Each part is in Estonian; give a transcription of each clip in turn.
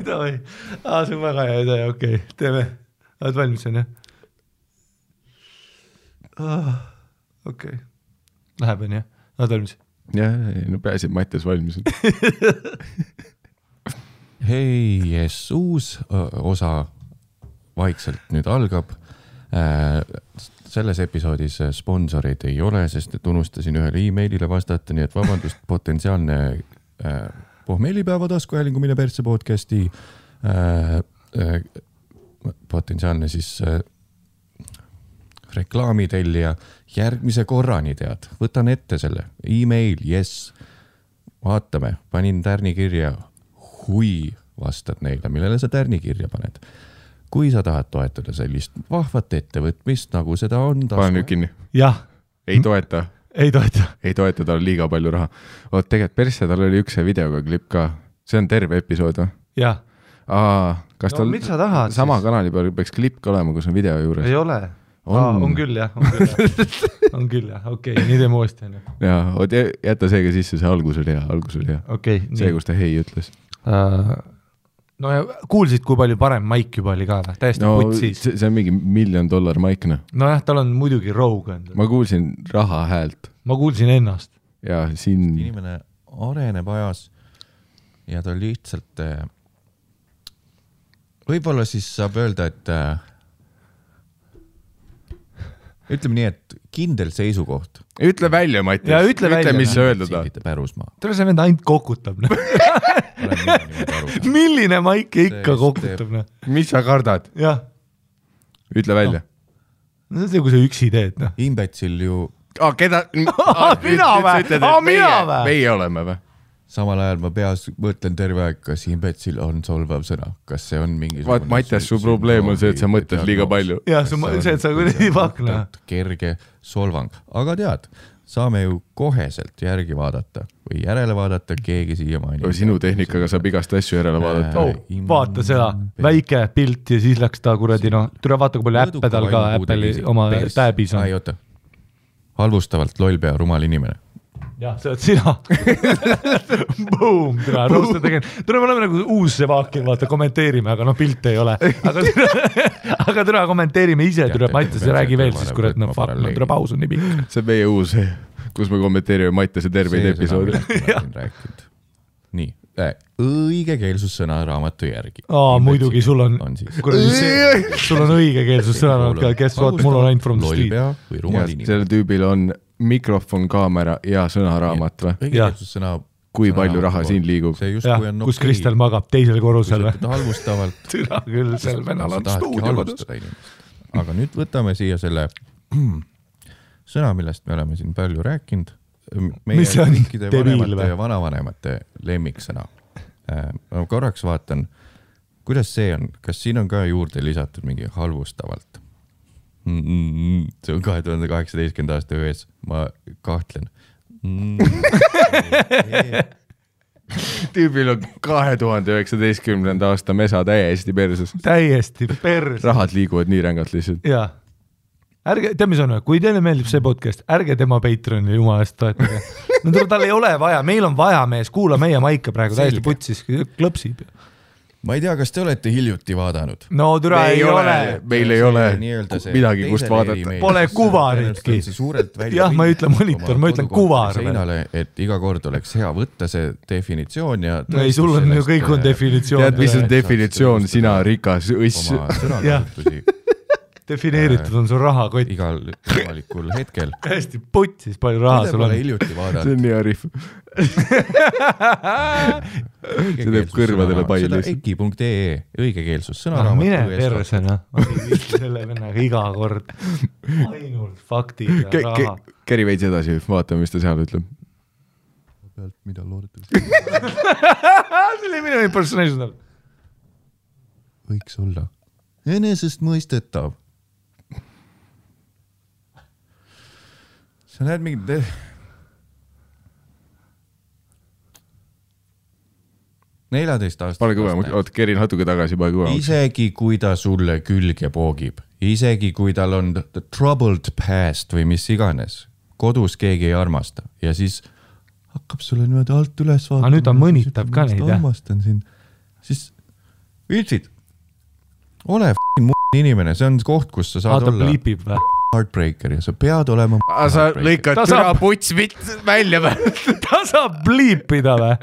Davai. See on väga hea idee, okei. Teeme. Oled valmis, on jah? Okei. Läheb, on jah? Oled valmis? Jah, no pääsib Mattias valmis. Hei, yes, uus osa vaikselt nüüd algab. Selles episoodis sponsoreid ei ole, sest et unustasin ühele e-mailile vastata, nii et vabandust, potentsiaalne pohmeelipäeva taskuhäälingu Mine persse podcasti potentsiaalne siis reklaamitellija järgmise korrani tead. Võtan ette selle e-mail, yes. Vaatame, panin tärni kirja, hui vastad neile, millele sa tärni kirja paned. Kui sa tahad toetada sellist vahvat ettevõtmist, nagu seda on Pane nüüd kinni. Jah. Ei toeta. Ei toeta, tal on liiga palju raha. Oot, tegelikult persse, tal oli üks videoga klipp ka. See on terve episood, või? Jah. Kas tal mis sa tahad sama kanali peal peaks klipp ka olema, kus on video juures? Ei ole. On küll, jah. On küll, jah. Okei, nii teeme uuesti. Jaa, jäta seega sisse, see algus oli hea. Okay, see, kus ta hei ütles. No ja kuulsid, kui palju parem maik juba oli ka, täiesti putsis. See on mingi $1 million maik, noh. No jah, tal on muidugi Rogue. Ma kuulsin raha häält. Ma kuulsin ennast. Ja siin... Inimene areneb ajas ja ta lihtsalt... Võib-olla siis saab öelda, et ütleme nii, et kindel seisukoht. Ütle välja, Mattias. Ütle, mis sa öelda ta. Tule see vend ainult kokutab. Milline maik ikka kokutab? Mis sa kardad? Jah. Ütle välja. No see, kui sa üksi teed. Imbetsil ju... Keda? Mina või? Meie oleme või? Samal ajal ma peas mõtlen terve aeg, kas imbetsil on solvav sõna. Kas see on mingi... Mattias, su probleem on see, et sa mõtled liiga palju. Jah, see, et sa kuidagi pakna. Kerge solvang. Aga tead, saame ju koheselt järgi vaadata või järele vaadata, keegi siia maini. Sinu tehnikaga saab igast asju järele vaadata. Vaata seda, väike pilt ja siis läks ta kuradi, tule vaata, kui palju äppe tal ka Apple'i oma tääbis on. Ai, oota. Halvustavalt lollpea rumal inimene. Jah, see oled sina. Boom, tule, roosta tegin. Tule, me oleme nagu uus see vaakin, vaata, kommenteerime, aga pilt ei ole. Aga tule, kommenteerime ise, tule, Mattias räägi veel, siis kurat, tule paus on nii pikk. See on meie uus, kus me kommenteerime Mattiase terveid episoodi. Nii, õigekeelsussõna raamatu järgi. Muidugi, sul on õigekeelsussõna raamatu, kes vaat, mul on ainult from the street. Lollpea või rumal inimene. Selle tüübil on mikrofon, kaamera ja sõnaraamat või? Õigekeelsussõna kui palju raha siin liigub. Kus Kristel magab teisel korrusel. Halvustavalt. Türa küll, sel vennal on stuudiokodus. Aga nüüd võtame siia selle sõna, millest me oleme siin palju rääkinud. Mis see on? Vanemate ja vanavanemate lemmiksõna. Ma korraks vaatan, kuidas see on. Kas siin on ka juurde lisatud mingi halvustavalt? See on 2018. aasta öös. Ma kahtlen. Tüübil on 2019. aasta mesa täiesti perses. Täiesti perses. Rahad liiguvad nii rängalt lihtsalt. Jaa. Tead, mis on, kui teile meeldib see podcast, ärge tema Patreoni jumalast toetage. Tal ei ole vaja, meil on vaja mees, kuula meie maika praegu täiesti putsis, klõpsib. Ma ei tea, kas te olete hiljuti vaadanud? No türa ei ole. Meil ei ole midagi, kust vaadata. Pole kuvaritki. Jah, ma ei ütle monitor, ma ütlen kuvar. Seinale, et iga kord oleks hea võtta see definitsioon ja... Ei, sul on ju kõik on definitsioon. Tead, mis on definitsioon, sina rikas õss. Oma sõnakasutusi. Defineeritud on sul rahakott. Igal võimalikul hetkel. Hästi putsis palju raha sul on. Hiljuti vaadata. See on nii arif. See teeb kõrvadele palju. Seda eki.ee õigekeelsus sõnaraamat. Mine persena. Selle vennaga iga kord. Ainult faktid ja raha. Käri veits edasi, vaatame, mis ta seal ütleb. Mida loodate? See oli minu impersonation. Võiks olla. Enesest mõistetav. Sa näed mingi... ...14 aastat... Pane kõvem, oot, kerin natuke tagasi, pane kõvem. Isegi kui ta sulle külge poogib isegi kui tal on troubled past või mis iganes, kodus keegi ei armasta ja siis hakkab sulle niimoodi alt üles vaatama. Nüüd ta mõnitab ka neid, jah? Armastan sind. Siis Viltsid, ole inimene, see on koht, kus sa saad olla bliipib või? Heartbreaker ja sa pead olema sa lõikad türa puts välja või? Ta saab bliipida või?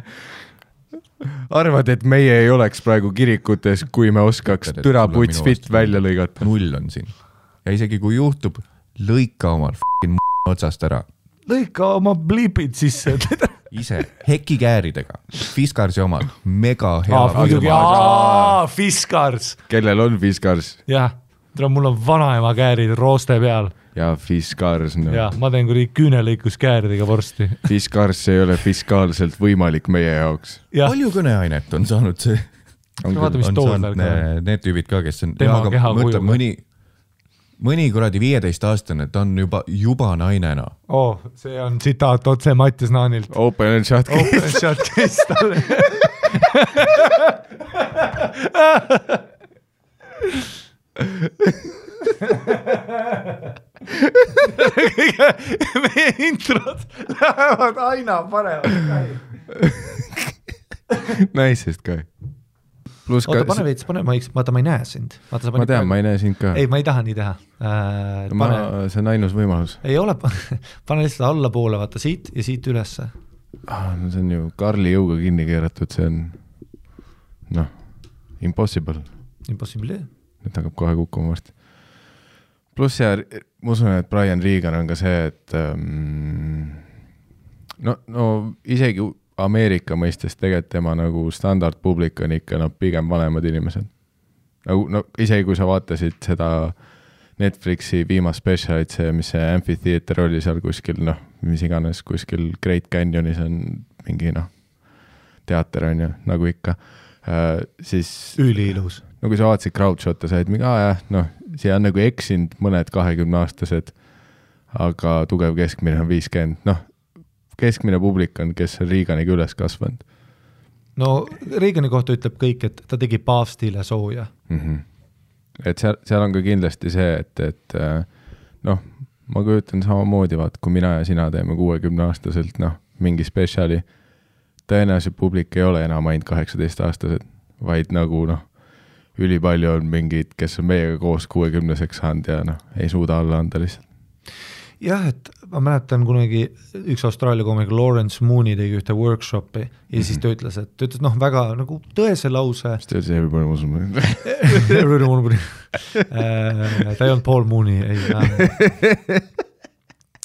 Arvad, et meie ei oleks praegu kirikutes, kui me oskaks türa puts fit välja lõigata? 0 on siin. Ja isegi kui juhtub, lõika omal otsast ära. Lõika oma bliipid sisse. Ise, hekikääridega. Fiskarsi omal, mega hea. Fiskars. Kellel on Fiskars? Jah, mul on vanaema käärid rooste peal. Ja Fiskars. No. Ja, ma teen kui küünelõikus kääridega vorsti. Fiskars ei ole fiskaalselt võimalik meie jaoks. Ja. Palju kõneainet on saanud see? On saanud need tüübid ka, kes on... Tema keha kuju. Mõni kuradi 15-aastane, ta on juba nainena. See on tsitaat otse Mattias Naanilt. Open and shut case. Open and shut case talle. Meie introd lähevad aina paremaks. Naisest ka. Oota, pane veits, vaata, ma ei näe sind. Vaata, ma tean, ma ei näe sind ka. Ei, ma ei taha nii teha. See on ainus võimalus. Ei ole, pane lihtsalt alla poole, vaata siit ja siit ülesse. See on ju Karli jõuga kinni keeratud, see on impossible. Impossible. Nüüd hakkab kohe kukkuma varsti. Plus ja ma usun, et Brian Regan on ka see, et no isegi Ameerika mõistes tegelikult tema nagu standardpublik on ikka pigem vanemad inimesed. Isegi kui sa vaatasid seda Netflixi viimast specialit, mis see Amphitheater oli seal kuskil, mis iganes kuskil Great Canyonis on mingi teater on ju, nagu ikka. Siis üliilus. Kui sa vaatasid crowdshot'e, sa olid mingi, siia on nagu eksinud mõned 20-aastased, aga tugev keskmine on 50. Keskmine publik on, kes on Reaganiga üles kasvanud. No Reagani kohta ütleb kõik, et ta tegi paavstile sooja. Et seal on ka kindlasti see, et ma kujutan samamoodi, kui mina ja sina teeme 60-aastaselt mingi spetsiali, tõenäoliselt publik ei ole enam ainult 18-aastased, vaid nagu ülipalju on mingid, kes on meiega koos 60-seks saanud ja ei suuda alla anda lihtsalt. Jah, et ma mäletan kunagi üks Austraalia koomik Lawrence Mooney tegi ühte workshopi ja siis ta ütles, väga nagu tõese lause. Mis ta ütles, everybody was Mooney? Everybody was Mooney. Ta ei olnud Paul Mooney, ei.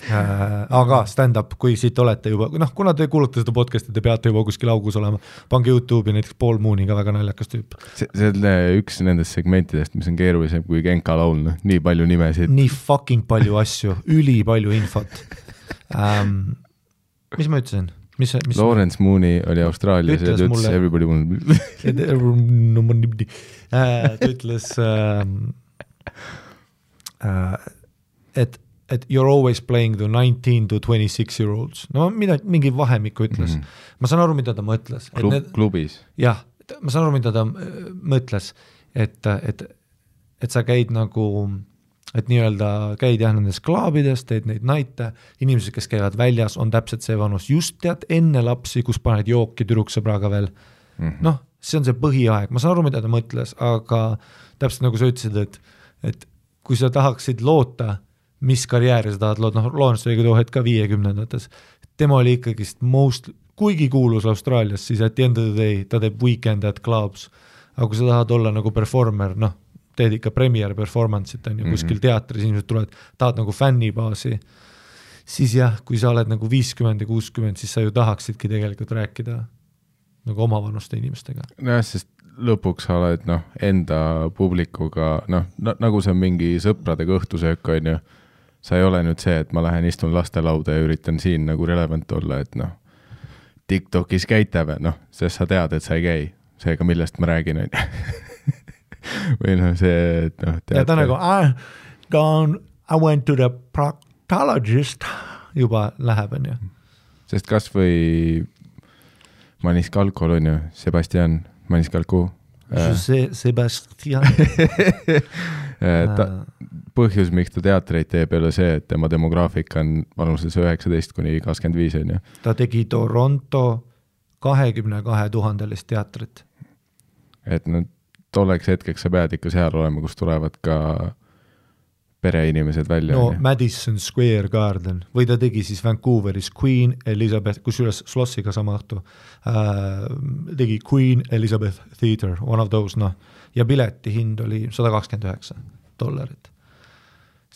Aga stand-up, kui siit olete juba, kuna te kuulate seda podcasti, te peate juba kuskil augus olema, pange YouTube'i näiteks Paul Mooney ka väga naljakas tüüp. See on üks nendest segmentidest, mis on keerulisem kui Genka laul, nii palju nimesid. Nii fucking palju asju, üli palju infot. Mis ma ütlesin? Lawrence Mooney oli Austraalias ja ta ütles everybody ta ütles et you're always playing the 19 to 26 year olds. Mingi vahemikku ütles. Ma saan aru, mida ta mõtles. Klubis. Jah, ma saan aru, mida ta mõtles, et sa käid nagu, et nii-öelda käid nendes klaabides, teed neid naite, inimesed, kes käivad väljas, on täpselt see vanus, just tead enne lapsi, kus paned jooki tüdruksõbraga veel. See on see põhiaeg. Ma saan aru, mida ta mõtles, aga täpselt nagu sa ütlesid, et kui sa tahaksid loota, mis karjääri sa tahad lood, Lawrence oli too hetk ka 50-ndates. Tema oli ikkagist kuigi kuulus Austraalias, siis at the end of the day ta teeb weekend at clubs. Aga kui sa tahad olla nagu performer, teed ikka premier performance'it on ju, kuskil teatris inimesed tulevad, tahad nagu fännibaasi, siis jah, kui sa oled nagu 50 ja 60, siis sa ju tahaksidki tegelikult rääkida nagu omavanuste inimestega. Sest lõpuks sa oled enda publikuga, nagu see on mingi sõpradega õhtusöök on ju, sa ei ole nüüd see, et ma lähen istun lastelauda ja üritan siin nagu relevant olla, et TikTokis käite või, sest sa tead, et sa ei käi, seega millest ma räägin on või see, et ja ta nagu, I went to the proctologist juba läheb on ju. Sest kas või Maniscalco on ju, Sebastian Maniscalco. Sebastian. põhjus, miks ta teatreid teeb, ei ole see, et tema demograafika on vanuses 19–25, on ju. Ta tegi Toronto 22 000 teatrit. Et tolleks hetkeks sa pead ikka seal olema, kus tulevad ka pereinimesed välja. No Madison Square Garden või ta tegi siis Vancouveris Queen Elizabeth, kusjuures Schlossiga sama õhtu, tegi Queen Elizabeth Theater, one of those, noh, ja pileti hind oli $129.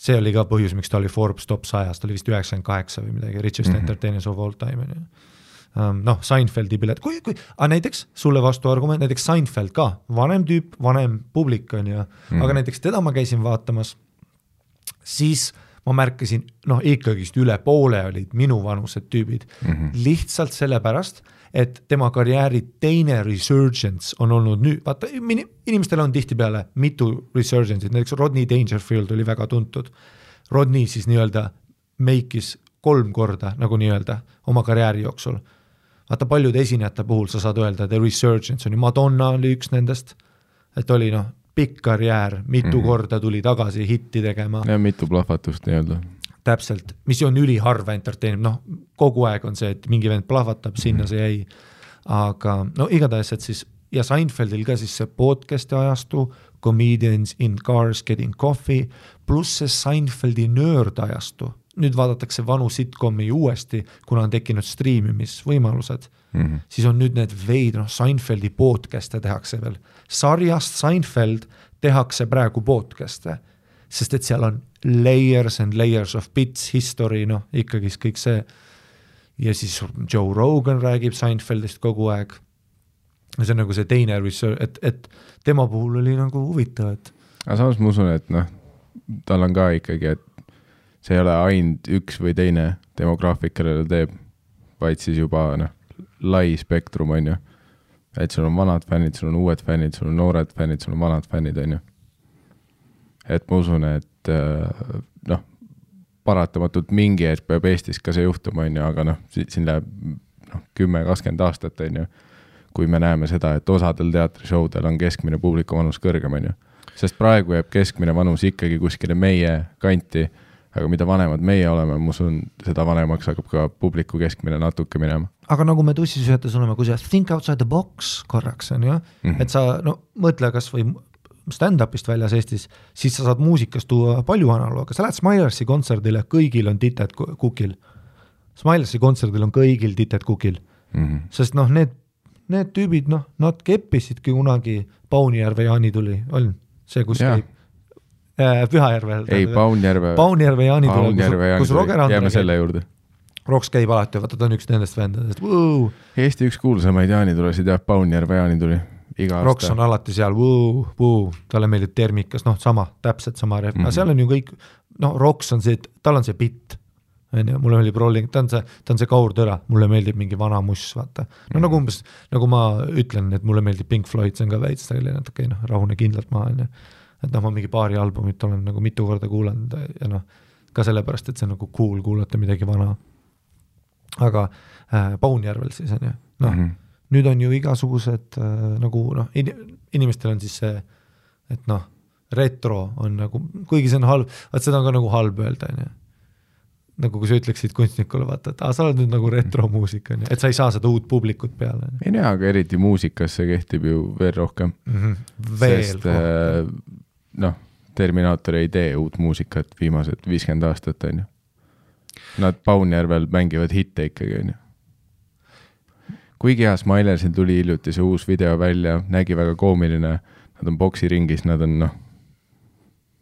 See oli ka põhjus, miks ta oli Forbes top 100, ta oli vist 98 või midagi, richest entertainers of all time. Noh, Seinfeldi pilet, näiteks sulle vastu argument, näiteks Seinfeld ka, vanem tüüp, vanem publik on ju, aga näiteks teda ma käisin vaatamas, siis ma märkasin, noh ikkagist üle poole olid minu vanused tüübid, lihtsalt sellepärast, et tema karjääri teine resurgence on olnud nüüd, vaata, inimestel on tihtipeale mitu resurgence'id, näiteks Rodney Dangerfield oli väga tuntud. Rodney siis nii-öelda meikis 3 korda, nagu nii-öelda, oma karjääri jooksul. Vaata, paljude esinejate puhul sa saad öelda, et resurgence on ju, Madonna oli üks nendest, et oli noh, pikk karjäär, mitu korda tuli tagasi hitti tegema. Ja mitu plahvatust nii-öelda. Täpselt, mis on üliharva entertainment, noh, kogu aeg on see, et mingi vend plahvatab, sinna see jäi, aga no igatahes, et siis, ja Seinfeldil ka siis see podcasti ajastu, comedians in cars getting coffee, pluss see Seinfeldi nörd ajastu, nüüd vaadatakse vanu sitcomi uuesti, kuna on tekkinud striimimisvõimalused, siis on nüüd need veid, noh, Seinfeldi podcast'e tehakse veel. Sarjast Seinfeld tehakse praegu podcast'e, sest et seal on layers and layers of bits, history, noh, ikkagi kõik see. Ja siis Joe Rogan räägib Seinfeldist kogu aeg. See on nagu see teine research, et tema puhul oli nagu huvitav, et... Aga samas ma usun, et noh, tal on ka ikkagi, et see ei ole ainult üks või teine demograafik, kellele teeb, vaid siis juba noh, lai spektrum on ju, et sul on vanad fännid, sul on uued fännid, sul on noored fännid, sul on vanad fännid on ju. Et ma usun, et noh, paratamatult mingi hetk peab Eestis ka see juhtuma on ju, aga noh, siin läheb 10-20 aastat on ju, kui me näeme seda, et osadel teatrišoudel on keskmine publiku vanus kõrgem on ju, sest praegu jääb keskmine vanus ikkagi kuskile meie kanti, aga mida vanemad meie oleme, ma usun, seda vanemaks hakkab ka publiku keskmine natuke minema. Aga nagu me tussisühetes oleme, kui sa think outside the box korraks on ju, et sa no, mõtle kas või stand-upist väljas Eestis, siis sa saad muusikas tuua palju analooga. Sa lähed Smilersi kontserdile, kõigil on tited kukil. Smilersi kontserdil on kõigil tited kukil. Sest noh, need tüübid, noh, nad keppisidki kunagi Paunijärve Jaani tuli, on see, kus käib Pühajärvel. Ei, Paunjärve Jaani tuli, kus Roger Andre jääme selle juurde. Roks käib alati, vaata, ta on üks nendest vendadest. Eesti üks kuulsamaid Jaani tulesid, jah, Paunjärve Jaani tuli. Roks on alati seal, talle meeldib termikas, noh, sama, täpselt sama ref. Aga seal on ju kõik, noh, Roks on see, tal on see bitt, mulle meeldib rolling, ta on see kaurtõra, mulle meeldib mingi vana muss, vaata. No nagu umbes, nagu ma ütlen, et mulle meeldib Pink Floyd, see on ka veits, natuke, noh, rahune kindlalt maha, et noh, ma mingi paari albumit olen nagu mitu korda kuulanud ja noh, ka sellepärast, et see on nagu cool kuulata midagi vana. Aga Paunjärvel siis on ju, noh, nüüd on ju igasugused nagu, noh, inimestel on siis see, et noh, retro on nagu, kuigi see on halb, vaat seda on ka nagu halb öelda, on ju. Nagu kui sa ütleksid kunstnikule, vaata, et sa oled nüüd nagu retromuusika, et sa ei saa seda uut publikut peale. Ei näe, aga eriti muusikas see kehtib ju veel rohkem. Sest noh, Terminaator ei tee uut muusikat viimased 50 aastat, on ju. Nad Paunjärvel mängivad hitte ikkagi, on ju. Kuigi hea Smilersil tuli hiljuti see uus video välja, nägi väga koomiline, nad on boksiringis, nad on noh,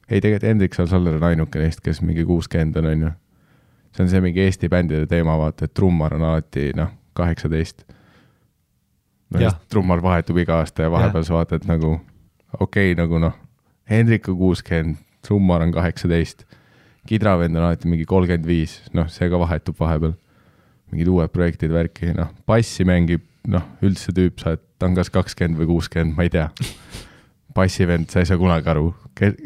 ei tegelikult Hendrik Salsaller on ainuke neist, kes mingi 60 on ju. See on see mingi Eesti bändide teema, vaata, et trummar on alati, noh, 18. No, trummar vahetub iga aasta ja vahepeal sa vaatad nagu, okei, nagu noh, Hendrik on 60, trummar on 18, kidravend on alati mingi 35, noh, see ka vahetub vahepeal. Mingid uued projektid värki, noh, bassi mängib, noh, üldse tüüp sa, et ta on kas 20 või 60, ma ei tea. Bassivend, sa ei saa kunagi aru,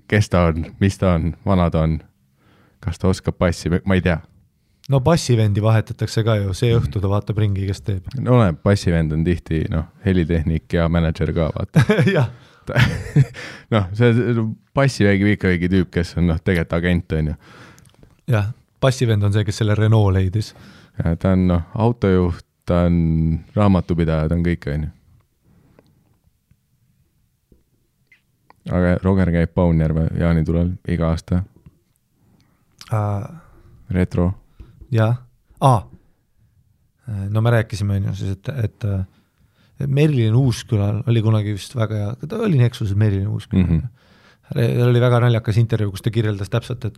kes ta on, mis ta on, vana ta on, kas ta oskab bassi, ma ei tea. No bassivendi vahetatakse ka ju, see õhtu ta vaatab ringi, kes teeb. No bassivend on tihti, noh, helitehnik ja manager ka, vaata. Jah, noh, see passivägi ikkagi tüüp, kes on tegelikult agent, on ju. Jah, passivend on see, kes selle Renault leidis. Ja ta on autojuht, ta on raamatupidaja, ta on kõik, on ju. Aga Roger käib Paunjärve jaanitulel iga aasta. Retro. Jah. No me rääkisime siis, et Merilin Uuskülal oli kunagi vist väga hea, ta oli Nexuses Merilin Uuskülal. Ta oli väga naljakas intervjuu, kus ta kirjeldas täpselt,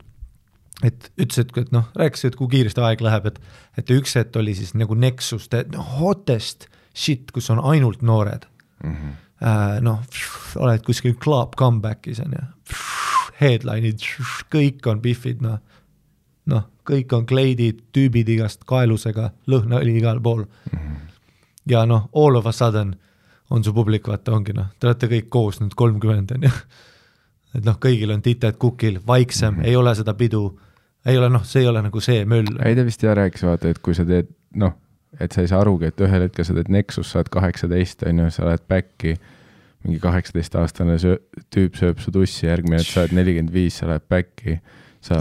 et ütles, et rääkis, et kui kiiresti aeg läheb, et üks hetk oli siis nagu Nexus, hottest shit, kus on ainult noored. Oled kuskil club comebackis on ja headline'id, kõik on biffid, kõik on kleidid, tüübid igast kaelusega, lõhna oli igal pool. Ja all of a sudden on su publik, vaata ongi, te olete kõik koos nüüd 30 on ja et kõigil on tited kukil, vaiksem, ei ole seda pidu, ei ole, see ei ole nagu see möll. Ei ta vist rääkis, vaata, et kui sa teed, et sa ei saa arugi, et ühel hetkel sa teed Nexus, sa oled 18, on ju, sa oled backi, mingi 18-aastane tüüp sööb su tussi, järgmine, et sa oled 45, sa oled backi, sa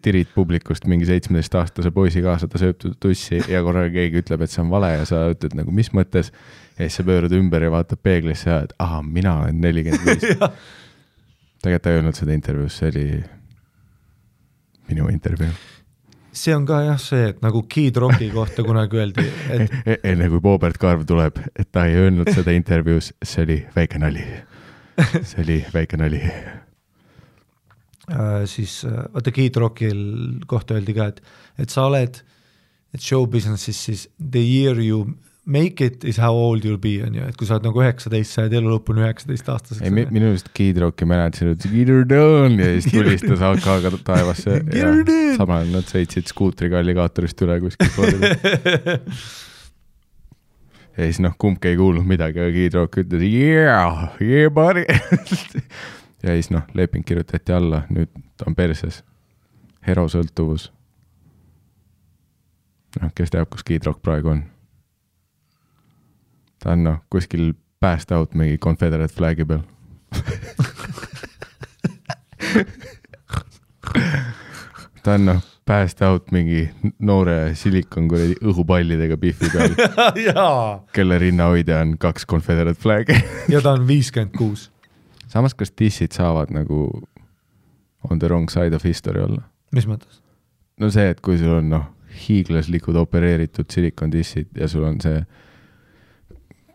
tirid publikust mingi 17-aastase poisi kaasa, ta sööb tussi ja korraga keegi ütleb, et see on vale ja sa ütled nagu, mis mõttes, ja siis sa pöörad ümber ja vaatad peeglisse ja et mina olen 45. Tegelikult ta ei öelnud seda intervjuus, see oli minu intervjuu. See on ka jah see, et nagu Kid Rocki kohta kunagi öeldi, et enne kui Boobert Karv tuleb, et ta ei öelnud seda intervjuus, see oli väike nali. See oli väike nali. Siis vaata Kid Rockil kohta öeldi ka, et sa oled, et show businessis siis the year you make it is how old you'll be, on ju, et kui sa oled nagu 19, sa oled elu lõpuni 19 aastaseks. Ei, minu just Kid Rocki mäletasin, et Get her done ja siis tulistas AK-ga taevasse ja samal nad sõitsid skuutriga alligaatorist üle kuskil poolida. Ja siis kumbki ei kuulnud midagi, aga Kid Rock ütles yeah buddy. Ja siis leping kirjutati alla, nüüd on perses. Herosõltuvus. Kes teab, kus Kid Rock praegu on? Ta on kuskil passed out mingi Confederate flagi peal. Ta on passed out mingi noore silikon kuredi õhupallidega biffi peal, kelle rinnahoidja on 2 Confederate flagi. Ja ta on 56. Samas, kas dissid saavad nagu on the wrong side of history olla? Mis mõttes? No see, et kui sul on hiiglaslikud opereeritud silikon dissid ja sul on see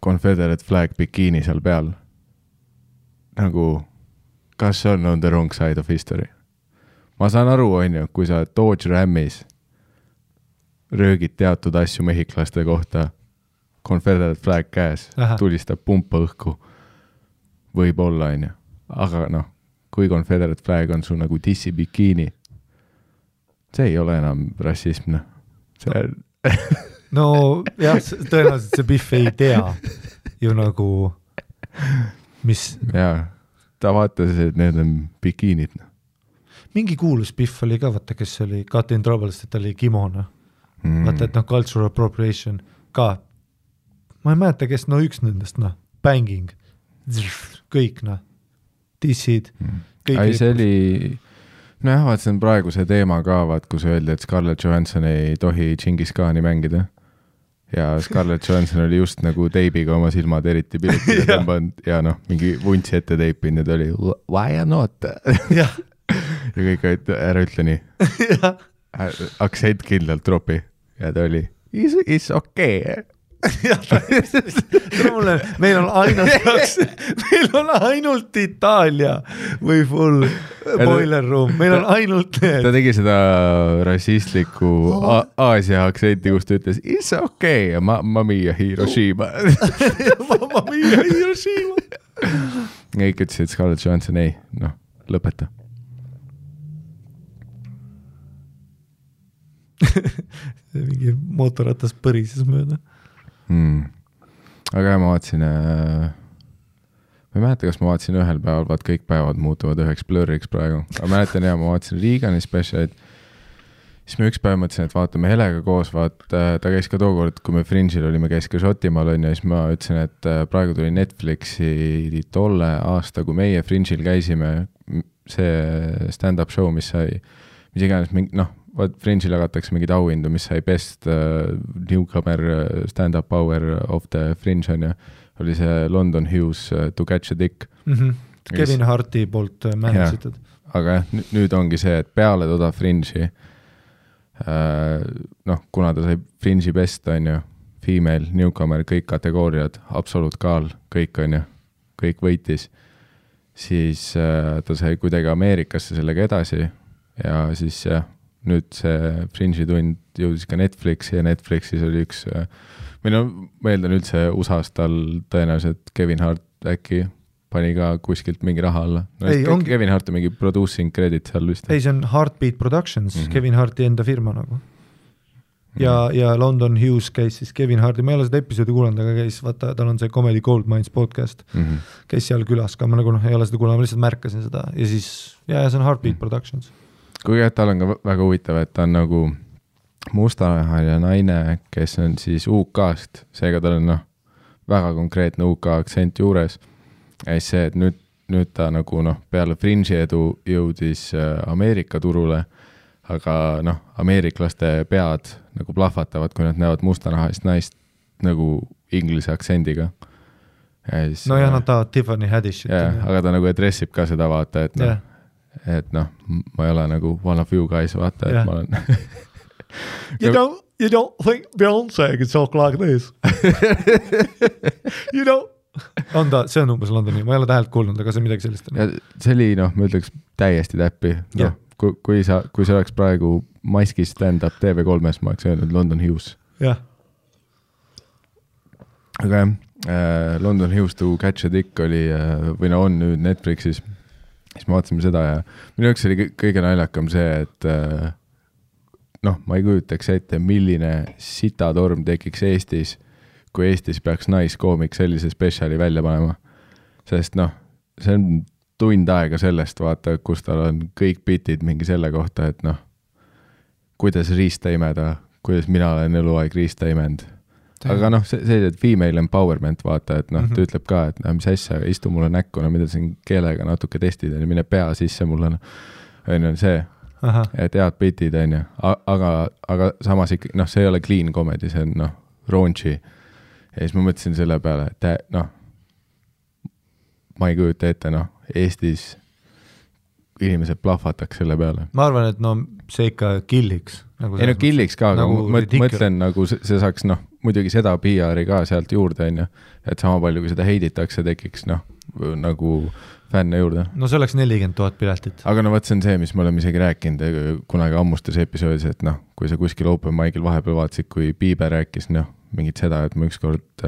Confederate flag bikiini seal peal. Nagu, kas on the wrong side of history? Ma saan aru, on ju, kui sa Dodge Ramis röögid teatud asju mehiklaste kohta, Confederate flag käes, tulistab pumpa õhku, võib olla, on ju. Aga kui Confederate flag on sul nagu dissi bikiini, see ei ole enam rassism. See on... No jah, tõenäoliselt see Biff ei tea ju nagu, mis... Jaa, ta vaatas, et need on bikiinid. Mingi kuulus Biff oli ka, vaata, kes oli Got in Trouble, et ta oli kimona. Vaata, et cultural appropriation ka. Ma ei mäleta, kes üks nendest, banging, kõik, dissid, kõik. Ai, see oli... Nojah, vaat see on praegu see teema ka, vaat kus öeldi, et Scarlett Johansson ei tohi Genghis Khani mängida. Ja Scarlett Johansson oli just nagu teibiga oma silmad eriti pilitile tõmbanud ja mingi vuntsi ette teipin ja ta oli why not? Ja kõik ära ütle nii. Aktsent kindlalt tropi ja ta oli it's okay. Meil on ainult Itaalia või full boiler room, meil on ainult need. Ta tegi seda rassistliku Aasia aktsenti, kus ta ütles it's okay ja mamma mia Hiroshima. Mamma mia Hiroshima. Kõik ütlesid Scarlett Johansson ei, lõpeta. Mingi mootorratas põrises mööda. Aga ma vaatasin, ma ei mäleta, kas ma vaatasin ühel päeval, vaat kõik päevad muutuvad üheks blurriks praegu, aga mäletan ma vaatasin Reagani specialit, siis me üks päev mõtlesin, et vaatame Helega koos, ta käis ka tookord, kui me Fringe'il olime, käis ka Šotimaal on ja siis ma ütlesin, et praegu tuli Netflixi tolle aasta, kui meie Fringe'il käisime, see stand-up show, mis sai, mis iganes, Fringe'il jagatakse mingid auhindu, mis sai best newcomer stand-up hour of the Fringe on ja oli see London Hughes To Catch a Dick. Kevin Harti poolt mänesitud. Aga nüüd ongi see, et peale toda Fringe'i, kuna ta sai Fringe'i best, on ju, female, newcomer, kõik kategooriad, absolute kaal, kõik on ju, kõik võitis, siis ta sai kuidagi Ameerikasse sellega edasi ja siis nüüd see Fringe'i tund jõudis ka Netflixi ja Netflixis oli üks ma eeldan üldse USA-s tal tõenäoliselt Kevin Hart äkki pani ka kuskilt mingi raha alla. Kevin Hart on mingi producing credit seal vist. Ei, see on Heartbeat Productions, Kevin Harti enda firma nagu. Ja London Hughes käis siis Kevin Harti, ma ei ole seda episoodi kuulanud, aga käis, vaata, tal on see Comedy Gold Mines podcast, käis seal külas ka, ma nagu ei ole seda kuulanud, ma lihtsalt märkasin seda ja siis, see on Heartbeat Productions. Kuigi tal on ka väga huvitav, et ta on nagu mustanahaline naine, kes on siis UK-st, seega tal on väga konkreetne UK aktsent juures. Ja siis see, et nüüd ta nagu peale Fringe'i edu jõudis Ameerika turule, aga ameeriklaste pead nagu plahvatavad, kui nad näevad mustanahalist naist nagu inglise aktsendiga. Siis, nad tahavad Tiffany Haddishit. Aga ta nagu adressib ka seda vaata, et ma ei ole nagu one of you guys, vaata, et ma olen... You don't think Beyoncé can talk like this? You don't... see on umbes Londoni, ma ei ole tähelt kuulnud, aga see on midagi sellist. Ja see oli, ma ütleks täiesti täppi. Kui see oleks praegu maskis stand-up TV3-s, ma oleks öelnud London Hughes. Jah. Aga London Hughes To Catch a Dick oli, või on nüüd Netflixis, siis me vaatasime seda ja minu jaoks oli kõige naljakam see, et ma ei kujutaks ette, milline sitatorm tekiks Eestis, kui Eestis peaks naiskoomik sellise spetsiali välja panema. Sest see on tund aega sellest, vaata, kus tal on kõik bitid mingi selle kohta, et kuidas riista imeda, kuidas mina olen eluaeg riista imend. Aga see female empowerment, vaata, et ta ütleb ka, et mis asja, istu mulle näkku, mida siin keelega natuke testid, mine pea sisse mulle, on see. Aha. Et head bitid on ju, aga samas ikka, see ei ole clean comedy, see on raunchy ja siis ma mõtlesin selle peale, et ma ei kujuta ette, Eestis inimesed plahvataks selle peale. Ma arvan, et see ikka killiks. Killiks ka, aga mõtlen nagu see saaks, muidugi seda PR-i ka sealt juurde on ju, et sama palju, kui seda heiditakse, tekiks nagu fänne juurde. See oleks 40 000 piletit. Aga võt see on see, mis me oleme isegi rääkinud kunagi ammustes episoodis, et kui sa kuskil open mic'il vahepeal vaatasid, kui Bieber rääkis mingit seda, et ma ükskord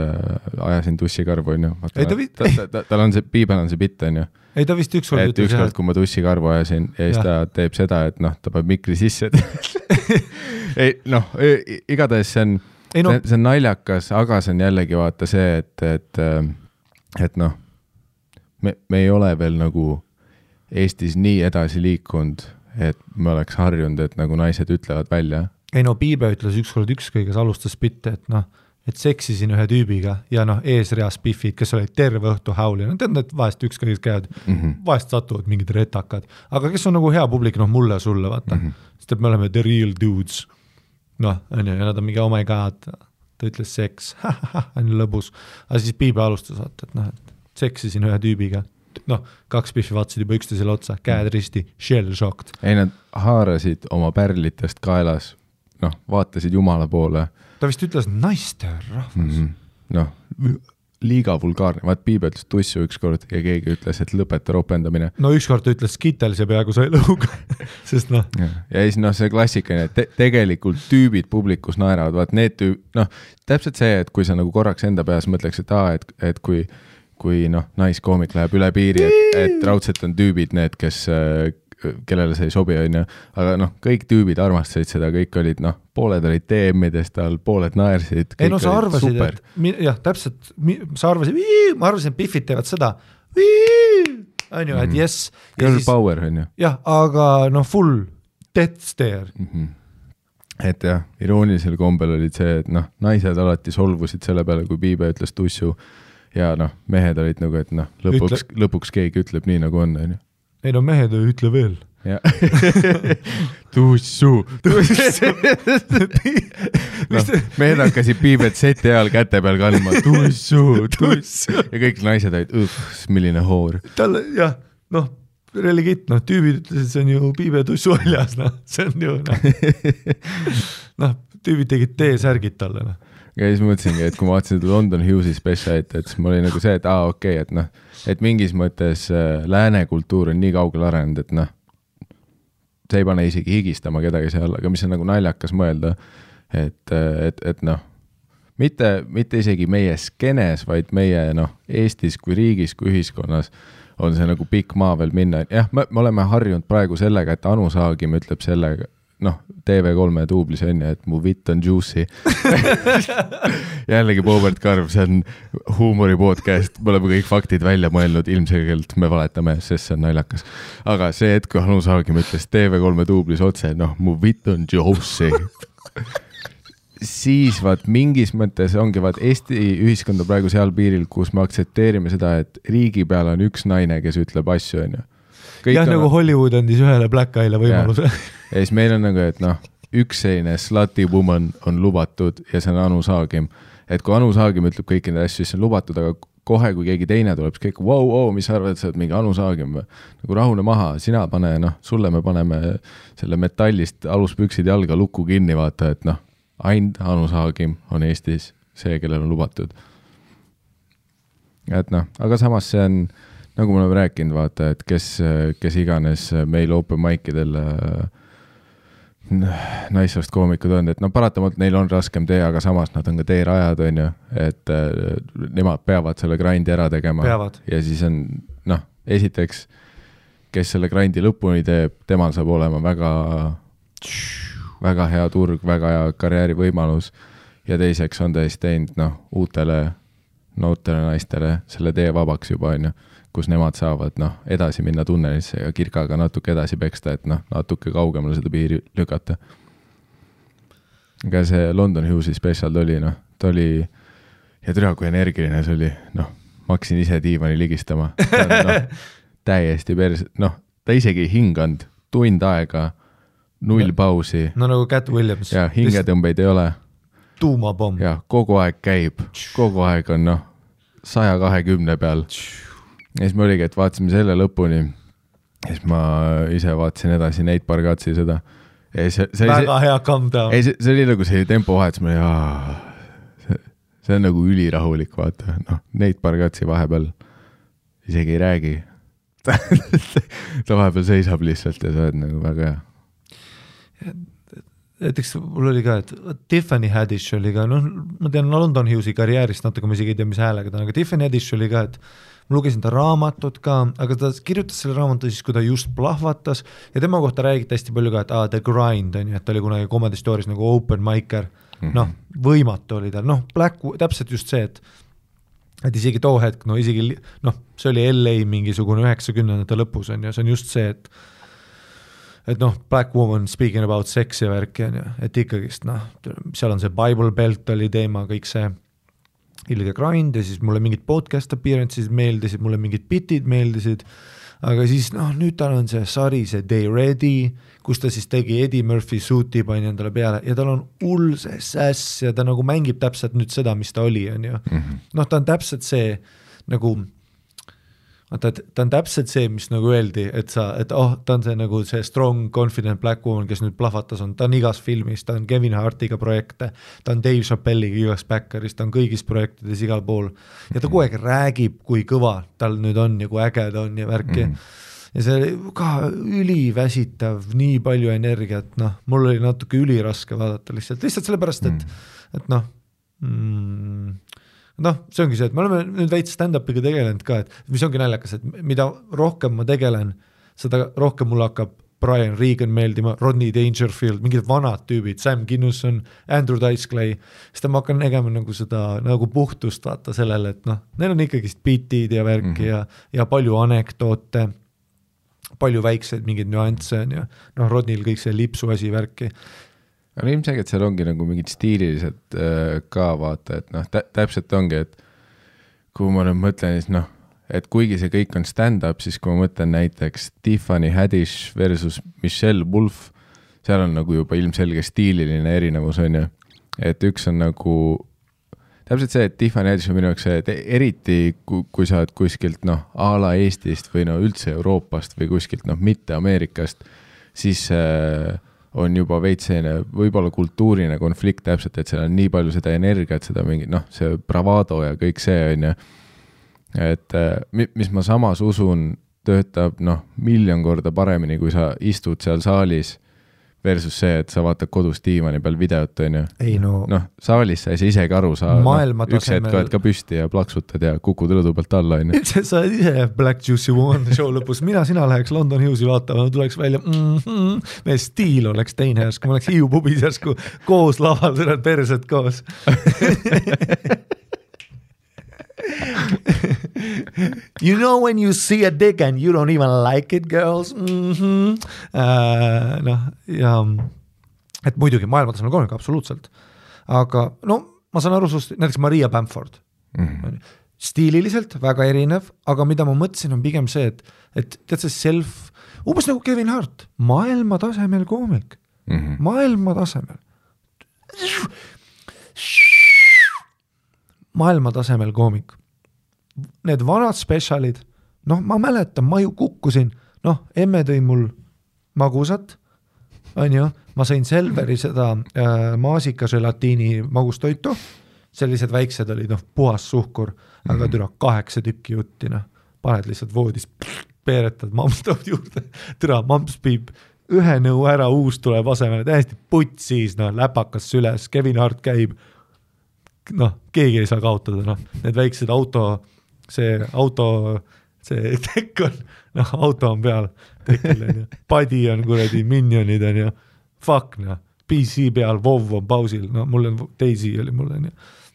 ajasin tussikarvu on ju. Tal on see, Bieber on see bitt on ju. Ei, ta vist ükskord ütles, ükskord, kui ma tussikarvu ajasin ja siis ta teeb seda, et ta peab mikri sisse. Igatahes see on naljakas, aga see on jällegi vaata see, et me ei ole veel nagu Eestis nii edasi liikunud, et me oleks harjunud, et nagu naised ütlevad välja. Ei Piibe ütles ükskord ükskõiges alustas bitte, et seksisin ühe tüübiga ja eesreas piffid, kes olid terve õhtu hauli. Tead, et vahest ükskõiges käivad, vahest satuvad mingid retakad, aga kes on nagu hea publik, mulle ja sulle, vaata. Sest et me oleme the real dudes. Ja nad on mingi, oh my god, ta ütles seks, on lõbus. Aga siis Piibe alustas, vaata, et seksisin ühe tüübiga. 2 piffi vaatasid juba üksteisele otsa, käed risti, shell shocked. Ei, nad haarasid oma pärlitest kaelas, vaatasid jumala poole. Ta vist ütles naiste rahvas. Liiga vulgaarne. Vaat Piibe ütles tussu ükskord ja keegi ütles, et lõpeta ropendamine. Ükskord ta ütles Skittles ja peaaegu sai lõuga. Sest Ja siis see klassikaline, et tegelikult tüübid publikus naeravad. Vaat need täpselt see, et kui sa nagu korraks enda peas mõtleks, et kui naiskoomik läheb üle piiri, et raudselt on tüübid need, kellele see ei sobi, on ju. Aga kõik tüübid armastasid seda, kõik olid, pooled olid DM-idest all, pooled naersid. Ei, sa arvasid, et, jah, täpselt, ma arvasin, et piffid teevad seda, on ju, et yes. Girl power, on ju. jah, aga full death stare. et jah, iroonilisel kombel olid see, et noh, naised alati solvusid selle peale, kui Piibe ütles tussu ja noh, mehed olid nagu, et noh, lõpuks keegi ütleb nii, nagu on. Ei no mehed ei ütle veel. Ja. tussu. No, mehed hakkasid Piibet seti ajal käte peal kandma. Tussu. Ja kõik naised olid, milline hoor. Talle, jah, noh, religit, noh, tüübid ütlesid, see on ju Piibe tussu väljas, noh, see on ju, noh, tüübid tegid T-särgid talle, noh. Ja siis mõtlesingi, et kui ma vaatasin London Hughes'i spetsialit, et siis mul oli nagu see, et okei, et noh, et mingis mõttes lääne kultuur on nii kaugel arenenud, et noh, see ei pane isegi higistama kedagi seal, aga mis on nagu naljakas mõelda, et noh, mitte isegi meie skenes, vaid meie noh, Eestis kui riigis, kui ühiskonnas on see nagu pikk maa veel minna. Jah, me oleme harjunud praegu sellega, et Anu Saagim ütleb sellega, noh, TV3 duublis on ja, et mu vitt on juicy. Jällegi Boobert Karv, see on huumori podcast, me oleme kõik faktid välja mõelnud, ilmselgelt me valetame, sest see on naljakas. Aga see hetk, kui Anu Saagim ütles TV3 duublis otse, noh, mu vitt on juicy. Siis vaat mingis mõttes ongi vaat Eesti ühiskonda praegu seal piiril, kus me aktsepteerime seda, et riigi peal on üks naine, kes ütleb asju, on ju. Jah, nagu Hollywood andis ühele Black Eye'le võimaluse. Ja siis meil on nagu, et noh, üks selline slutty woman on lubatud ja see on Anu Saagim. Et kui Anu Saagim ütleb kõiki neid asju, siis see on lubatud, aga kohe, kui keegi teine tuleb, siis kõik, mis sa arvad, et sa oled mingi Anu Saagim? Nagu rahune maha, sina pane, noh, sulle me paneme selle metallist aluspüksid jalga lukku kinni, vaata, et noh, ainult Anu Saagim on Eestis see, kellel on lubatud. Et noh, aga samas see on nagu me oleme rääkinud, vaata, et kes iganes meil open mic'idel naissoost koomikud on, et no paratamalt neil on raskem tee, aga samas nad on ka teerajad, on ju, et nemad peavad selle grindi ära tegema. Peavad. Ja siis on, noh, esiteks, kes selle grindi lõpuni teeb, temal saab olema väga hea turg, väga hea karjäärivõimalus ja teiseks on tõesti teinud, noh, uutele noortele naistele selle tee vabaks juba, on ju, kus nemad saavad noh, edasi minna tunnelisse ja kirkaga natuke edasi peksta, et noh, natuke kaugemale seda piiri lükata. Aga see London Hughes'i spetsial oli, noh, ta oli, ja türa kui energiline see oli, noh, ma hakkasin ise diivani ligistama. No, täiesti pers, noh, ta isegi hinganud, tund aega, 0 pausi. No nagu Cat Williams. Ja hingetõmbeid ei ole. Tuumapomm. Ja kogu aeg käib, kogu aeg on noh, 120 peal. Ja siis me oligi, et vaatasime selle lõpuni ja siis ma ise vaatasin edasi Nate Bargatsi seda. Väga hea calm down. See oli nagu see tempo vahetus, ma olin, see on nagu ülirahulik, vaata. No, Nate Bargatsi vahepeal isegi ei räägi. Ta vahepeal seisab lihtsalt ja see on nagu väga hea. Näiteks mul oli ka, et Tiffany Haddish oli ka, noh, ma tean London Hughes'i karjäärist natuke, ma isegi ei tea, mis häälega ta on, aga Tiffany Haddish oli ka, et ma lugesin ta raamatut ka, aga ta kirjutas selle raamatu siis, kui ta just plahvatas ja tema kohta räägiti hästi palju ka, et The Grind on ju, et ta oli kunagi Comedy Stories nagu open micer, noh, võimatu oli tal, noh, täpselt just see, et isegi too hetk, no isegi, noh, see oli LA mingisugune 90-ndate lõpus on ju, see on just see, et noh, Black Woman speaking about sex ja värki on ju, et ikkagist, noh, seal on see Bible Belt oli teema, kõik see ilge grind ja siis mulle mingid podcast appearances meeldisid, mulle mingid bitid meeldisid, aga siis noh, nüüd tal on see sari, see Day Ready, kus ta siis tegi Eddie Murphy suuti pani endale peale ja tal on hull see sass ja ta nagu mängib täpselt nüüd seda, mis ta oli, on ju. Noh, ta on täpselt see nagu ta on täpselt see, mis nagu öeldi, et ta on see nagu see strong, confident black woman, kes nüüd plahvatas on, ta on igas filmis, ta on Kevin Hartiga projekte, ta on Dave Chappelliga igas Backeris, ta on kõigis projektides igal pool ja ta kogu aeg räägib, kui kõva tal nüüd on ja kui äge ta on ja värki ja see ka üliväsitav, nii palju energiat, noh, mul oli natuke üliraske vaadata lihtsalt sellepärast, et noh noh, see ongi see, et me oleme nüüd veits stand-upiga tegelenud ka, et mis ongi naljakas, et mida rohkem ma tegelen, seda rohkem mulle hakkab Brian Regan meeldima, Rodney Dangerfield, mingid vanad tüübid, Sam Kinnuson, Andrew Dice Clay, siis ma hakkan nägema nagu seda nagu puhtust vaata sellele, et noh, neil on ikkagist bitid ja värki ja palju anekdoote, palju väikseid mingeid nüansse on ja noh, Rodneyl kõik see lipsu asi värki. aga ilmselgelt seal ongi nagu mingid stiililised ka vaata, et noh, täpselt ongi, et kui ma nüüd mõtlen, siis noh, et kuigi see kõik on stand-up, siis kui ma mõtlen näiteks Tiffany Haddish versus Michelle Wolf, seal on nagu juba ilmselge stiililine erinevus, on ju. Et üks on nagu, täpselt see, et Tiffany Haddish on minu jaoks see, et eriti kui sa oled kuskilt noh, a la Eestist või no üldse Euroopast või kuskilt noh, mitte Ameerikast, siis on juba veits selline võib-olla kultuuriline konflikt täpselt, et seal on nii palju seda energiat, seda mingi noh, see bravado ja kõik see on ju. Et mis ma samas usun, töötab noh, 1,000,000 korda paremini, kui sa istud seal saalis versus see, et sa vaatad kodus diivani peal videot, on ju. Ei no. Noh, saalis sa ei saa isegi aru, sa üks hetk oled ka püsti ja plaksutad ja kukud rõdu pealt alla, on ju. Sa oled ise Black Juicy One show lõpus, sina läheks London Hughes'i vaatama, tuleks välja, meie stiil oleks teine järsku, ma oleks Hiiu pubis järsku koos laval, sa oled persed koos. You know when you see a dick and you don't even like it, girls? Noh, ja et muidugi maailmatasemel koomik, absoluutselt. Aga no, ma saan aru sust, näiteks Maria Bamford. Stiililiselt väga erinev, aga mida ma mõtlesin on pigem see, et tead see umbes nagu Kevin Hart, maailma tasemel koomik. Maailma tasemel. Maailma tasemel koomik. Need vanad spetsialid, noh, ma mäletan, ma ju kukkusin, noh, emme tõi mul magusat, on ju, ma sain Selveri seda maasikaželatiini magustoitu, sellised väiksed olid, noh, puhas suhkur, aga türa 8 tükki jutti, noh, paned lihtsalt voodis, peeretad, mamps toob juurde, türa, mamps piib, ühe nõu ära, uus tuleb asemele, täiesti putsis, noh, läpakas süles, Kevin Hart käib, noh, keegi ei saa kaotada, noh, need väiksed see tekk on, noh, auto on peal, tekil on ju, padi on kuradi minionid on ju, fuck, noh, PC peal, WoW on pausil, no mul on Daisy oli mul on ju,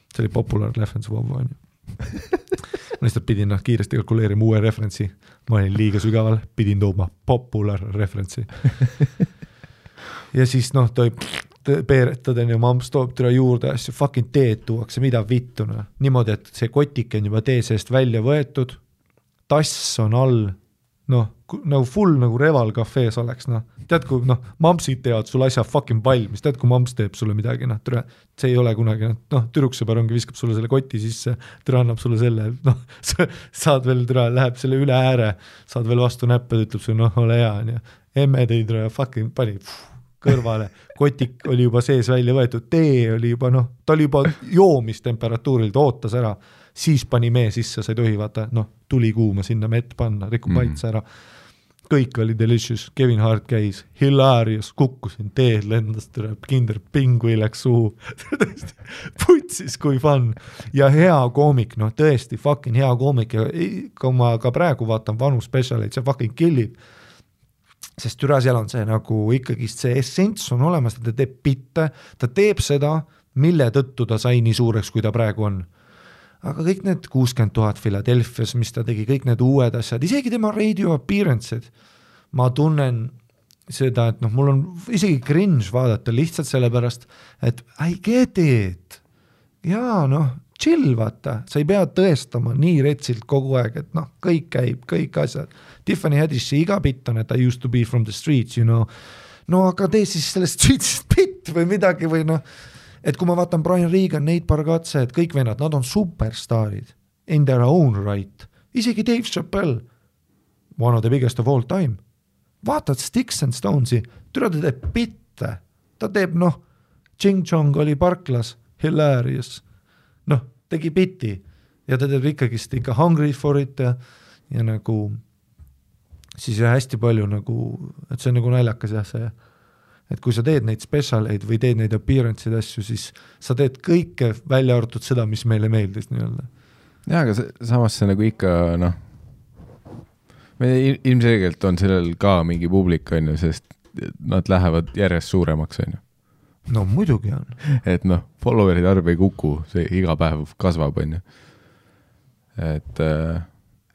see oli popular reference WoW on ju. Ma lihtsalt pidin kiiresti kalkuleerima uue referentsi, ma olin liiga sügaval, pidin tooma popular referentsi. Ja siis noh, toi peeretad on ju, mamps toob türa juurde asju, fucking teed tuuakse, mida vittuna. Niimoodi, et see kotik on juba tee seest välja võetud, tass on all, noh, nagu full nagu Reval kafees oleks, noh. Tead, kui noh, mampsid teevad sul asja fucking valmis, tead, kui mamps teeb sulle midagi, noh, türa, see ei ole kunagi, noh, türuksõber ongi, viskab sulle selle koti sisse, türa annab sulle selle, noh, saad veel türa, läheb selle üle ääre, saad veel vastu näppe, ütleb sulle, noh, ole hea, on ju. Emme tõi türa, fucking pani kõrvale, kotik oli juba sees välja võetud, tee oli juba, noh, ta oli juba joomistemperatuuril, ta ootas ära, siis pani mee sisse, sa ei tohi vaata, noh, tuli kuuma sinna mett panna, rikub maitse ära. Kõik oli delicious, Kevin Hart käis, hilarious, kukkusin, teed lendas, kinder pingui läks suhu, putsis kui fun ja hea koomik, noh, tõesti fucking hea koomik ja kui ma ka praegu vaatan vanu spetsialeid, see fucking killib. Sest türa seal on see nagu ikkagi see essents on olemas, ta teeb bitte, ta teeb seda, mille tõttu ta sai nii suureks, kui ta praegu on. Aga kõik need 60,000 Philadelphias, mis ta tegi, kõik need uued asjad, isegi tema radio appearance'id, ma tunnen seda, et noh, mul on isegi cringe vaadata lihtsalt sellepärast, et I get it. Jaa, noh, chill vaata, sa ei pea tõestama nii retsilt kogu aeg, et noh, kõik käib, kõik asjad. Tiffany Haddishi iga bitt on, et I used to be from the streets, you know. No aga tee siis sellest streetsist bitt või midagi või noh, et kui ma vaatan Brian Regan, Nate Bargatze, et kõik vennad, nad on superstaarid in their own right. Isegi Dave Chappelle, one of the biggest of all time. Vaatad Sticks and Stonesi, türa ta teeb bitte. Ta teeb, noh, Ching Chong oli parklas, hilarious. Noh, tegi bitti ja ta teeb ikkagist ikka hungry for it ja nagu siis hästi palju nagu, et see on nagu naljakas jah see, et kui sa teed neid spetsialeid või teed neid appearance'id asju, siis sa teed kõike välja arvatud seda, mis meile meeldis nii-öelda. Jaa, aga samas see nagu ikka, noh, ilmselgelt on sellel ka mingi publik, on ju, sest nad lähevad järjest suuremaks, on ju. No muidugi on. Et noh, follower'id arv ei kuku, see iga päev kasvab, on ju.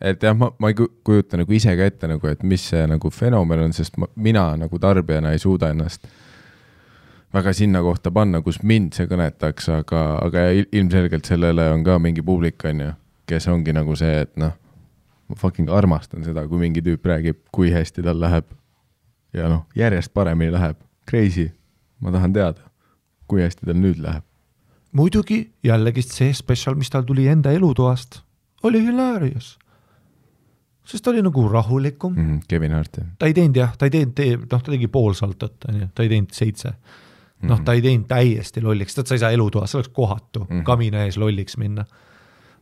Et jah, ma ei kujuta nagu ise ka ette, nagu, et mis see nagu fenomen on, sest mina nagu tarbijana ei suuda ennast väga sinna kohta panna, kus mind see kõnetaks, aga ilmselgelt sellele on ka mingi publik, on ju, kes ongi nagu see, et noh, ma fucking armastan seda, kui mingi tüüp räägib, kui hästi tal läheb ja noh, järjest paremini läheb. Crazy. Ma tahan teada, kui hästi tal nüüd läheb. Muidugi jällegi see special, mis tal tuli enda elutoast, oli hilarious. Sest ta oli nagu rahulikum. Kevin Hart. Ta ei teinud jah, ta tegi pool saltot, ta ei teinud 7. Ta ei teinud täiesti lolliks, sa ei saa elutoas, see oleks kohatu, kamina ees lolliks minna.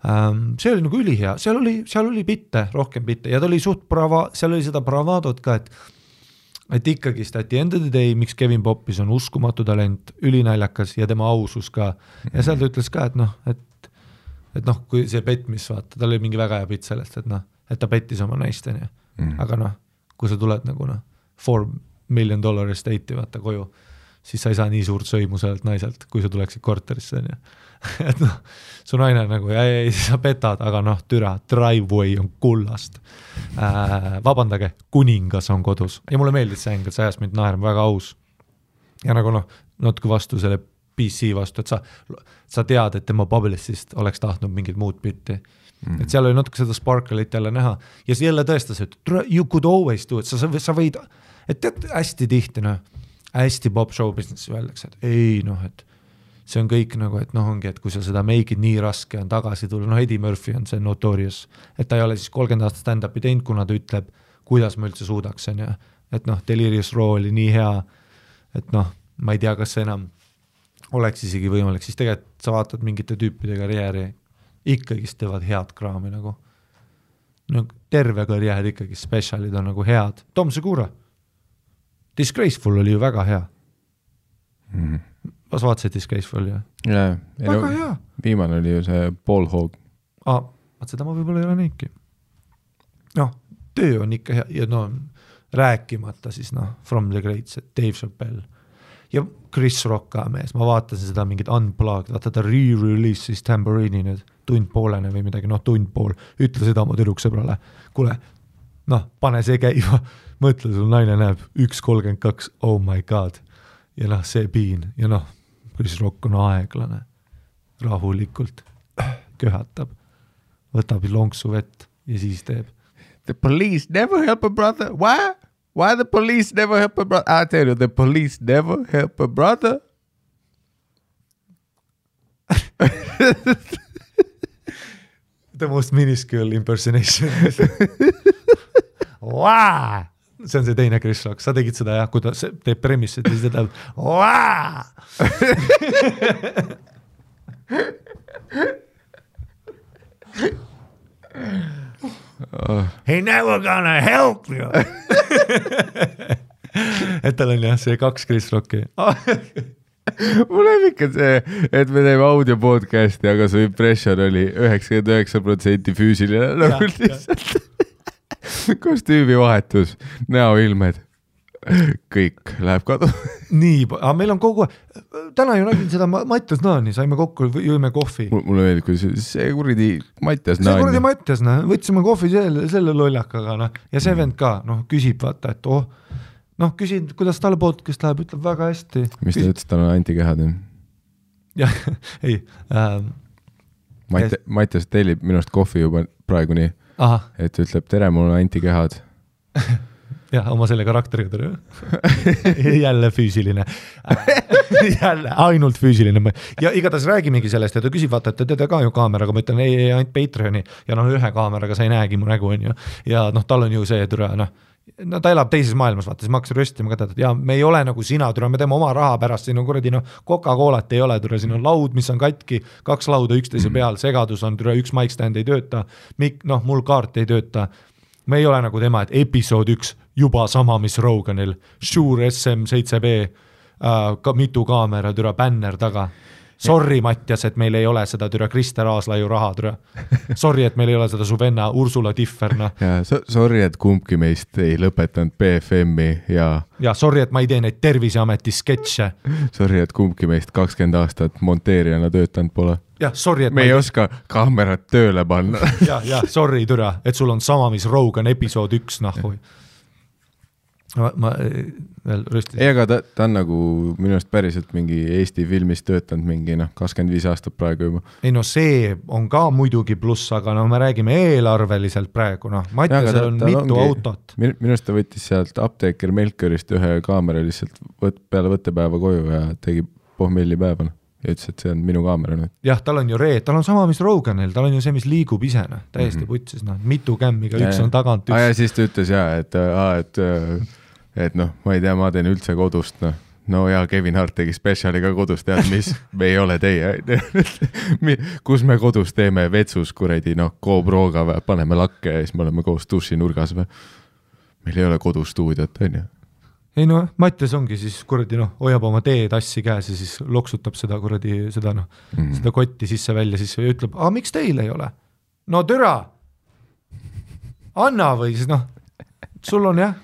See oli nagu ülihea, seal oli bitte, rohkem bitte ja ta oli suht seal oli seda bravadot ka, et ikkagi at the end of the day, miks Kevin Poppis on uskumatu talent, ülinaljakas ja tema ausus ka ja seal ta ütles ka, et kui see petmis vaata, tal oli mingi väga hea pitt sellest, et ta pettis oma naisteni, aga kui sa tuled nagu $4 million estate'i vaata koju, siis sa ei saa nii suurt sõimu sellelt naiselt, kui sa tuleksid korterisse, et su naine nagu, ei, sa petad, aga türa, driveway on kullast. Vabandage, kuningas on kodus. Ja mulle meeldis see ängel, see ajas mind naerma väga aus. Ja nagu natuke vastu selle PC vastu, et sa tead, et tema Publicist oleks tahtnud mingit muud bitti. Et seal oli natuke seda sparkle'it jälle näha. Ja see jälle tõestas, et you could always do it. Sa võid, et tead hästi tihti, hästi pop show business öeldakse, et ei, et see on kõik nagu, et ongi, et kui sa seda make it nii raske on tagasi tulla, Eddie Murphy on see notorious, et ta ei ole siis 30 aastat stand-upi teinud, kuna ta ütleb, kuidas ma üldse suudaks, et Delirious Raw oli nii hea, et ma ei tea, kas see enam oleks isegi võimalik, siis tegelikult sa vaatad mingite tüüpide karjääri, ikkagist teevad head kraami nagu. Terve karjäär ikkagi, specialid on nagu head. Tom Segura, Disgraceful oli ju väga hea. Kas vaatasid Disgraceful ju? Jaa, väga hea. Viimane oli ju see Paul Hogg. Seda ma võib-olla ei ole neidki. Töö on ikka hea ja rääkimata siis From the Greats, Dave Chappelle ja Chris Rock ka mees, ma vaatasin seda mingit unplugged, vaata ta re-release siis Tambourine'i nüüd, tundpoolene või midagi, tundpool, ütle seda oma tüdruksõbrale, kuule, pane see käima, mõtle, sul naine näeb 1.32, oh my god, ja see piin, ja Chris Rock on aeglane, rahulikult, köhatab, võtab lonksu vett ja siis teeb. The police never help a brother, why? Why the police never help a brother? I tell you, the police never help a brother. The most minuscule impersonation. Wow! See on see teine Chris Rock. Sa tegid seda kui ta teeb premissit ja siis ta teeb wow! He never gonna help you. Et tal on see 2 Chris Rocki. Mul on ikka see, et me teeme audio podcasti, aga su impression oli 99% füüsiline nagu lihtsalt. Kostüümi vahetus, näoilmed, kõik läheb kadu. Nii, aga meil on kogu täna ju nägin seda Mattias Naani, saime kokku, jõime kohvi. Mulle meeldib, kui see kuradi Mattias Naani. See kuradi Mattias, võtsime kohvi selle lollakaga ja see vend ka, küsib vaata, et küsin, kuidas talle podcast läheb, ütleb väga hästi. Mis ta ütles, tal on antikehad? Jah, ei. Mattias tellib minust kohvi juba praegu nii, et ütleb, tere, mul on antikehad. Jah, oma selle karakteriga tere. Jälle füüsiline. Jälle, ainult füüsiline. Ja igatahes räägimegi sellest, ja ta küsib, vaata, et teda ka ju kaameraga, ma ütlen, ei, ainult Patreoni, ja ühe kaameraga sa ei näegi mu nägu, on ju. Ja tal on ju see türa, ta elab teises maailmas, vaata, siis ma hakkasin röstima ka, ja me ei ole nagu sina, türa, me teeme oma raha pärast, siin on kuradi, Coca-Colat ei ole, türa, siin on laud, mis on katki, 2 lauda üksteise peal, segadus on, türa, 1 mic stand ei tööta, mul kaart ei tööta, me ei ole nagu tema, et episood 1 juba sama, mis Roganil, Shure SM7B, mitu kaamera, türa, bänner taga. Sorry, Mattias, et meil ei ole seda türa Krister Aaslaiu raha, türa. Sorry, et meil ei ole seda su venna Ursula Differna. Ja sorry, et kumbki meist ei lõpetanud BFM-i ja sorry, et ma ei tee neid Terviseameti sketše. Sorry, et kumbki meist 20 aastat monteerijana töötanud pole. Ja, sorry, et me ei oska kaamerat tööle panna. Ja, sorry, türa, et sul on sama, mis Rogan episood 1, nahui. ma veel rüstisin. Ei, aga ta on nagu minu arust päriselt mingi Eesti filmis töötanud mingi 25 aastat praegu juba. Ei no see on ka muidugi pluss, aga no me räägime eelarveliselt praegu, Mattiasel on mitu autot. Minu arust ta võttis sealt apteeker Melkörist ühe kaamera lihtsalt peale võttepäeva koju ja tegi pohmelli päeva. Ja ütles, et see on minu kaamera nüüd. Jah, tal on ju tal on sama, mis Roganil, tal on ju see, mis liigub ise, täiesti putsis, mitu kämmiga, üks on tagant, üks. Ja siis ta ütles et ma ei tea, ma teen üldse kodust, no ja Kevin Hart tegi spetsiali ka kodus, tead mis, me ei ole teie, kus me kodus teeme vetsus kuredi, GoProga või paneme lakke ja siis me oleme koos duši nurgas või. Meil ei ole kodustuudiot, on ju. Ei no, Mattias ongi siis kuradi, hoiab oma teetassi käes ja siis loksutab seda kuradi, seda kotti sisse välja siis ja ütleb, miks teil ei ole? No türa! Anna või siis sul on jah,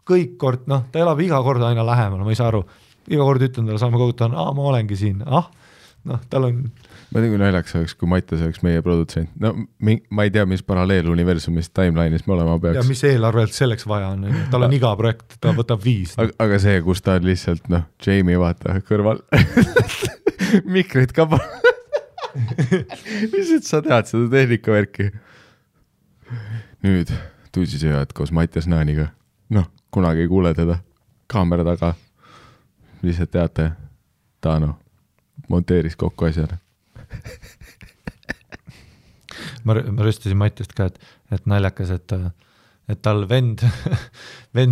kõik kord, ta elab iga kord aina lähemal, ma ei saa aru. Iga kord ütlen talle saame koguta, ma olengi siin, tal on... Ma tean, kui naljaks oleks, kui Mattias oleks meie produtsent. No ma ei tea, mis paralleeluniversumist timeline'is me olema peaks. Ja mis eelarvelt selleks vaja on, tal on iga projekt, ta võtab 5. Aga see, kus ta on lihtsalt, Jamie vaata kõrval. Mikrid ka lihtsalt sa tead seda tehnikavärki. Nüüd tuusisööjad koos Mattias Naaniga. Kunagi ei kuule teda. Kaamera taga. Lihtsalt teate, ta monteeris kokku asjale. ma rüstasin Mattiast ka, et naljakas, et tal vend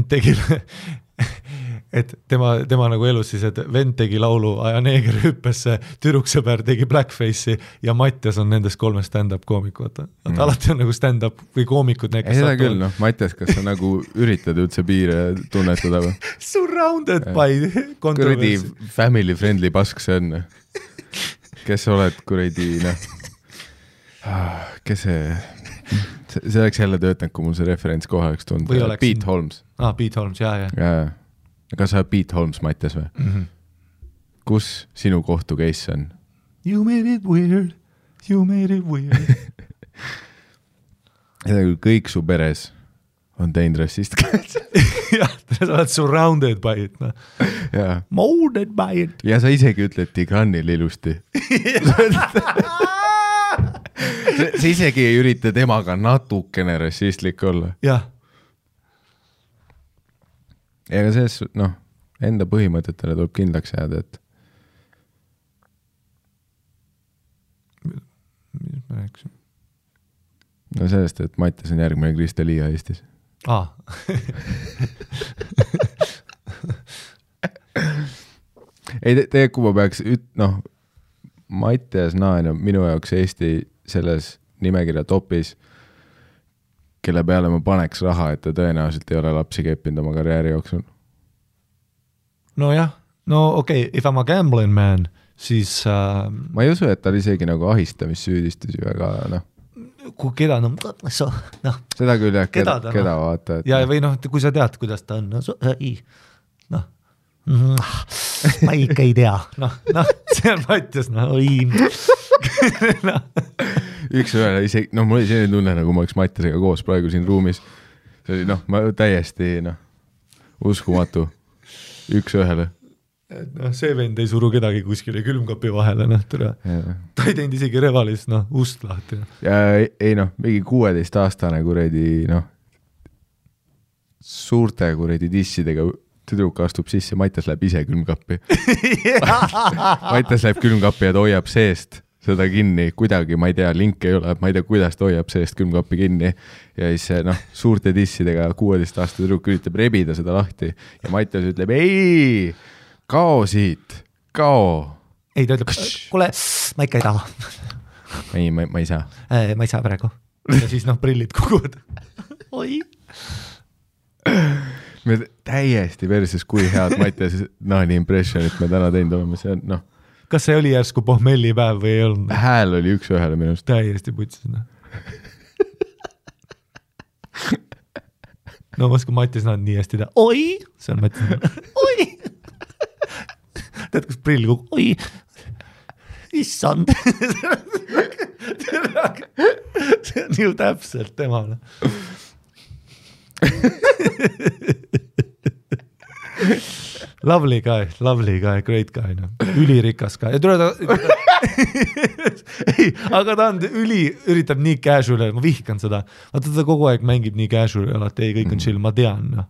tegi, et tema nagu elus siis, et vend tegi laulu Aja neeger hüppesse, türuksõber tegi blackface'i ja Mattias on nendest 3 stand-up koomikud. Alati on nagu stand-up või koomikud. Ei seda küll, Mattias, kas sa nagu üritad üldse piire tunnetada või? Surrounded by controversy. Kuradi family friendly pask see on. Kes sa oled kuradi, kes see oleks jälle töötanud, kui mul see referents kohe oleks tulnud. Pete Holmes. Pete Holmes, jaa. Kas sa Pete Holmes, Mattias või? Mm-hmm. Kus sinu kohtu case on? You made it weird. Ja kõik su peres on teinud rassist käes. Jah, sa oled surrounded by it. Molded by it. Ja sa isegi ütled Tigranil ilusti. Sa isegi ei ürita temaga natukene rassistlik olla. Jah. Ega sees, enda põhimõtetele tuleb kindlaks jääda, et mis ma rääksin? No sellest, et Mattias on järgmine Krista Liia Eestis. Ei, tegelikult kui ma peaks Mattias Naan on minu jaoks Eesti selles nimekirja topis, kelle peale ma paneks raha, et ta tõenäoliselt ei ole lapsi keppinud oma karjääri jooksul. Nojah, okei, if I'm a gambling man, siis... Ma ei usu, et tal isegi nagu ahistamissüüdistusi väga, Kui keda, seda küll jah, keda vaata. Ja või kui sa tead, kuidas ta on, ma ikka ei tea, see on Mattias, Üks ühele isegi, mul oli selline tunne, nagu ma oleks Mattiasega koos praegu siin ruumis. See oli, ma täiesti, uskumatu. Üks ühele. See vend ei suru kedagi kuskile külmkapi vahele, ta ei teinud isegi Revalis, ust lahti. Ja ei, mingi 16-aastane kuredi, suurte kuredi dissidega tüdruk astub sisse, Mattias läheb ise külmkappi. Mattias läheb külmkappi ja ta hoiab seest seda kinni, kuidagi, ma ei tea, link ei ole, ma ei tea, kuidas ta hoiab seest külmkappi kinni ja siis suurte dissidega 16-aastane tüdruk üritab rebida seda lahti ja Mattias ütleb, ei, kao siit, kao. Ei, ta ütleb, kuule, ma ikka ei taha. Ei, ma ei saa. Ma ei saa praegu. Ja siis prillid kukuvad. Oi. Me täiesti versus, kui head Mattias Naani impressionit me täna teinud oleme, see on, Kas see oli järsku pohmellipäev või ei olnud? Hääl oli üks ühele minust. Täiesti putsis. Ma oskan Mattias Naan nii hästi teha. Oi! See on Mattias Naan. Oi! Tead, kus prill kukub? Oi! Issand! See on ju täpselt temale. Lovely guy, great guy, no. Ülirikas guy. Ei, aga ta on üritab nii casual, ma vihkan seda. Vaata ta kogu aeg mängib nii casual, alati ei, kõik on chill, ma tean. No.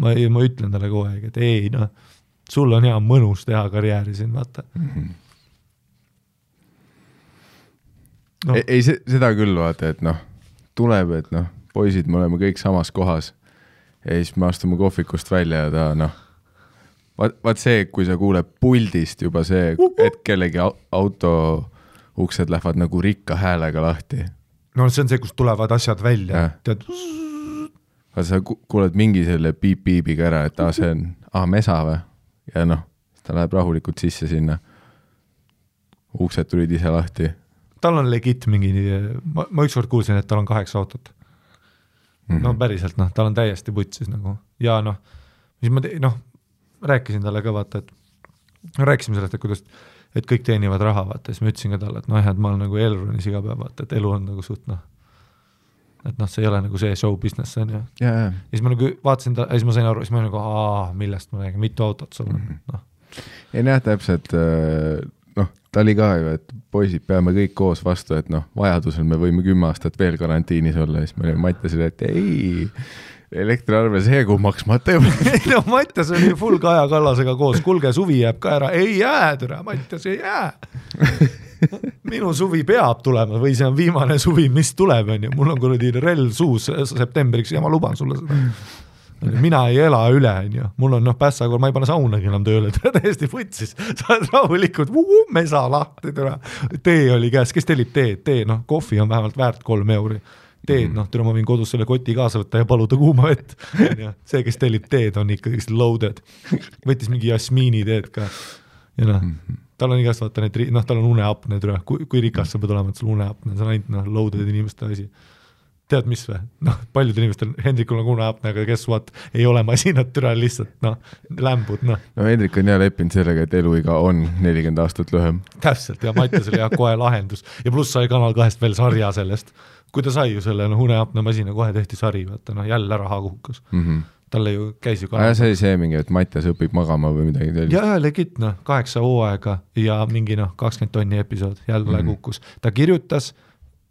Ma ütlen talle kogu aeg, et ei, no, sul on hea mõnus teha karjääri siin, vaata. No. Ei, seda küll vaata, et noh, tuleb, et noh, poisid, me oleme kõik samas kohas ja siis me astume kohvikust välja ja ta noh, vaat see, kui sa kuuled puldist juba see, et kellegi auto uksed lähevad nagu rikka häälega lahti. No see on see, kus tulevad asjad välja. Tead... Vaat sa kuuled mingi selle piip-piibiga ära, et see on mesa või? Ja noh, ta läheb rahulikult sisse sinna. Uksed tulid ise lahti. Tal on legit mingi, ma ükskord kuulsin, et tal on 8 autot. No päriselt, noh, tal on täiesti putsis nagu. Ja noh, mis ma rääkisin talle ka vaata, et rääkisime sellest, et kuidas, et kõik teenivad raha, vaata, siis ma ütlesin ka talle, et noh, et ma olen nagu Elronis iga päev, vaata, et elu on nagu suht, noh, et noh, see ei ole nagu see show business, see on ju. Ja siis ma nagu vaatasin ta, siis ma sain aru, siis ma nagu, millest ma räägin, mitu autot sul on, noh. Ei näe täpselt, noh, ta oli ka ju, et poisid peame kõik koos vastu, et noh, vajadusel me võime 10 aastat veel karantiinis olla, siis me Mattiasile, et ei, elektriarve see kuu maksmata juba. No Mattias oli full Kaja Kallasega koos, kulge suvi jääb ka ära, ei jää, türa, Mattias ei jää. Minu suvi peab tulema või see on viimane suvi, mis tuleb, on ju. Mul on kuradi rell suus septembriks ja ma luban sulle seda. Mina ei ela üle, on ju. Mul on pässakool, ma ei pane saunagi enam tööle, täiesti võtsis. Sa oled rahulikult, mesa lahti, türa. Tee oli käes, kes tellib teed? Tee, noh, kohvi on vähemalt väärt 3 euri. Teed, noh, türa ma võin kodus selle koti kaasa võtta ja paluda kuuma vett. See, kes tellib teed, on ikkagi loaded. Võttis mingi jasmiini teed ka. Ja noh, tal on igast vaata need, noh, tal on uneapne, kui rikas sa pead olema, et sul uneapne, see on ainult, noh, loaded inimeste asi. Tead mis või? Noh, paljud inimestel, Hendrikul on uneapne, aga kes vaat ei ole masinat türa lihtsalt, noh, lämbud, noh. No Hendrik on jah leppinud sellega, et eluiga on 40 aastat lühem. Täpselt, ja Mattias oli jah kohe lahendus. Ja pluss sai Kanal 2 veel sarja sellest. Kui ta sai ju selle, noh, uneapne masina, kohe tehti sari, vaata, noh, jälle raha kuhukas. Talle ju käis ju Kanal 2. See oli see mingi, et Mattias õpib magama või midagi sellist. Ja legit, noh, 8 hooaega ja mingi, noh, 20 tonni episood jälle kuhkus. Ta kirjutas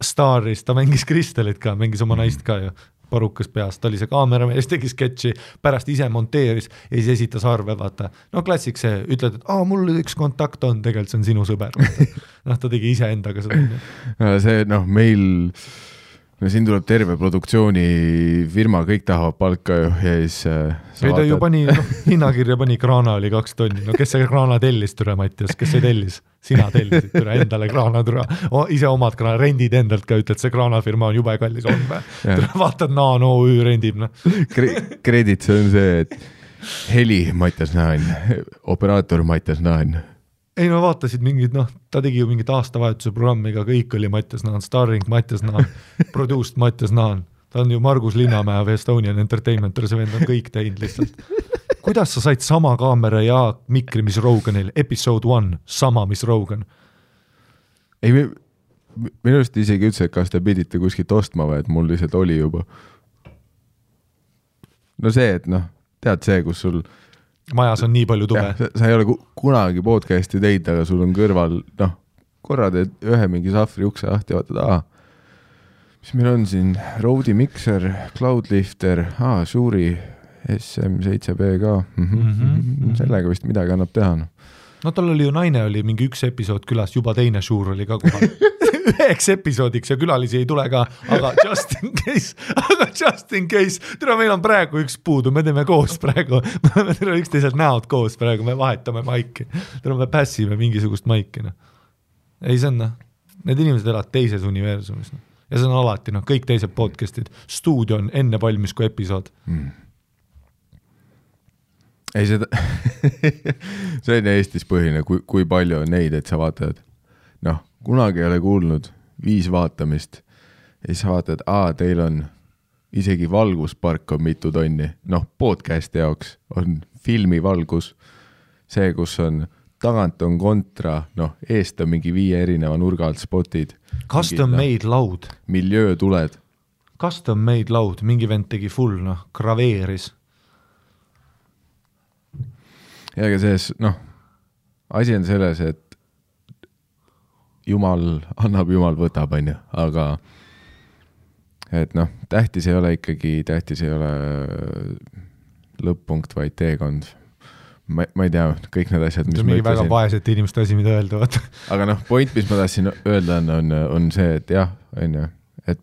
Staris, ta mängis Kristelit ka, mängis oma naist ka ju, parukas peas, ta oli see kaameramees, tegi sketši, pärast ise monteeris ja siis esitas arve, vaata. No klassik see, ütled, et mul üks kontakt on, tegelikult see on sinu sõber. Noh, ta tegi ise endaga seda. See, noh, meil, no siin tuleb terve produktsioonifirma, kõik tahavad palka ju ja siis ei ta ju pani, hinnakirja pani, kraana oli 2 tonni, no kes see kraana tellis, türa Mattias, kes see tellis? Sina tellisid, türa endale kraana, türa, ise omad kraana, rendid endalt ka, ütled, see kraanafirma on jube kallis, on või? Vaatad, no rendib, noh. Kredit, see on see, et heli Mattias Naan, operaator Mattias Naan. Ei no vaatasid mingid, noh, ta tegi ju mingit aastavahetuse programmiga, kõik oli Mattias Naan, starring Mattias Naan, produced Mattias Naan. Ta on ju Margus Linnamäe või Estonian Entertainment, see vend on kõik teinud lihtsalt. Kuidas sa said sama kaamera ja mikri, mis Roganil? Episode 1, sama, mis Rogan. Ei, minust isegi ütles, et kas te pidite kuskilt ostma või, et mul lihtsalt oli juba. No see, et noh, tead see, kus sul majas on nii palju tube. Sa ei ole kunagi podcasti teinud, aga sul on kõrval, noh, korra teed ühe mingi sahvri ukse lahti ja vaatad, mis meil on siin? Rode Mixer, Cloudlifter, Shuuri SM7B ka. Sellega vist midagi annab teha. No tal oli ju naine, oli mingi 1 episood külas, juba teine Shuur oli ka kohal. 1 episoodiks ja külalisi ei tule ka, aga just in case. Tere, meil on praegu 1 puudu, me teeme koos praegu. Me teeme üksteiselt näod koos praegu, me vahetame maiki. Tere, me pässime mingisugust maiki. No. Ei, see on, need inimesed elavad teises universumis. No. Ja see on alati, noh, kõik teised podcastid. Stuudio on enne valmis kui episood. Ei, seda see on Eestis põhine, kui palju on neid, et sa vaatad, noh, kunagi ei ole kuulnud 5 vaatamist ja siis sa vaatad, teil on isegi valguspark on mitu tonni. Noh, podcasti jaoks on filmivalgus, see, kus on tagant on kontra, noh, eest on mingi 5 erineva nurga alt spotid. Custom made laud. Miljöö tuled. Custom made laud, mingi vend tegi full, noh, graveeris. ja aga selles, asi on selles, et Jumal annab, Jumal võtab, on ju, aga et tähtis ei ole lõpp-punkt, vaid teekond. Ma ei tea, kõik need asjad, mis ma ütlesin. Väga vaesete inimeste asi, mida öelda, vaata. Aga point, mis ma tahtsin öelda, on see, et jah, on ju, et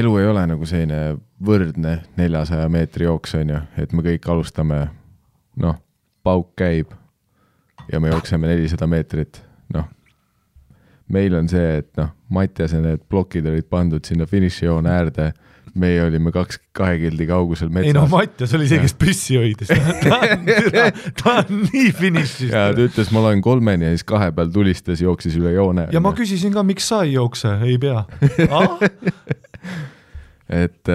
elu ei ole nagu selline võrdne 400 meetri jooks, on ju, et me kõik alustame, pauk käib ja me jookseme 400 meetrit, meil on see, et Mattiase need plokid olid pandud sinna finišijoone äärde, meie olime 2 kildi kaugusel metsas. Ei Mattias oli see, kes püssi hoidis. ta on nii finišis. Ja ta ütles, ma loen 3 ja siis 2 peal tulistas, jooksis üle joone. Ja ma küsisin ka, miks sa ei jookse, ei pea. Et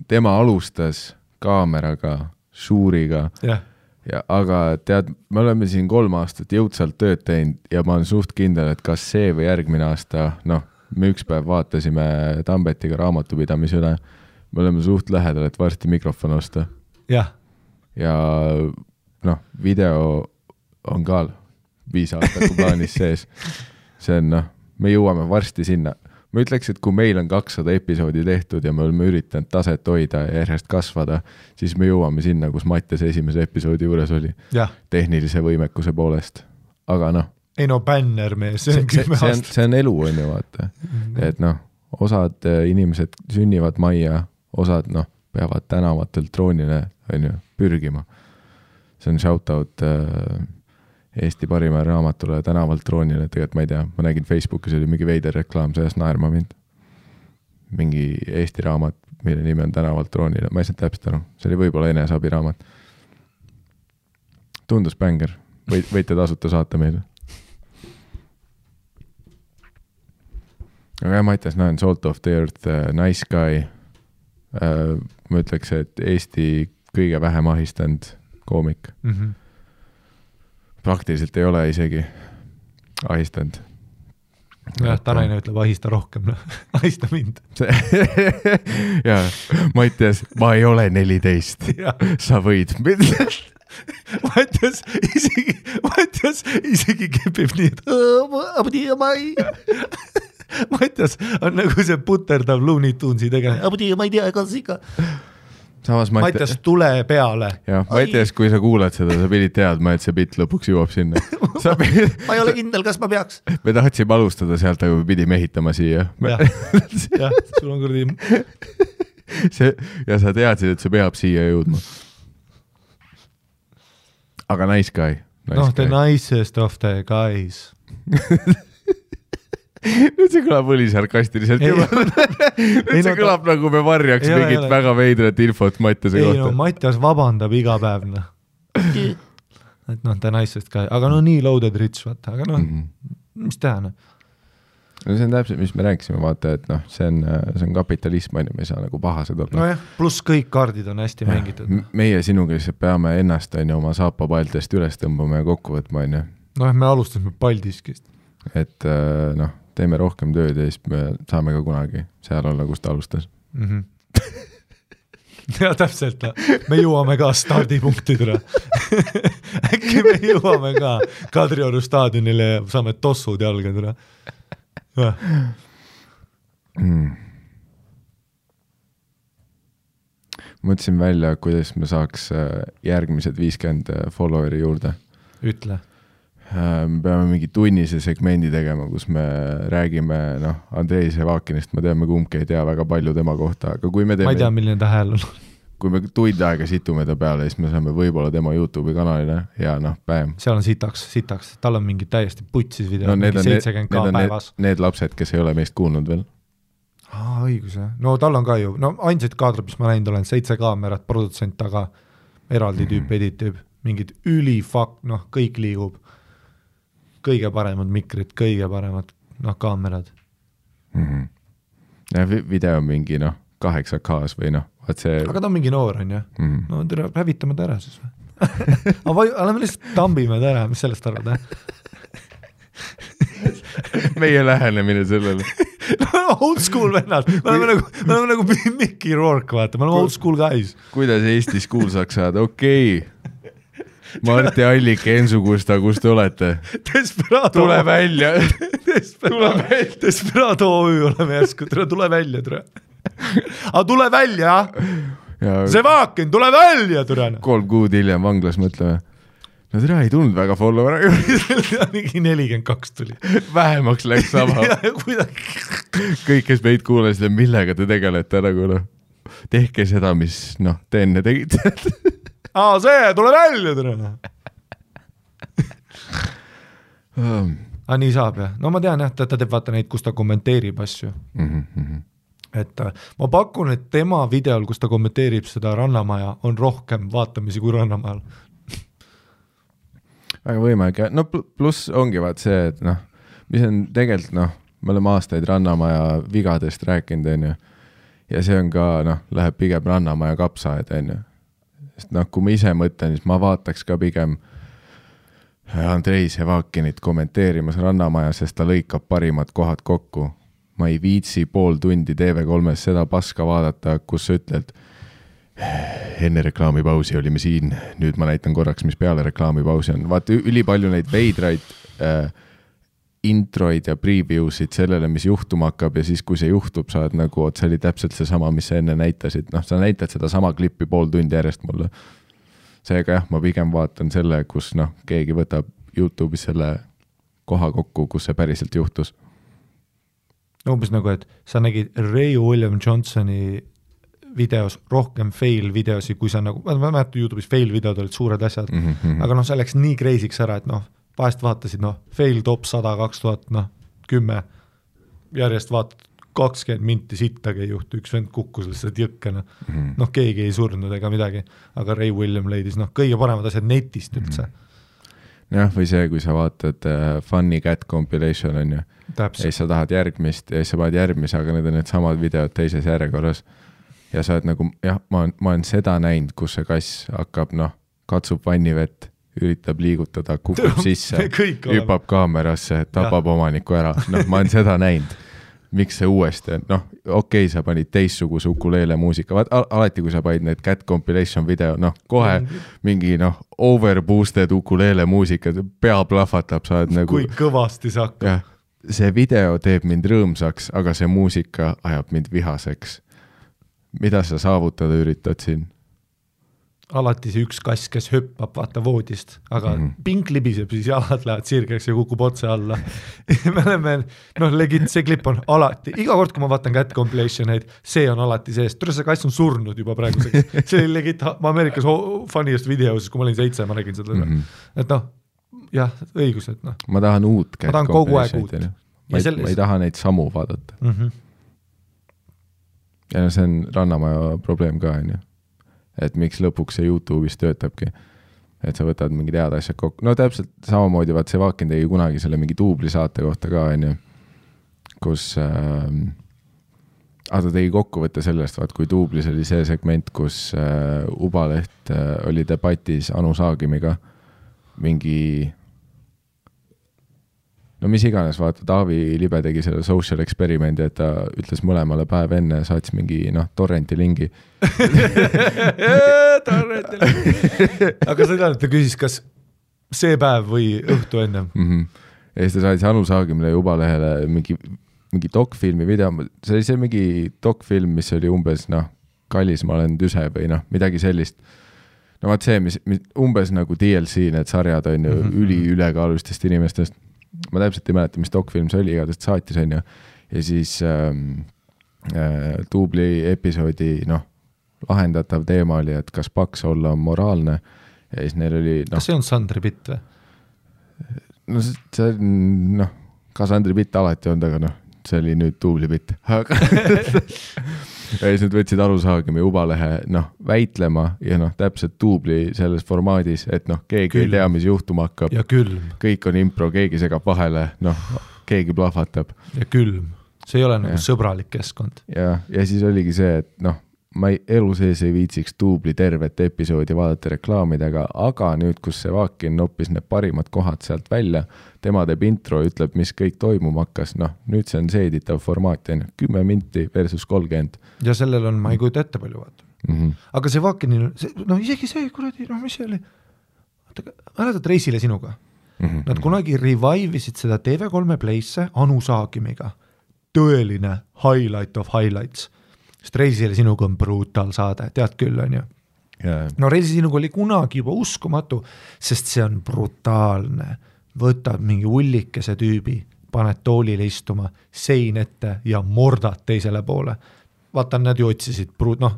tema alustas kaameraga, Shuuriga. Aga tead, me oleme siin 3 aastat jõudsalt tööd teinud ja ma olen suht kindel, et kas see või järgmine aasta, me üks päev vaatasime Tambetiga raamatupidamise üle, me oleme suht lähedal, et varsti mikrofon osta. Ja video on ka 5 aastaku plaanis sees. See on, me jõuame varsti sinna. Ma ütleks, et kui meil on 200 episoodi tehtud ja me oleme üritanud taset hoida ja järjest kasvada, siis me jõuame sinna, kus Mattias esimese episoodi juures oli. Tehnilise võimekuse poolest. Aga ei bänner mees. See on elu, on ju, vaata. Et osad inimesed sünnivad majja, osad peavad tänavatelt troonile, on ju, pürgima. See on shoutout Eesti parima raamatule tänavalt troonile, tegelikult ma ei tea, ma nägin Facebookis oli mingi veider reklaam, sellest naerma mind. Mingi Eesti raamat, mille nimi on tänavalt troonile, ma ei saa täpselt aru, see oli võib-olla eneseabi raamat. Tundus bänger, võite tasuta saata meile. Aga Mattias, näen Salt of the Earth, Nice Guy, ma ütleks, et Eesti kõige vähem ahistanud koomik. Praktiliselt ei ole isegi ahistanud. Jah, Tanaine ütleb, ahista rohkem, ahista mind. Ja, Mattias, ma ei ole 14, sa võid. Mattias isegi kepib nii, et Mattias on nagu see puterdav Looney Tunesi tegeline, ma ei tea, kas ikka. Mattias, tule peale. Ja, Mattias, kui sa kuulad seda, sa pidid teadma, et see bitt lõpuks jõuab sinna. Ma ei ole kindel, kas ma peaks. Me tahtsime alustada sealt, aga me pidime ehitama siia. Jah, sul on kurdi. Ja sa teadsid, et see peab siia jõudma. Aga Nice Guy. The nicest of the guys. Nüüd see kõlab õli sarkastiliselt juba. Nüüd see kõlab nagu me varjaks mingit väga veidrat infot Mattiase kohta. Mattias vabandab iga päev. Et the nicest guy. Aga nii loaded rich, vaata. Aga mis teha? See on täpselt, mis me rääkisime, vaata, et see on kapitalism, me ei saa nagu pahased olla. Pluss kõik kaardid on hästi mängitud. Meie sinuga lihtsalt peame ennast oma saapapaltest üles tõmbama ja kokku võtma. Me alustasime paldiskist. Et teeme rohkem tööd ja siis me saame ka kunagi seal olla, kus ta alustas. Ja täpselt, me jõuame ka stardipunktidele. Äkki me jõuame ka Kadrioru staadionile ja saame tossud jalgadele. Mõtlesin välja, kuidas me saaks järgmised 50 followeri juurde. Ütle. Me peame mingi tunnise segmendi tegema, kus me räägime Andrei Sevakinist, ma teame kumbki ei tea väga palju tema kohta, aga kui me teeme... Ma ei tea, milline ta hääl on. Kui me tund aega situme ta peale, siis me saame võib-olla tema YouTube'i kanalile ja bäm. Seal on sitaks, tal on mingi täiesti putsis video, mingi 70k päevas. Need lapsed, kes ei ole meist kuulnud veel. Õigus, jah. No tal on ka ju, ainsad kaadrid, mis ma näinud olen, 7 kaamerat, produtsent taga, eraldi tüüp, editüüb, mingid ülifak, kõik liigub. Kõige paremad mikrid, kõige paremad kaamerad. Ja video on mingi 8K-s või see... Aga ta on mingi noor, on jah? No hävitame ta ära siis või? Oleme lihtsalt tambime ta ära, mis sellest arvad? Meie lähenemine sellele. Old school vennad. Me oleme nagu Mickey Rourke, vaata. Me oleme old school guys. Kuidas Eestis kuulsaks saada? Okei. Marti Allik, Ensu Kusta, kus te olete? Desperado. Tule välja. Desperado OÜ oleme järsku, tule välja, tere. Aga tule välja, see Vaakin, tule välja, tere. 3 kuud hiljem vanglas mõtleme. No tere, ei tulnud väga follower. Mingi 42 tuli. Vähemaks läks sama. Kõik, kes meid kuulasid, millega te tegelete nagu noh. Tehke seda, mis te enne tegite. See, tule välja, tere. Nii saab, jah. No ma tean, jah, ta teeb vaata neid, kus ta kommenteerib asju. Et ma pakun, et tema videol, kus ta kommenteerib seda Rannamaja, on rohkem vaatamisi kui Rannamajal. Väga võimalik, ja pluss ongi vaat see, et mis on tegelikult, me oleme aastaid Rannamaja vigadest rääkinud, on ju. Ja see on ka, läheb pigem Rannamaja kapsaed, on ju. Sest kui ma ise mõtlen, siis ma vaataks ka pigem Andrei Sevakinit kommenteerimas Rannamaja, sest ta lõikab parimad kohad kokku. Ma ei viitsi pool tundi TV3-s seda paska vaadata, kus sa ütled, enne reklaamipausi olime siin, nüüd ma näitan korraks, mis peale reklaamipausi on. Vaata, ülipalju neid veidraid introid ja previewsid sellele, mis juhtuma hakkab ja siis, kui see juhtub, saad nagu, see oli täpselt see sama, mis sa enne näitasid. Sa näitad seda sama klippi pool tundi järjest mulle. Seega jah, ma pigem vaatan selle, kus keegi võtab YouTube'is selle koha kokku, kus see päriselt juhtus. Umbes nagu, et sa nägid Ray William Johnsoni videos rohkem fail videosi, kui sa nagu, ma mäletan YouTube'is fail videod olid suured asjad, aga see läks nii kreisiks ära, et vahest vaatasid, fail top 100, 2010, järjest vaatad 20 minti sittagi ei juhtu, üks vend kukkus lihtsalt jõkkena. Keegi ei surnud ega midagi, aga Ray William leidis kõige paremad asjad netist üldse. Jah, või see, kui sa vaatad Funny Cat compilation on ju, ja sa tahad järgmist ja sa paned järgmise, aga need on need samad videod teises järjekorras ja sa oled nagu, jah, ma olen seda näinud, kus see kass hakkab, katsub vannivett, üritab liigutada, kukub sisse, hüppab kaamerasse, tapab omaniku ära. Ma olen seda näinud. Miks see uuesti on? Okei, sa panid teistsuguse ukuleele muusika. Alati, kui sa panid need cat compilation video, kohe mingi overboosted ukuleele muusika, pea plahvatab, sa oled nagu... Kui kõvasti see hakkab. Ja, see video teeb mind rõõmsaks, aga see muusika ajab mind vihaseks. Mida sa saavutada üritad siin? Alati see üks kass, kes hüppab vaata voodist, aga pink libiseb, siis jalad lähevad sirgeks ja kukub otse alla. Me oleme, legit, see klipp on alati, iga kord, kui ma vaatan cat compilationeid, see on alati sees. Tule see kass on surnud juba praeguseks. See oli legit, ma Ameerikas funniest videos, kui ma olin 7, ma nägin seda. Et jah, õigus, et Ma tahan uut cat compilationid. Ma ei taha neid samu vaadata. Ja see on Rannamaja probleem ka, on ju. Et miks lõpuks see YouTube'is töötabki, et sa võtad mingi teada asjad kokku. Täpselt samamoodi, vaat see Vaakin tegi kunagi selle mingi duubli saate kohta ka, on ju, kus ta tegi kokkuvõtte sellest, vaat kui duublis oli see segment, kus Ubaleht oli debatis Anu Saagimiga mingi mis iganes, vaata, Taavi Libe tegi selle social experimendi, et ta ütles mõlemale päev enne, saatis mingi, torrenti lingi. Torrenti lingi. Aga seda, et ta küsis, kas see päev või õhtu ennem? Ja siis ta saatis Anu Saagimile ja Ubalehele mingi dokfilmi video, see oli see mingi dokfilm, mis oli umbes, kallis ma olen tüse või midagi sellist. Vaat see, mis umbes nagu DLC, need sarjad on ju ülekaalustest inimestest. Ma täpselt ei mäleta, mis dokfilm see oli, igatest saatis on ju. Ja siis duubli episoodi lahendatav teema oli, et kas paks olla on moraalne. Ja siis neil oli... Kas see on Sandri Pitt või? See on, ka Sandri Pitt alati on, aga see oli nüüd duubli Pitt. Ja siis nad võtsid Anu Saagimi Ubalehe väitlema ja täpselt duubli selles formaadis, et keegi ei tea, mis juhtuma hakkab. Ja külm. Kõik on impro, keegi segab vahele, keegi plahvatab. Ja külm. See ei ole nagu sõbralik keskkond. Ja siis oligi see, et ma elu sees ei viitsiks duubli tervet episoodi vaadata reklaamidega, aga nüüd, kus see Vaakin noppis need parimad kohad sealt välja, tema teeb intro, ütleb, mis kõik toimuma hakkas, nüüd see on seeditav formaat, 10 minti versus 30. Ja sellel on, ma ei kujuta ette palju vaata. Aga see Vaakinil, isegi see kuradi, mis see oli? mäletad Reisile sinuga? Nad kunagi revive'isid seda TV3 Playsse Anu Saagimiga. Tõeline highlight of highlights. Sest Reisile sinuga on brutal saade, tead küll, on ju? Yeah. No Reisile sinuga oli kunagi juba uskumatu, sest see on brutaalne. Võtad mingi ullikese tüübi, paned toolile istuma, sein ette ja mordad teisele poole. Vaata, nad ju otsisid,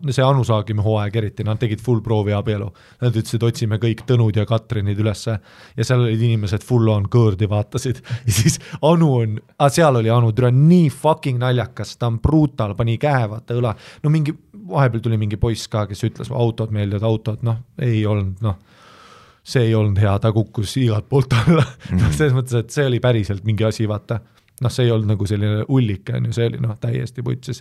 see Anu Saagimi hooaeg eriti, nad tegid full proovi abielu. Nad ütlesid, otsime kõik Tõnud ja Katrinid ülesse ja seal olid inimesed full on kõõrdi vaatasid. Ja siis Anu on, seal oli Anu, türa nii fucking naljakas, ta on brutal, pani käe, vaata õla. No mingi, vahepeal tuli mingi poiss ka, kes ütles, autod meeldivad, autod, ei olnud, see ei olnud hea, ta kukkus igalt poolt alla. Selles mõttes, et see oli päriselt mingi asi, vaata. See ei olnud nagu selline ullike, see oli täiesti putsis.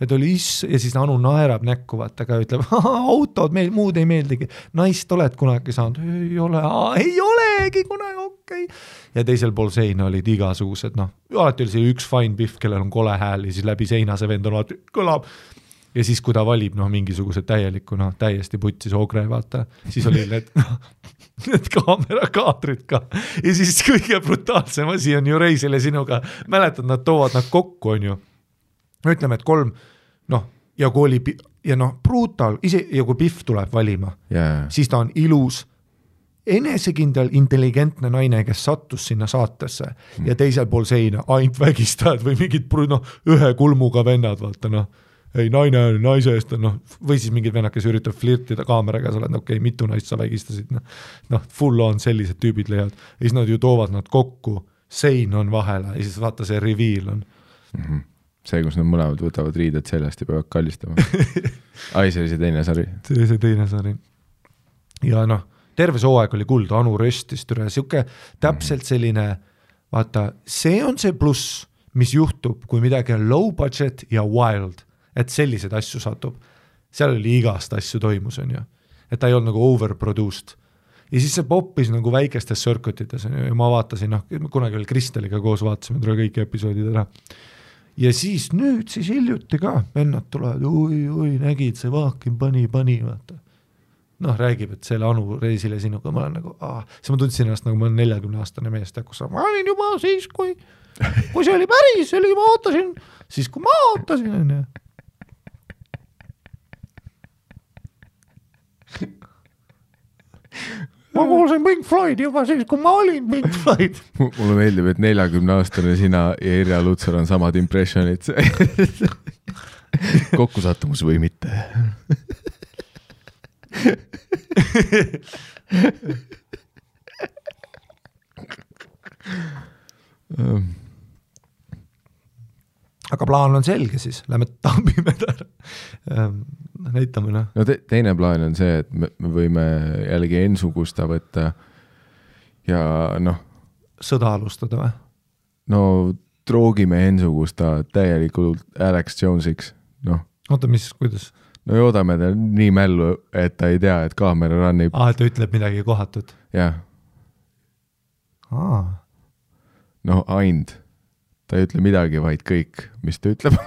Et oli ja siis Anu naerab näkku, vaata ka ütleb, autod, meil muud ei meeldigi. Naist oled kunagi saanud? Ei olegi kunagi, okei. Ja teisel pool seina olid igasugused, alati oli see üks fine biff, kellel on kole hääl ja siis läbi seina see vend on alati kõlab. Ja siis, kui ta valib mingisugused täielikku, täiesti putsis ogre, vaata, siis oli need kaamerakaatrid ka. Ja siis kõige brutaalsem asi on ju Reisile sinuga. Mäletad, nad toovad nad kokku, on ju. Ütleme, et 3, ja kui oli, ja brutal, ja kui Biff tuleb valima, siis ta on ilus, enesekindel, intelligentne naine, kes sattus sinna saatesse ja teisel pool seina ainult vägistajad või mingid ühe kulmuga vennad, vaata, ei, naise eest, või siis mingid vennad, kes üritab flirtida kaameraga, sa oled, okei, mitu naist sa vägistasid, full on sellised tüübid leiavad, ja siis nad ju toovad nad kokku, sein on vahele, ja siis vaata see reveal on. See, kus nad mõlemad võtavad riided sellest ja peavad kallistama. Ai, see oli see teine sari. See oli see teine sari. Ja terve see hooaeg oli kuld, Anu röstis, siuke täpselt selline, vaata, see on see pluss, mis juhtub, kui midagi on low budget ja wild. Et sellised asju satub. Seal oli igast asju toimus, on ju. Et ta ei olnud nagu overproduced. Ja siis see poppis nagu väikestes circuitites ja ma vaatasin, kunagi veel Kristeliga koos vaatasime kõik episoodid ära. Ja siis nüüd siis hiljuti ka vennad tulevad, oi, nägid, see Vaakin pani, vaata. Räägib, et selle Anu Reisile sinuga, ma olen nagu, siis ma tundsin ennast nagu ma olen 40-aastane meest, kus ma olin juba siis, kui see oli päris, see oli, ma ootasin, siis kui ma ootasin, on ju. Ma kuulsin Pink Floyd juba siis, kui ma olin Pink Floyd. Mulle meeldib, et 40-aastane sina ja Irja Lutsar on samad impressionid. Kokkusattumus või mitte? Aga plaan on selge siis, lähme tambime täna. Näitame. Teine plaan on see, et me võime jällegi Ensu-Gusta võtta ja sõda alustada või? Troogime Ensu-Gusta täielikult Alex Jonesiks. Oota, kuidas? Joodame ta nii mällu, et ta ei tea, et kaamera rannib. Et ta ütleb midagi kohatut? Jah. Aind. Ta ei ütle midagi, vaid kõik, mis ta ütleb.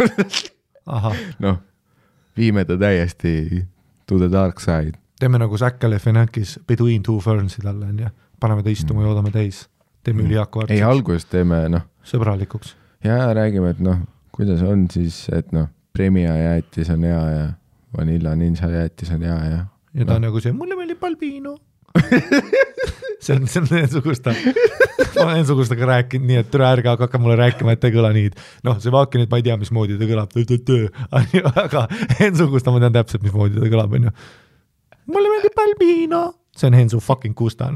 Viime ta täiesti to the dark side. Teeme nagu Zac Galifianakis Between Two Fernsid alla, ja paneme ta istuma ja joodame täis. Teeme ülihaku ei, alguses teeme, sõbralikuks. Ja räägime, et kuidas on siis, et premia jäätis on hea ja vanilla ninja jäätis on hea ja... Ja ta on nagu see, mulle meeldib Balbino. see on Ensu-Gusta. Ma olen Ensu-Gustaga rääkinud nii, et türa ärge hakka mulle rääkima, et ta ei kõla nii. See Vaakin, et ma ei tea, mismoodi ta kõlab. Aga Ensu-Gusta ma tean täpselt, mismoodi ta kõlab. Mulle meeldib Balbino. See on Ensu fucking Gusta.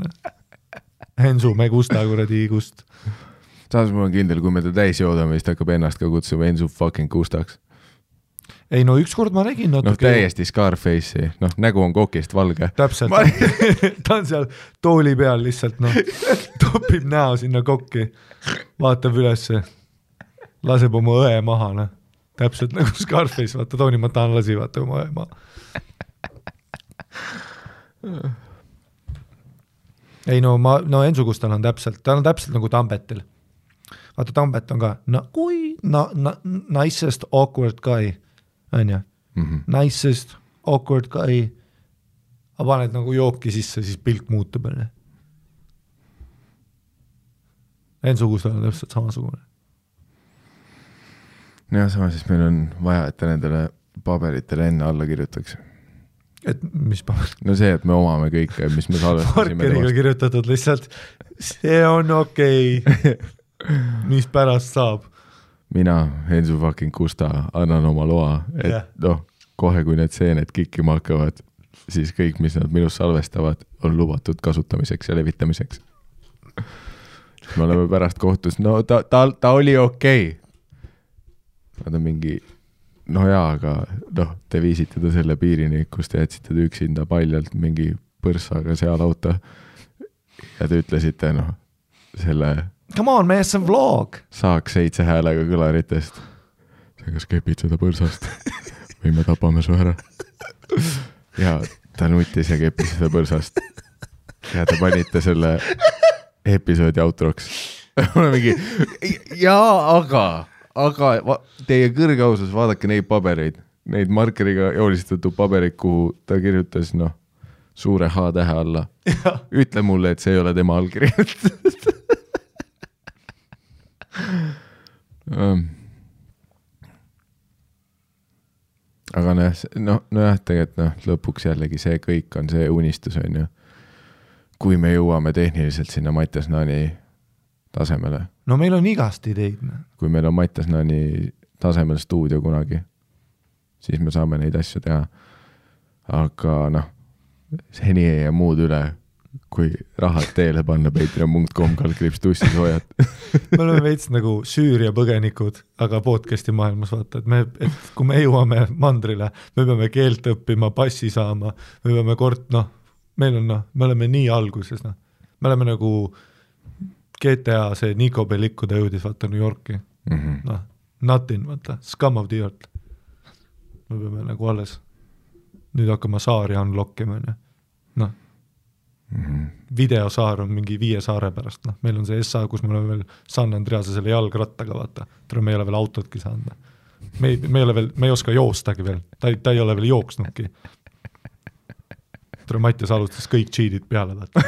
Ensu, me Gusta kuradi Gust. Saas mul on kindel, kui me ta täis joodame, siis ta hakkab ennast ka kutsuma Ensu fucking Gustaks. Ei, ükskord ma nägin natuke... täiesti Scarface'i. Nägu on kokist valge. Täpselt. Ta on seal tooli peal lihtsalt, topib näo sinna kokki. Vaatab ülesse. Laseb oma õe maha, Täpselt nagu Scarface, vaata, Tony Montana lasi, vaata oma õe maha. Ei, Ensu-Gustal on täpselt, ta on täpselt nagu Tambetil. Vaata, Tambet on ka, nicest awkward guy. On ja? Nicest, awkward guy. Aga paned nagu jooki sisse, siis pilk muutub. Enn-sugustel on täpselt samasugune. Ja sama siis meil on vaja, et ta nendele paberitele enne alla kirjutaks. Et mis paber? No see, et me omame kõike, mis me salvestasime. Markeriga kirjutatud lihtsalt, see on okei. Mis pärast saab? Mina, Ensu fucking Kusta, annan oma loa, et kohe kui need seened kikkima hakkavad, siis kõik, mis nad minust salvestavad, on lubatud kasutamiseks ja levitamiseks. Me oleme pärast kohtus, no ta oli okei. Nad on mingi, aga te viisite ta selle piirini, kus te jätsite ta üksinda paljalt mingi põrsaga seal auto ja te ütlesite, selle come on, mees, see on vlog. Saaks 7 häälega kõlaritest. See kas kepid seda põrsast või me tapame su ära. Ja ta nutis ja kepis seda põrsast. Ja te panite selle episoodi outroks. Mul on mingi, aga teie kõrge ausus, vaadake neid pabereid, neid markeriga joolistatud pabereid, kuhu ta kirjutas, suure H-tähe alla. Ütle mulle, et see ei ole tema allkiri. Aga tegelikult lõpuks jällegi see kõik on see unistus, on ju. Kui me jõuame tehniliselt sinna Mattias Naani tasemele. No meil on igast ideid. Kui meil on Mattias Naani tasemel stuudio kunagi, siis me saame neid asju teha. Aga seni ei jää muud üle, kui rahad teele panna patreon.com/tussis hoiad. Me oleme veits nagu Süüria põgenikud, aga podcasti maailmas vaata, et kui me jõuame mandrile, me peame keelt õppima, passi saama, me peame me oleme nii alguses, me oleme nagu GTA see Nico Bellico ta jõudis vaata New Yorki. Nothing, vaata, scum of the earth. Me peame nagu alles nüüd hakkama saari unlockima. Videosaar on mingi 5 saare pärast. Meil on see SA, kus me oleme veel San Andrease selle jalgrattaga, vaata. Me ei ole veel autotki saanud. Me ei oska joostagi veel. Ta ei ole veel jooksnudki. Mattias alustas kõik cheatid peale, vaata.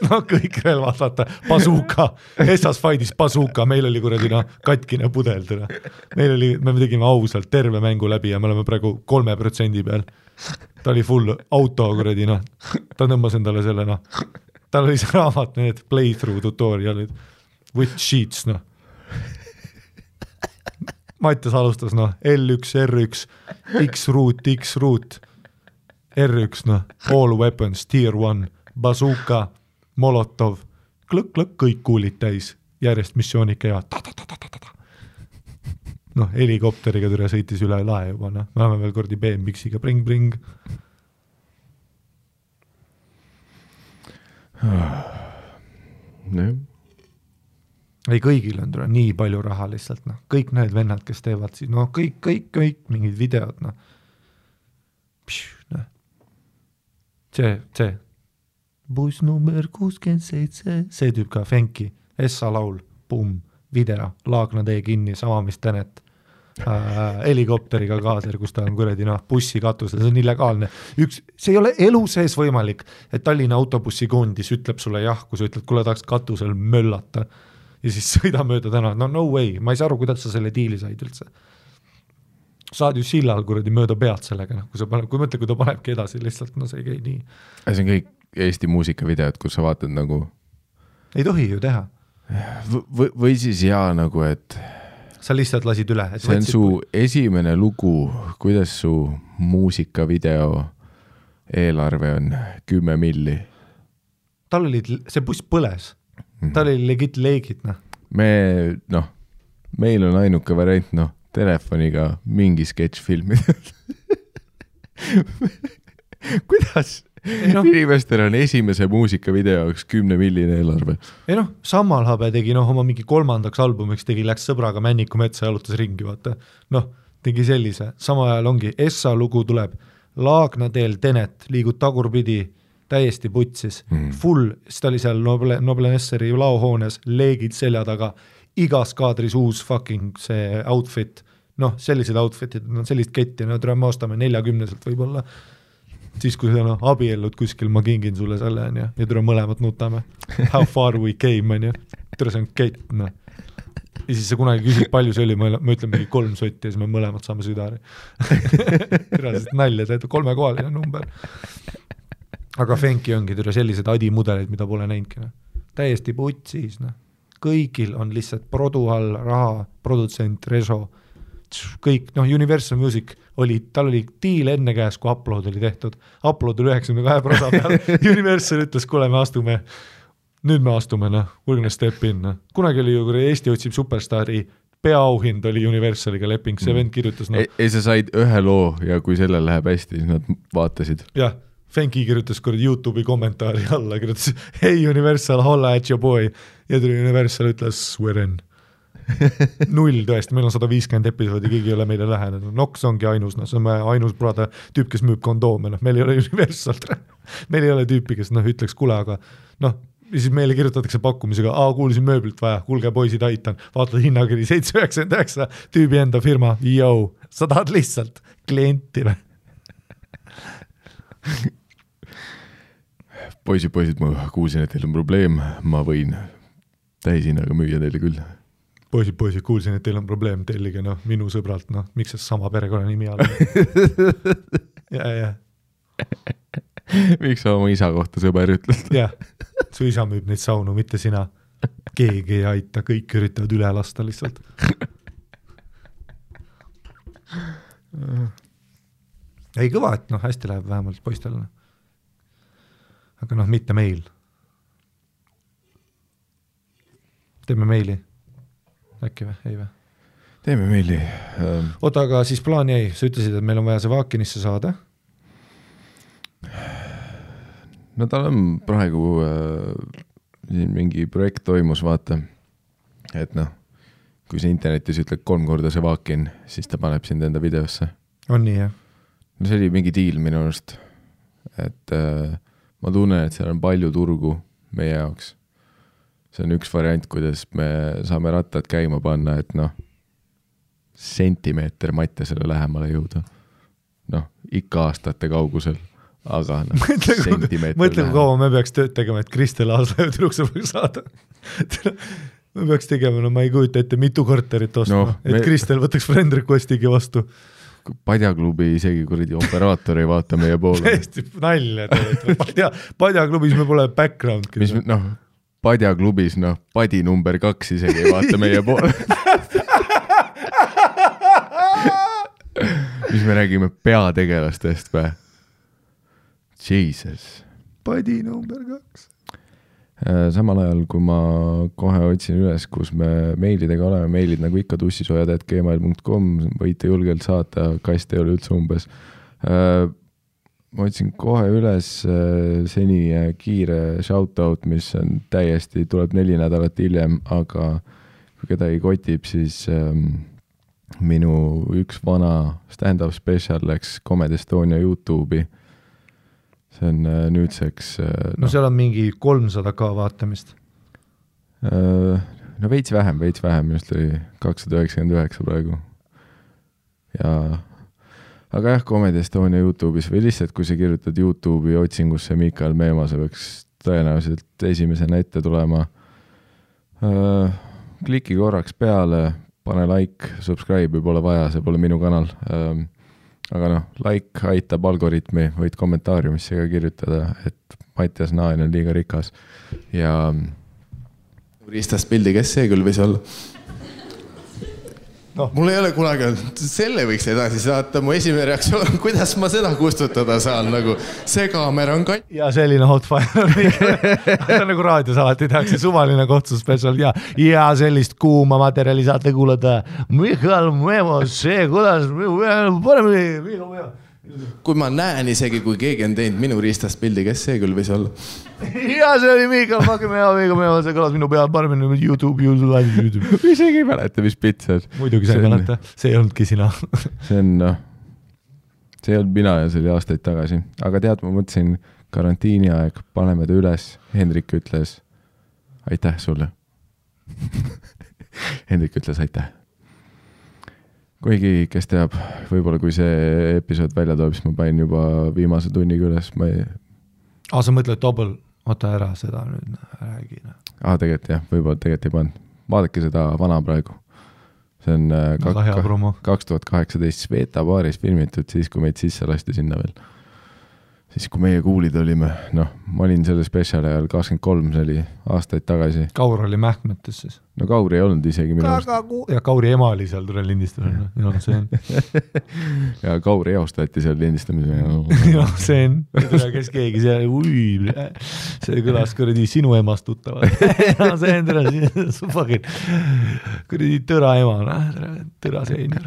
Kõik relvad, vaata, bazooka, Essas Fight'is bazooka, meil oli kuradina katkine pudel, tere. Me tegime ausalt terve mängu läbi ja me oleme praegu 3% peal. Ta oli full auto kuradina, ta tõmbas endale selle, tal oli see raamat, need playthrough tutorialid, with sheets, Mattias alustas, L1, R1, X-root, R1, all weapons, tier 1, bazooka, molotov, klõk, kõik kuulid täis, järjest missioonid käivad, helikopteriga türa sõitis üle lae juba, me oleme veel kordi BMX-iga, bring. Ei, kõigil on türa nii palju raha lihtsalt, kõik need vennad, kes teevad siis, kõik mingid videod, see buss number 67, see tüüp ka Fenki, Essa laul, video, Laagna tee kinni, sama mis Tenet, helikopteriga kaaser, kus ta on kuredi bussi katusel, see on illegaalne. See ei ole elu sees võimalik, et Tallinna autobussi kondis ütleb sulle jah, kui sa ütled, kuule tahaks katusel möllata ja siis sõida mööda täna, no way, ma ei saa aru, kuidas sa selle diili said üldse. Saad ju sillal kuradi mööda pead sellega, kui mõtle, kui ta panebki edasi lihtsalt, see ei käi nii. See on kõik Eesti muusikavideod, kus sa vaatad nagu ei tohi ju teha. Või siis et sa lihtsalt lasid üle. See on su esimene lugu, kuidas su muusikavideo eelarve on 10 milli. Tal oli, see buss põles. Tal oli legit leegid. Meil on ainuke variant, telefoniga mingi sketš filmida. Kuidas? Inimestel on esimese muusikavideo 10 milline eelarve. Ei Sammalhabe tegi oma mingi 3. albumiks läks sõbraga Männiku metsa ja jalutas ringi, vaata. Tegi sellise. Sama ajal ongi, Essa lugu tuleb, Laagna teel Tenet, liigud tagurpidi, täiesti putsis. Full, siis ta oli seal Noble Nesseri laohoones, leegid selja taga, igas kaadris uus fucking see outfit. Sellised outfitid, sellist ketti, me ostame 40-selt võib-olla. Siis kui sa abiellud kuskil, ma kingin sulle selle ja tule mõlemad nutame. How far we came, tere, see on kett, noh. Ja siis sa kunagi küsid, palju see oli, ma ütlen mingi 3 sotti ja siis me mõlemad saame südari. Tõraselt nalja, teed 3-kohaline number. Aga Fenki ongi türa sellised adimudeleid, mida pole näinudki. No. Täiesti putsis. No. Kõigil on lihtsalt produ all raha, produtsent, reso, kõik, noh, Universal Music oli, tal oli diil enne käes, kui Upload oli tehtud. Upload oli 92% peal. Universal ütles, kuule, nüüd me astume, noh, we're gonna step in, noh. Kunagi oli ju, kui Eesti otsib superstaari, peaauhind oli Universaliga leping, see vend kirjutas, noh. Ei, sa said ühe loo ja kui sellel läheb hästi, siis nad vaatasid. Jah, Fenki kirjutas kuradi YouTube'i kommentaari alla, kirjutas, hey Universal, holla at your boy. Ja tuli Universal ütles, we're in. 0 tõesti, meil on 150 episoodi, keegi ei ole meile lähenenud. Nox ongi ainus, noh, see on ainus brada tüüp, kes müüb kondoome, noh, meil ei ole Universal. Meil ei ole tüüpi, kes noh, ütleks kule, aga noh, siis meile kirjutatakse pakkumisega, kuulsin mööblilt vaja, kuulge poisid, aitan, vaatad hinnakiri 799, tüübi enda firma, sa tahad lihtsalt klienti või? Poisid, ma kuulsin, et teil on probleem, ma võin täishinnaga müüa teile küll. Poisid, kuulsin, et teil on probleem, tellige, noh, minu sõbralt, noh, miks see sama perekonna nimi all? Ja. Miks sa oma isa kohta sõber ütled? Jah, su isa müüb neid saunu, mitte sina. Keegi ei aita, kõik üritavad üle lasta lihtsalt. Ei kõva, et noh, hästi läheb vähemalt poistel. Aga noh, mitte meil. Teeme meili. Äkki või? Ei või? Teeme meili. Oota, aga siis plaan jäi. Sa ütlesid, et meil on vaja see Vaakinisse saada. No tal on praegu mingi projekt toimus, vaata. Et noh, kui sa internetis ütled 3 korda see Vaakin, siis ta paneb sind enda videosse. On nii, jah? No see oli mingi diil minu arust. Et ma tunnen, et seal on palju turgu meie jaoks. See on üks variant, kuidas me saame rattad käima panna, et noh, sentimeeter Mattiasele lähemale jõuda. Noh, ikka aastate kaugusel, aga noh, sentimeeter mõtle, kui kaua me peaks tööd tegema, et Kristel Aaslaiu tüdruksepäev saada. Me peaks tegema, no ma ei kujuta ette mitu korterit ostma, et Kristel võtaks friend requestigi vastu. Padjaklubi isegi kuradi operaator ei vaata meie poole. Täiesti nalja teed. Padjaklubis me pole background. Mis, noh, Padjaklubis, noh, padi number 2 isegi ei vaata meie poole. Mis me räägime peategelastest või? Jesus. Padi number 2. Samal ajal, kui ma kohe otsin üles, kus me meilidega oleme, meilid nagu ikka tussisojad@gmail.com, võite julgelt saata, kast ei ole üldse umbes. Ma otsin kohe üles seni kiire shoutout, mis on täiesti, tuleb 4 nädalat hiljem, aga kui keda ei kotib, siis minu üks vana stand-up special läks Comedy Estonia YouTube'i. See on nüüdseks... No seal on mingi 300K vaatamist. No veits vähem, minust oli 299 praegu. Ja... Aga jah, Comedy Estonia YouTube'is või lihtsalt, kui sa kirjutad YouTube'i otsingusse Mikael Meema, see võiks tõenäoliselt esimesena ette tulema. Kliki korraks peale, pane like, subscribe, pole vaja, see pole minu kanal. Aga noh, like aitab algoritmi, võid kommentaariumisse ka kirjutada, et Mattias Naan on liiga rikas. Ja Ristast pildi, kes see küll võis olla? No. Mul ei ole kunagi olnud, selle võiks edasi saata, mu esimene reaktsioon, kuidas ma seda kustutada saan, nagu see kaamera on katt. Ja selline hotfire on nagu raadios alati tehakse suvaline kohtus special ja sellist kuuma materjali saate kuulata. Mikael Meemo, see kuidas, minu mea. Kui ma näen isegi, kui keegi on teinud minu Ristast pildi, kes see küll võis olla? Ja see oli Mikael Meemo, see kõlas minu peal paremini YouTube. Isegi ei mäleta, mis pits on. Muidugi sa ei mäleta, see ei olnudki sina. See on, noh, see ei olnud mina ja see oli aastaid tagasi. Aga tead, ma mõtlesin karantiini aeg, paneme ta üles. Hendrik ütles, aitäh sulle. Hendrik ütles, aitäh. Kuigi, kes teab, võib-olla kui see episood välja toob, siis ma panin juba viimase tunniga üles. Sa mõtled oota ära seda nüüd, räägi. Tegelikult jah, võib-olla tegelikult ei pannud. Vaadake seda vana praegu. See on 2018 Sveta baaris filmitud, siis kui meid sisse lasti sinna veel. Siis kui meie kuulid olime, ma olin selle spetsiali ajal 23, see oli aastaid tagasi. Kaur oli mähkmetes siis. No Kauri ei olnud isegi minu arust. Ja Kauri ema oli seal tule lindistamine. Ja Kauri eostati seal lindistamine. Ja see on, kes keegi seal, see kõlas kuradi sinu emast tuttavad. See on kuradi tõra ema, tõra seener.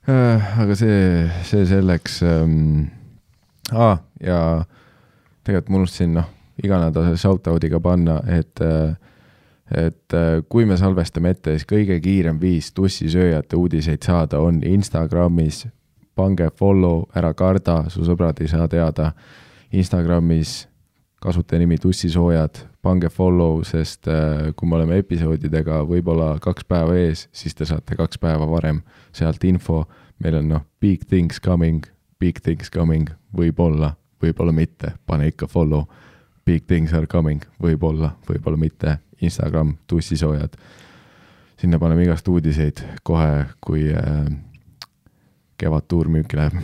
Aga see selleks ja tegelikult ma unustasin iga nädal shoutoudiga panna, et kui me salvestame ette, siis kõige kiirem viis tussisööjate uudiseid saada on Instagramis, pange follow, ära karda, su sõbrad ei saa teada Instagramis kasutajanimi tussisoojad, pange follow, sest kui me oleme episoodidega võib-olla 2 päeva ees, siis te saate 2 päeva varem sealt info. Meil on big things coming, võib-olla mitte, pane ikka follow, big things are coming, võib-olla mitte, Instagram, tussisoojad. Sinna paneme igast uudiseid kohe, kui kevad tuur müüki läheb.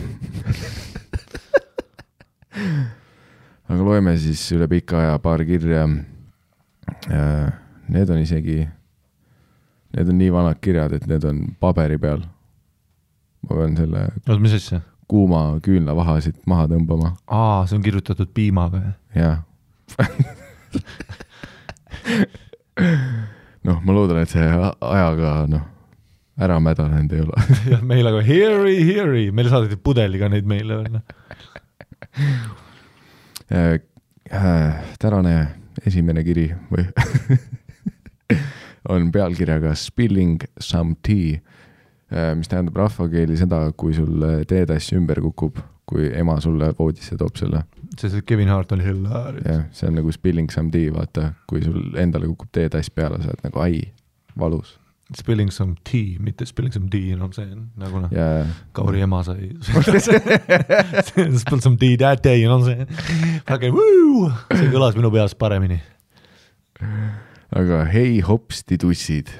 Aga loeme siis üle pika aja paar kirja. Need on nii vanad kirjad, et need on paberi peal. Ma pean selle kuuma küünlavahasid maha tõmbama. See on kirjutatud piimaga. Jah. Ma loodan, et see ajaga ära mädanenud ei ole. Ja meil aga heari. Meil saadeti pudeliga neid meile. Tänane esimene kiri või on pealkirjaga Spilling some tea, mis tähendab rahvakeeli seda, kui sul teetass ümber kukub, kui ema sulle voodisse toob selle. See Kevin Hart oli hilarious. Ja, see on nagu spilling some tea, vaata, kui sul endale kukub teetass peale, sa oled nagu valus. Spilling some tea, mitte spilling some tea, see on nagu Kauri ema sai. Spill some tea that day, see. See kõlas minu peas paremini. Aga hei hopsti tussid.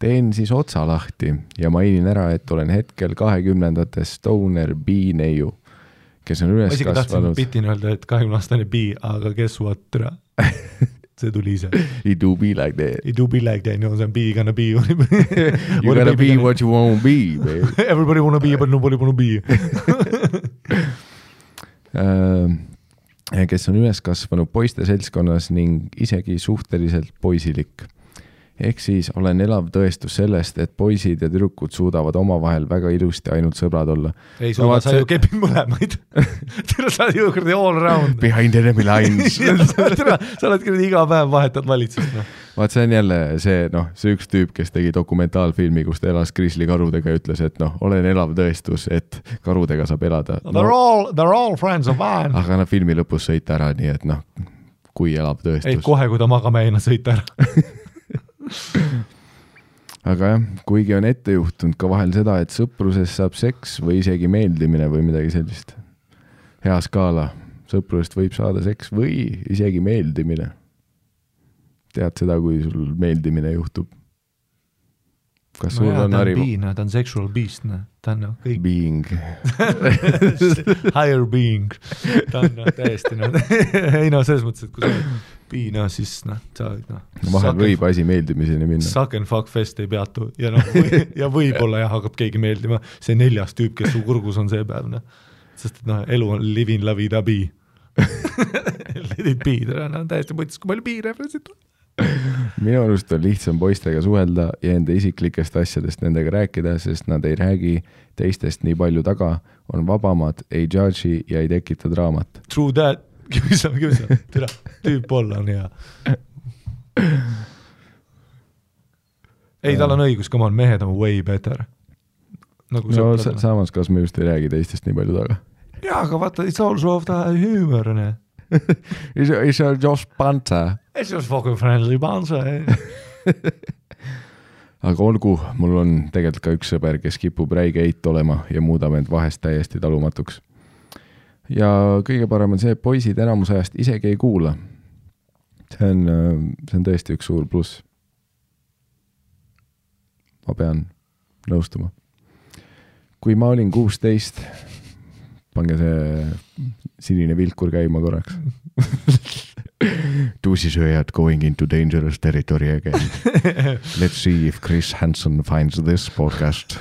Teen siis otsa lahti ja mainin ära, et olen hetkel 20. Stoner B-neiu, kes on üles kasvanud. Ma isegi tahtsin bitin öelda, et 20-aastane B, aga guess what, türa? See tuli ise. It do be like that. It do be like that, see on B gonna be. You gotta be what you wanna be, baby. Everybody wanna be, but nobody wanna be. Kes on üles kasvanud poiste seltskonnas ning isegi suhteliselt poisilik. Ehk siis olen elav tõestus sellest, et poisid ja tüdrukud suudavad omavahel väga ilusti ainult sõbrad olla. Ei suuda, sa ju kepid mõlemaid. Sa oled ju kurdi all around. Behind enemy lines. Sa oled kurdi iga päev vahetad valitsust. Vaat see on jälle see üks tüüp, kes tegi dokumentaalfilmi, kus ta elas grizzlykarudega ja ütles, et olen elav tõestus, et karudega saab elada. They're all friends of mine. Aga filmi lõpus sõita ära, nii et kui elav tõestus. Ei, kohe, kui ta magama eina sõita ära. Aga jah, kuigi on ette juhtunud ka vahel seda, et sõpruses saab seks või isegi meeldimine või midagi sellist. Hea skaala, sõprusest võib saada seks või isegi meeldimine. Tead seda, kui sul meeldimine juhtub? Kas sul on hariv? Ta on sexual beast, ta on kõik. Being. Higher being. Ta on täiesti, ei selles mõttes, et kui sa piina, siis vahel võib asi meeldimiseni minna. Suck and fuck fest ei peatu ja võib-olla hakkab keegi meeldima. See 4. tüüp, kes su kurgus on see päev. Sest elu on living la vida be. Let it be. Täiesti mõttes, kui palju be-referenceid on. Minu arust on lihtsam poistega suhelda ja enda isiklikest asjadest nendega rääkida, sest nad ei räägi teistest nii palju taga, on vabamad, ei judge'i ja ei tekita draamat. True that. Kümisa. Türa, tüüp olla on hea. Ei, tal on õigus, come on, mehed on way better. Samas, kas me just ei räägi teistest nii palju taga? Jaa, aga vaata, it's also of the humor, ne? It's just banter. It's just fucking friendly banter. Aga olgu, mul on tegelikult ka üks sõber, kes kipub räige eit olema ja muudab end vahest täiesti talumatuks. ja kõige parem on see, et poisid enamus ajast isegi ei kuula. See on tõesti üks suur pluss. Ma pean nõustuma. Kui ma olin 16, pange see sinine vilkur käima korraks. Tuusisööjad going into dangerous territory again. Let's see if Chris Hansen finds this podcast.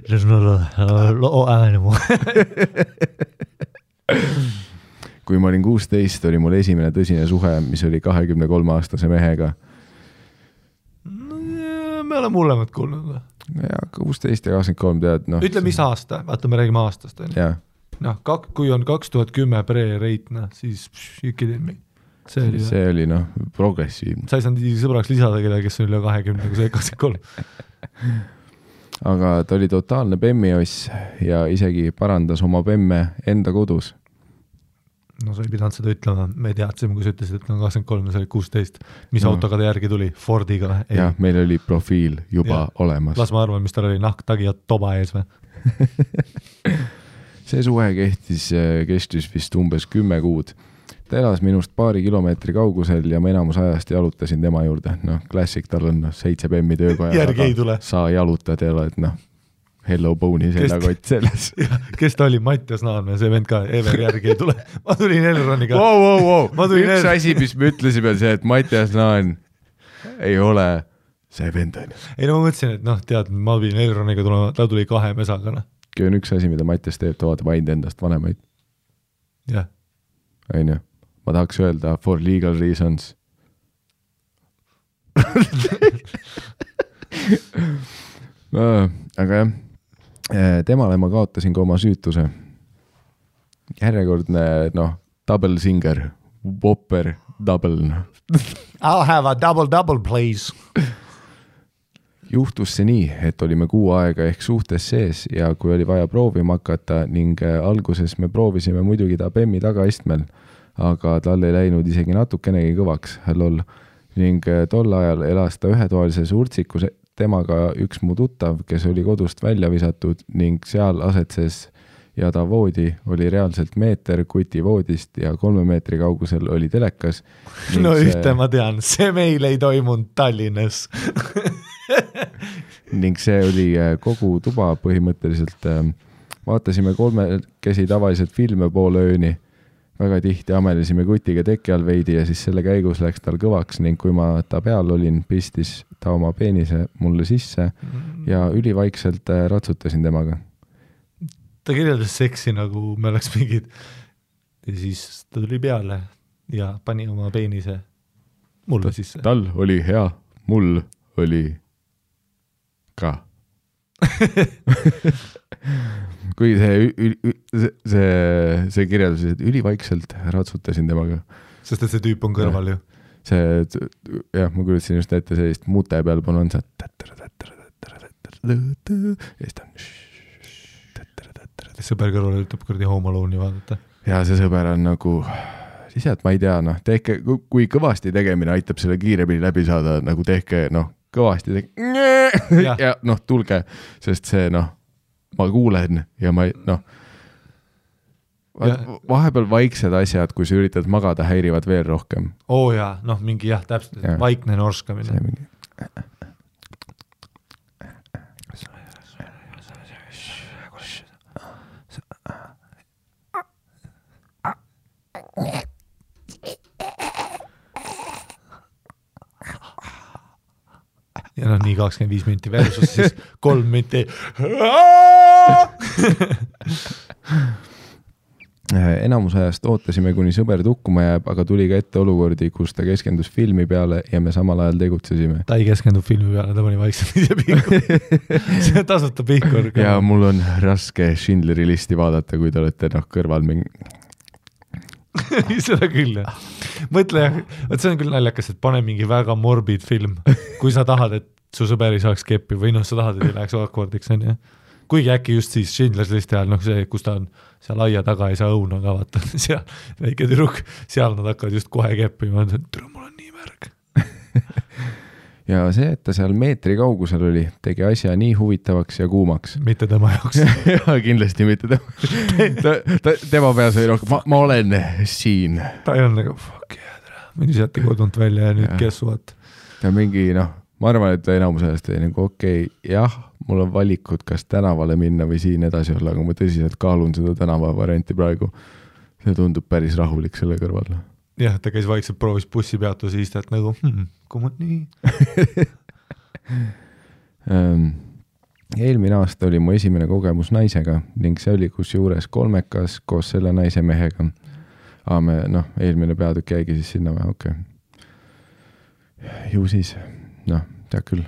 There's not a lot anymore. Kui ma olin 16, oli mul esimene tõsine suhe, mis oli 23-aastase mehega. Me oleme mullemad kuulnud. Ja 16 ja 23 tead. No, ütle, mis aasta? Vaata, me räägime aastast. Kui on 2010 pre-reitna, siis see oli progressiivne. Sa ei saanud sõbraks lisada keda, kes on üle 20, kui see 23. Aga ta oli totaalne bemmioss ja isegi parandas oma bemme enda kodus. No sa ei pidanud seda ütlema, me teadsime, kui sa ütlesid, et on 23 ja sa olid 16. Mis autoga ta järgi tuli? Fordiga? Jah, meil oli profiil juba olemas. Las ma arvan, mis tal oli nahktagi ja toba ees või? See suhe kestis vist umbes 10 kuud. Ta elas minust paari kilomeetri kaugusel ja ma enamus ajast jalutasin tema juurde. Klassik, tal on 7 bemmi töökoja. Järgi ei tule. Sa jalutad ja oled, Hello Bone'i seljakott selles. Kes ta oli? Mattias Naanme, see vend ka, Ever järgi ei tule. Ma tulin Elroniga. Wow. Üks asi, mis me ütlesime, see, et Mattias Naan ei ole see vend. Ei, ma mõtlesin, et tead, ma tulin Elroniga tulema, ta tuli 2 mesaga. Kui on üks asi, mida Mattias teeb, ta vaatab ainult endast vanemaid. Jah. Ainu. Ma tahaks öelda for legal reasons. Aga jah, temale ma kaotasin ka oma süütuse. Järjekordne, double singer, whopper, double. I'll have a double, please. Juhtus see nii, et olime 6 aega ehk suhtes sees ja kui oli vaja proovima hakata ning alguses me proovisime muidugi ta bemmi tagaistmel, aga tal ei läinud isegi natukenegi kõvaks, lol. Ning tol ajal elas ta ühetoalises urtsikus temaga üks mu tuttav, kes oli kodust välja visatud ning seal asetses ja ta voodi oli reaalselt meeter kuti voodist ja 3 meetri kaugusel oli telekas. Ühte ma tean, see meil ei toimunud Tallinnas. Ning see oli kogu tuba põhimõtteliselt. Vaatasime 3 tavaliselt filme poole ööni. Väga tihti amelisime kutiga teki all veidi ja siis selle käigus läks tal kõvaks ning kui ma ta peal olin, pistis ta oma peenise mulle sisse ja ülivaikselt ratsutasin temaga. Ta kirjeldas seksi nagu me oleks mingid ja siis ta tuli peale ja pani oma peenise mulle sisse. Tal oli hea, mul oli ka. Kui see kirjeldus, et ülivaikselt ratsutasin temaga. Sest et see tüüp on kõrval ju. Jah, ma kuulutasin just ette sellist mute peal on see sõber kõrval ütleb kurdi Home Alone'i vaadata. Ja see sõber on nagu lihtsalt ma ei tea, tehke, kui kõvasti tegemine aitab selle kiiremini läbi saada, nagu tehke, kõvasti ja tulge, sest see, ma kuulen ja ma vahepeal vaiksed asjad, kui sa üritad magada, häirivad veel rohkem. Jaa, mingi täpselt, vaikne norskamine. See mingi. Ja nii 25 minti versus siis 3 minti. Enamus ajast ootasime, kuni sõber tukkuma jääb, aga tuli ka ette olukordi, kus ta keskendus filmi peale ja me samal ajal tegutsesime. Ta ei keskendu filmi peale, ta pani vaikselt ise pihkur. See tasuta pihkur. Ja mul on raske Schindleri listi vaadata, kui te olete kõrval mingi... Seda küll, jah. Mõtle, see on küll naljakas, et pane mingi väga morbid film, kui sa tahad, et su sõber ei saaks keppi või sa tahad, et ei läheks awkwardiks, on, jah. Kuigi äkki just siis Schindler's listi ajal, see, kus ta on seal aia taga, ei saa õuna ka vaata, seal väike tüdruk, seal nad hakkavad just kohe keppi, ma mõtlen, et mul on nii märg. ja see, et ta seal meetri kaugusel oli, tegi asja nii huvitavaks ja kuumaks. Mitte tema jaoks. Ja kindlasti mitte tema peas oli rohkem, ma olen siin. Ta ei olnud nagu, fuck yeah, mind visati kodunt välja ja nüüd guess what. Ta mingi, ma arvan, et enamus ajast oli nagu okei, jah, mul on valikud, kas tänavale minna või siin edasi olla, aga ma tõsiselt kaalun seda tänava varianti praegu. See tundub päris rahulik selle kõrval. Jah, ta käis vaikselt proovis bussi peatuse istet nagu, kumad nii. Eelmine aasta oli mu esimene kogemus naisega ning see oli kusjuures kolmekas koos selle naise mehega. Eelmine peatükk jäigi siis sinna või, okei. Ju siis, tead küll.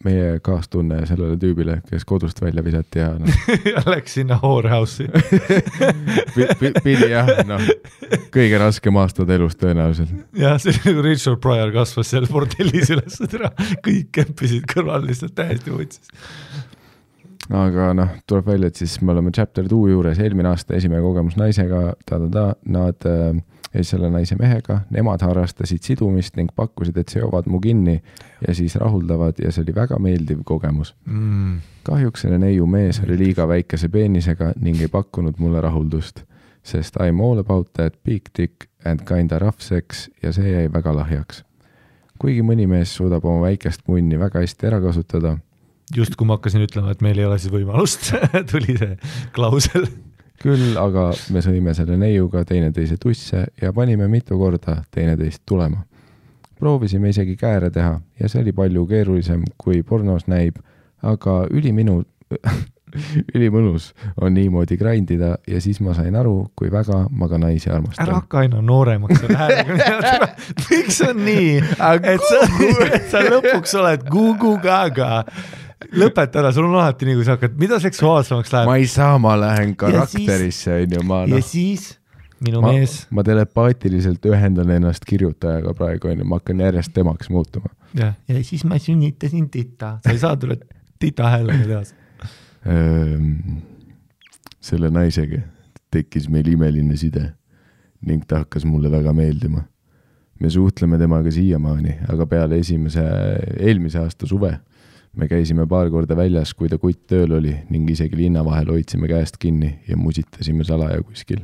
Meie kaastunne sellele tüübile, kes kodust välja visati ja ja läks sinna whorehouse'i. Pidi jah, kõige raskem aastad elus tõenäoliselt. Ja see nagu Richard Pryor kasvas seal bordellis üles, kõik kämpisid kõrval lihtsalt täiesti võtsis. Aga tuleb välja, et siis me oleme chapter 2 juures, eelmine aasta esimene kogemus naisega, nad selle naise mehega, nemad harrastasid sidumist ning pakkusid, et seovad mu kinni ja siis rahuldavad ja see oli väga meeldiv kogemus. Kahjuks selle neiu mees oli liiga väikese peenisega ning ei pakkunud mulle rahuldust, sest I'm all about that big dick and kinda rough sex ja see jäi väga lahjaks. Kuigi mõni mees suudab oma väikest munni väga hästi ära kasutada. Just kui ma hakkasin ütlema, et meil ei ole siis võimalust, tuli see klausel. Küll, aga me sõime selle neiuga teineteise tusse ja panime mitu korda teineteist tulema. Proovisime isegi kääre teha ja see oli palju keerulisem, kui pornos näib, aga ülimõnus on niimoodi grindida ja siis ma sain aru, kui väga ma ka naisi armastan. Ära hakka aina nooremaks selle häälega. Miks on nii, et sa lõpuks oled gugu-gaga? Lõpeta ära, sul on alati nii, kui sa hakkad, mida seksuaalsemaks läheb? Ma ei saa, ma lähen karakterisse. Ja siis minu mees... Ma telepaatiliselt ühendan ennast kirjutajaga praegu, ma hakkan järjest temaks muutuma. Ja siis ma sünnitasin tita. Sa ei saa tulla tita häälega teas. Selle naisega tekkis meil imeline side ning ta hakkas mulle väga meeldima. Me suhtleme temaga siiamaani, aga peale eelmise aasta suve me käisime paar korda väljas, kui ta kutt tööl oli ning isegi linna vahel hoidsime käest kinni ja musitasime salaja kuskil.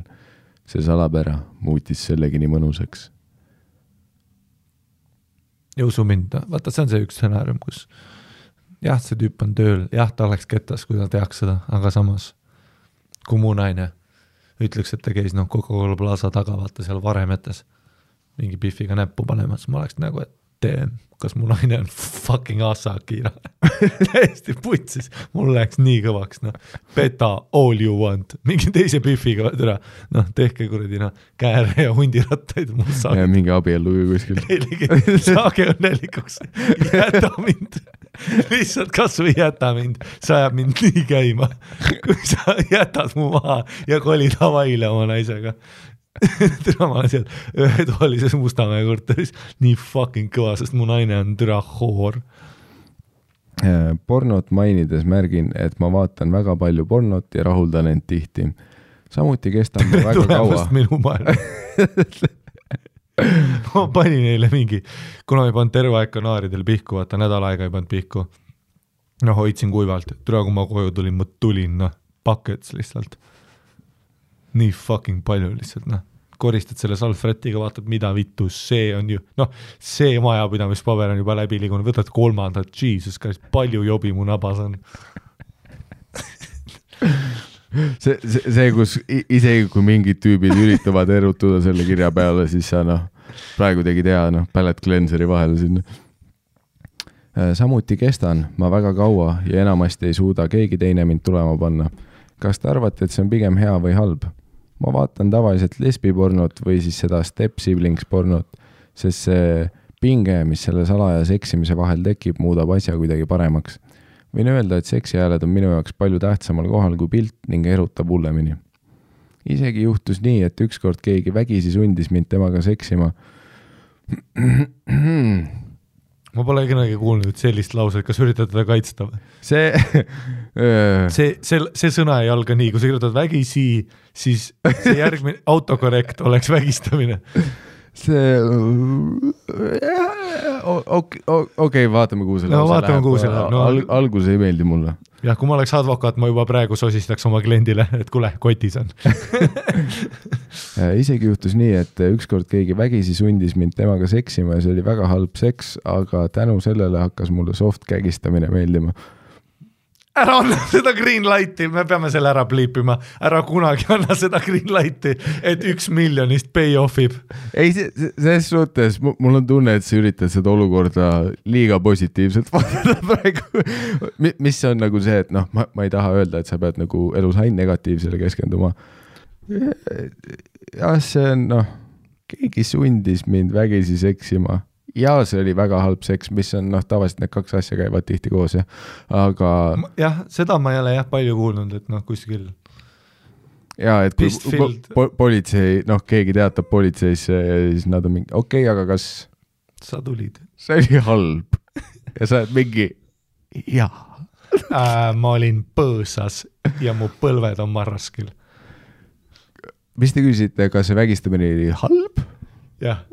See salapära muutis sellegi nii mõnusaks. Ja usu mind, vaata, see on see üks stsenaarium, kus jah, see tüüp on tööl, jah, ta oleks kettas, kui ta teaks seda, aga samas, kui mu naine ütleks, et ta käis Coca-Cola Plaza taga, vaata seal varemetes mingi piffiga näppu panemas, ma oleks nagu, et kas mu naine on fucking Asakira. Täiesti putsis. Mul läheks nii kõvaks. Beta all you want. Mingi teise piffiga. Tehke kuradi kääre ja hundirattaid. Ja mingi abiellu kuskil. Saage õnnelikuks. Jäta mind. Lihtsalt kas või jäta mind. Sa ajab mind nii käima. Kui sa jätad mu maha ja kolid Havaile oma naisega. Türa ma olen seal ühetoalises Mustamäe korteris nii fucking kõva, sest mu naine on türa hoor. Pornot mainides märgin, et ma vaatan väga palju pornot ja rahuldan end tihti. Samuti kestab ma väga kaua. Minu maailma. Ma panin neile mingi, kuna ma ei pannud terve aeg kanaaridel pihku, vaata nädal aega ei pannud pihku. Hoidsin kuivalt. Türa, kui ma koju tulin, ma tulin, buckets lihtsalt. Nii fucking palju lihtsalt, koristad selle salfretiga, vaatad, mida vittu, see on ju, see majapidamispaber on juba läbi liigunud, võtad kolmandat, Jesus Christ, palju jobi mu nabas on. See, kus isegi kui mingid tüübid üritavad erutuda selle kirja peale, siis sa praegu tegid hea pallet cleanseri vahele sinna. Samuti kestan ma väga kaua ja enamasti ei suuda keegi teine mind tulema panna. Kas te arvate, et see on pigem hea või halb? Ma vaatan tavaliselt lesbipornot või siis seda step siblings pornot, sest see pinge, mis selle salaja seksimise vahel tekib, muudab asja kuidagi paremaks. Võin öelda, et seksihääled on minu jaoks palju tähtsamal kohal kui pilt ning erutab hullemini. Isegi juhtus nii, et ükskord keegi vägisi sundis mind temaga seksima. Ma pole kunagi kuulnud sellist lauset, kas üritad teda kaitsta? See sõna ei alga nii, kui sa kirjutad vägisi, siis see järgmine autokorrekt oleks vägistamine. see okei, vaatame, kuhu selle vaatame, kuhu selle läheb. Algus ei meeldi mulle. Jah, kui ma oleks advokaat, ma juba praegu sosistaks oma kliendile, et kuule, kotis on. Isegi juhtus nii, et ükskord keegi vägisi sundis mind temaga seksima ja see oli väga halb seks, aga tänu sellele hakkas mulle soft kägistamine meeldima. Ära anna seda green lighti, me peame selle ära pliipima. Ära kunagi anna seda green lighti, et 1 miljonist pay offib. Ei, selles suhtes, mul on tunne, et sa üritad seda olukorda liiga positiivselt vaadata praegu. Mis on nagu see, et noh, ma ei taha öelda, et sa pead nagu elus ainult negatiivsele keskenduma. Ja see on, noh, keegi sundis mind vägisi seksima. Ja see oli väga halb seks, mis on, noh, tavaliselt need 2 asja käivad tihti koos, jah. Aga... Jah, seda ma ei ole palju kuulnud, et noh, kuskil... Ja, et kui politsei, noh, keegi teatab politseisse ja siis nad on mingi, okei, aga kas... Sa tulid. See oli halb. Ja sa oled mingi, jaa. Ma olin põõsas ja mu põlved on marraskil. Mis te küsite, kas see vägistamine oli halb? Jah.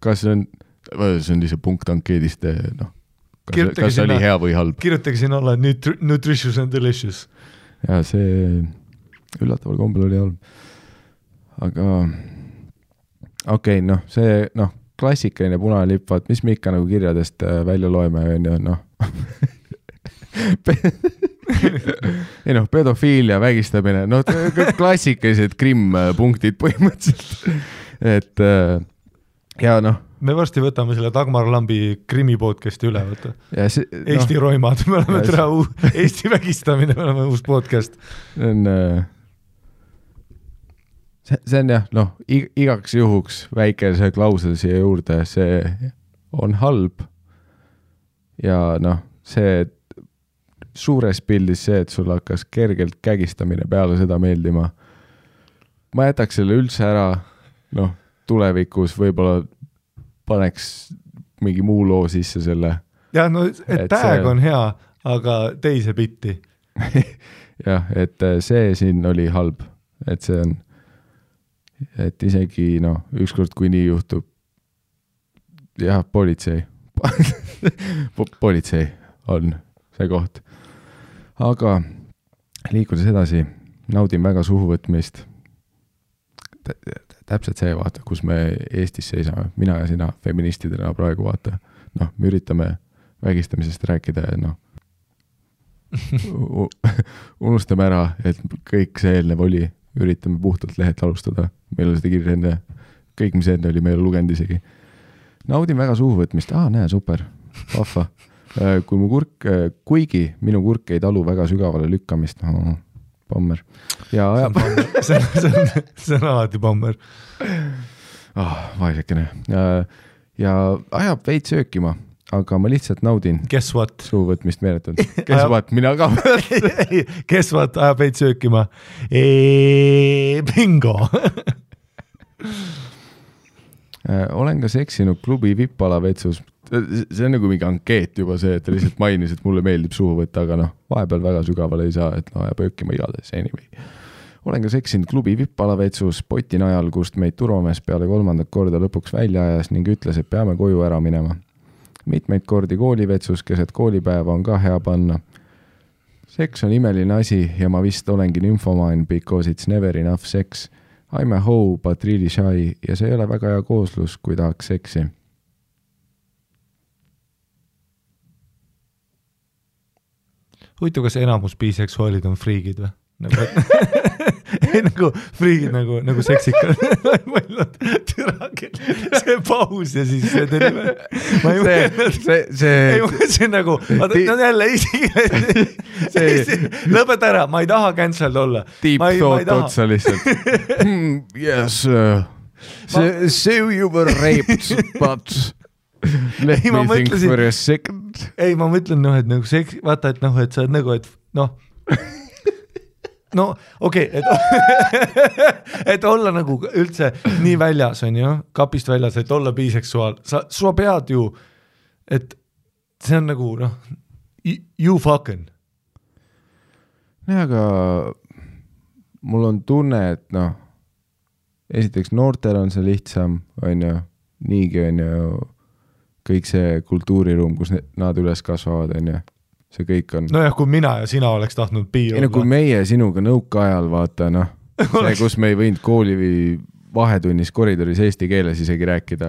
Kas see on lihtsalt punkt ankeedist, noh, kas see oli hea või halb? Kirjutage siin olla nutritious and delicious. Ja see üllataval kombel oli halb. Aga okei, noh, see, noh, klassikaline punane lipp, vaat, mis me ikka nagu kirjadest välja loeme, noh. Ei noh, pedofiilia, vägistamine, noh, klassikalised krimm-punktid põhimõtteliselt. Et ja noh. Me varsti võtame selle Dagmar Lambi krimi podcasti üle, võtta. Eesti roimad, me oleme Eesti vägistamine, me oleme uus podcast. See on jah, noh, igaks juhuks väike see klausel siia juurde, see on halb. Ja noh, see suures pildis see, et sul hakkas kergelt kägistamine peale seda meeldima. Ma jätaks selle üldse ära, noh, tulevikus võib-olla paneks mingi muu loo sisse selle. Ja no, et tag on hea, aga teise bitti. Jah, et see siin oli halb, et see on, et isegi, noh, ükskord kui nii juhtub, jah, politsei. Politsei on see koht. Aga liikudes edasi, naudin väga suhuvõtmist. Täpselt see, vaata, kus me Eestis seisame, mina ja sina feministidena praegu, vaata. Noh, me üritame vägistamisest rääkida ja noh, unustame ära, et kõik see eelnev oli, üritame puhtalt lehelt alustada. Meil oli seda kirja enne, kõik mis enne oli, meil lugenud isegi. Naudin väga suhuvõtmist, näe, super, vahva. Kui mu kuigi minu kurk ei talu väga sügavale lükkamist, pommer. Ja ajab... see on alati pommer. Vaesekene. Ja ajab veid söökima, aga ma lihtsalt naudin. Guess what? Suuvõtmist meeletund. Guess what? Mina ka. Guess what? Ajab veid söökima. Bingo! Olen ka seksinud klubi vippala vetsus. See on nagu mingi ankeet juba see, et ta lihtsalt mainis, et mulle meeldib suhu võtta, aga noh, vahepeal väga sügavale ei saa, et no ja pöökima igades, anyway. Olen ka seksinud klubi vippala vetsus poti najal, kust meid turvamees peale 3. korda lõpuks välja ajas ning ütles, et peame koju ära minema. Mitmeid kordi koolivetsus, keset koolipäeva on ka hea panna. Seks on imeline asi ja ma vist olengi nymphomine because it's never enough sex. I'm a hoe, but really shy ja see ei ole väga hea kooslus, kui tahaks seksi. Huvitav, kas enamus biseksuaalid on friigid või? Nagu friigid, nagu seksikad. See paus ja siis see tuli. See on nagu, jälle lõpeta ära, ma ei taha cancelled olla. Deep thought otsa lihtsalt. Yes, so you were raped, but... Let me think for a second. Ei, ma mõtlen, noh, et nagu seks, vaata, et noh, et sa oled nagu, et noh, no okei, et olla nagu üldse nii väljas, on ju, kapist väljas, et olla biseksuaal, sa pead ju, et see on nagu, noh, you fucking. Nee, aga mul on tunne, et noh, esiteks noortel on see lihtsam, on ju, niigi on ju kõik see kultuuriruum, kus nad üles kasvavad, on ju, see kõik on. Nojah, kui mina ja sina oleks tahtnud piir olla. Kui meie sinuga nõukaajal vaata, noh, see, kus me ei võinud kooli või vahetunnis koridoris eesti keeles isegi rääkida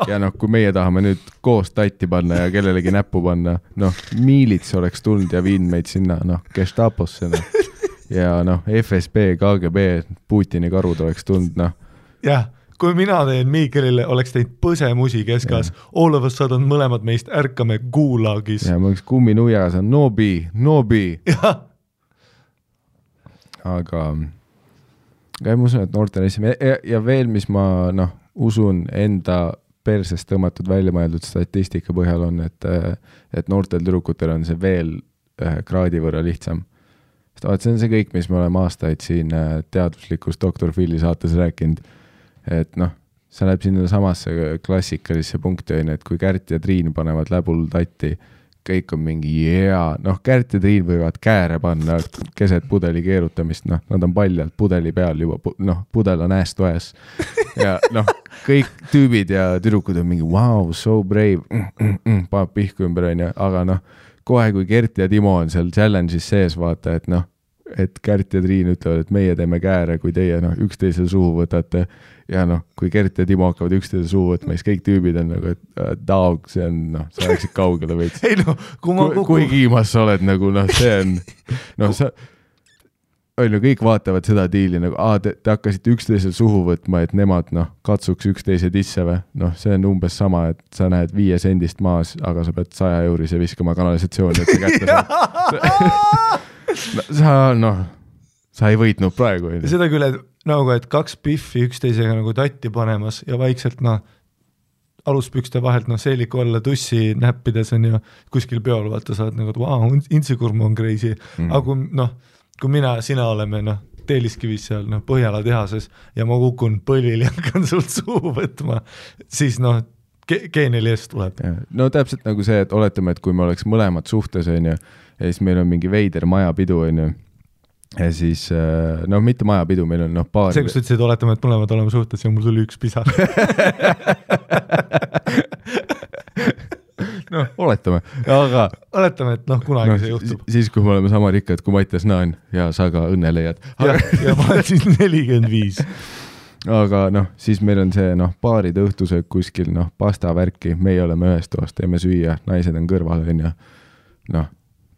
ja noh, kui meie tahame nüüd koos tatti panna ja kellelegi näppu panna, noh, miilits oleks tulnud ja viinud meid sinna, noh, Gestaposse, noh, ja noh, FSB, KGB, Putini karud oleks tulnud, noh. Jah, kui mina teen Miikelile, oleks teinud põsemusi keskas, all of a sudden mõlemad meist ärkame Gulagis. Ja ma oleks kumminuias, nobi. Jah. Aga ma usun, et noortel ja veel, mis ma usun enda persest tõmmatud välja mõeldud statistika põhjal on, et noortel tüdrukutel on see veel kraadi võrra lihtsam. See on see kõik, mis me oleme aastaid siin teaduslikus Dr. Phil'i saates rääkinud, et sa läheb sinna samasse klassikalisse punkti, et kui Kärt ja Triin panevad läbul tatti, kõik on mingi Kärt ja Triin võivad kääre panna keset pudeli keerutamist, nad on paljalt pudeli peal juba, pudel on ass to ass ja kõik tüübid ja tüdrukud on mingi wow, so brave, paneb pihku ümber, aga kohe kui Gert ja Timo on seal challenge'is sees, vaata, et Kärt ja Triin ütlevad, et meie teeme kääre, kui teie üksteisel suhu võtate ja kui Gert ja Timo hakkavad üksteisel suhu võtma, siis kõik tüübid on et dog, see on, sa läksid kaugele veits. Ei kui kiimas sa oled, see on, sa kõik vaatavad seda diili, te hakkasite üksteisel suhu võtma, et nemad katsuks üksteise tisse või, see on umbes sama, et sa näed 5 sendist maas, aga sa pead 100 eurise viskama kanalisatsiooni, et sa kätte sa ei võitnud praegu. Seda küll, et 2 piffi üksteisega tatti panemas ja vaikselt aluspükste vahelt seeliku alla tussi näppides on ju kuskil peol, vaata saad wow, intsikurm on crazy, aga kui mina ja sina oleme Teeliskivis seal Põhjala tehases ja ma kukun põlvil ja hakkan sult suhu võtma, siis geeniliest tuleb. No täpselt nagu see, et oletame, et kui me oleks mõlemad suhtes on ju, ja siis meil on mingi veider majapidu on ju, ja siis, mitte majapidu, meil on paar... See, kus ütlesid, oletame, et mõlemad oleme suhtes ja mul tuli üks pisar. Oletame, aga... Oletame, et kunagi see juhtub. Siis, kui me oleme sama rikkad, kui Mattias Naan ja sa ka õnne leiad. Ja ma olen siis 45. Aga siis meil on see paarid õhtusöök kuskil, pasta värki, meie oleme ühes toas, teeme süüa, naised on kõrval, on ju,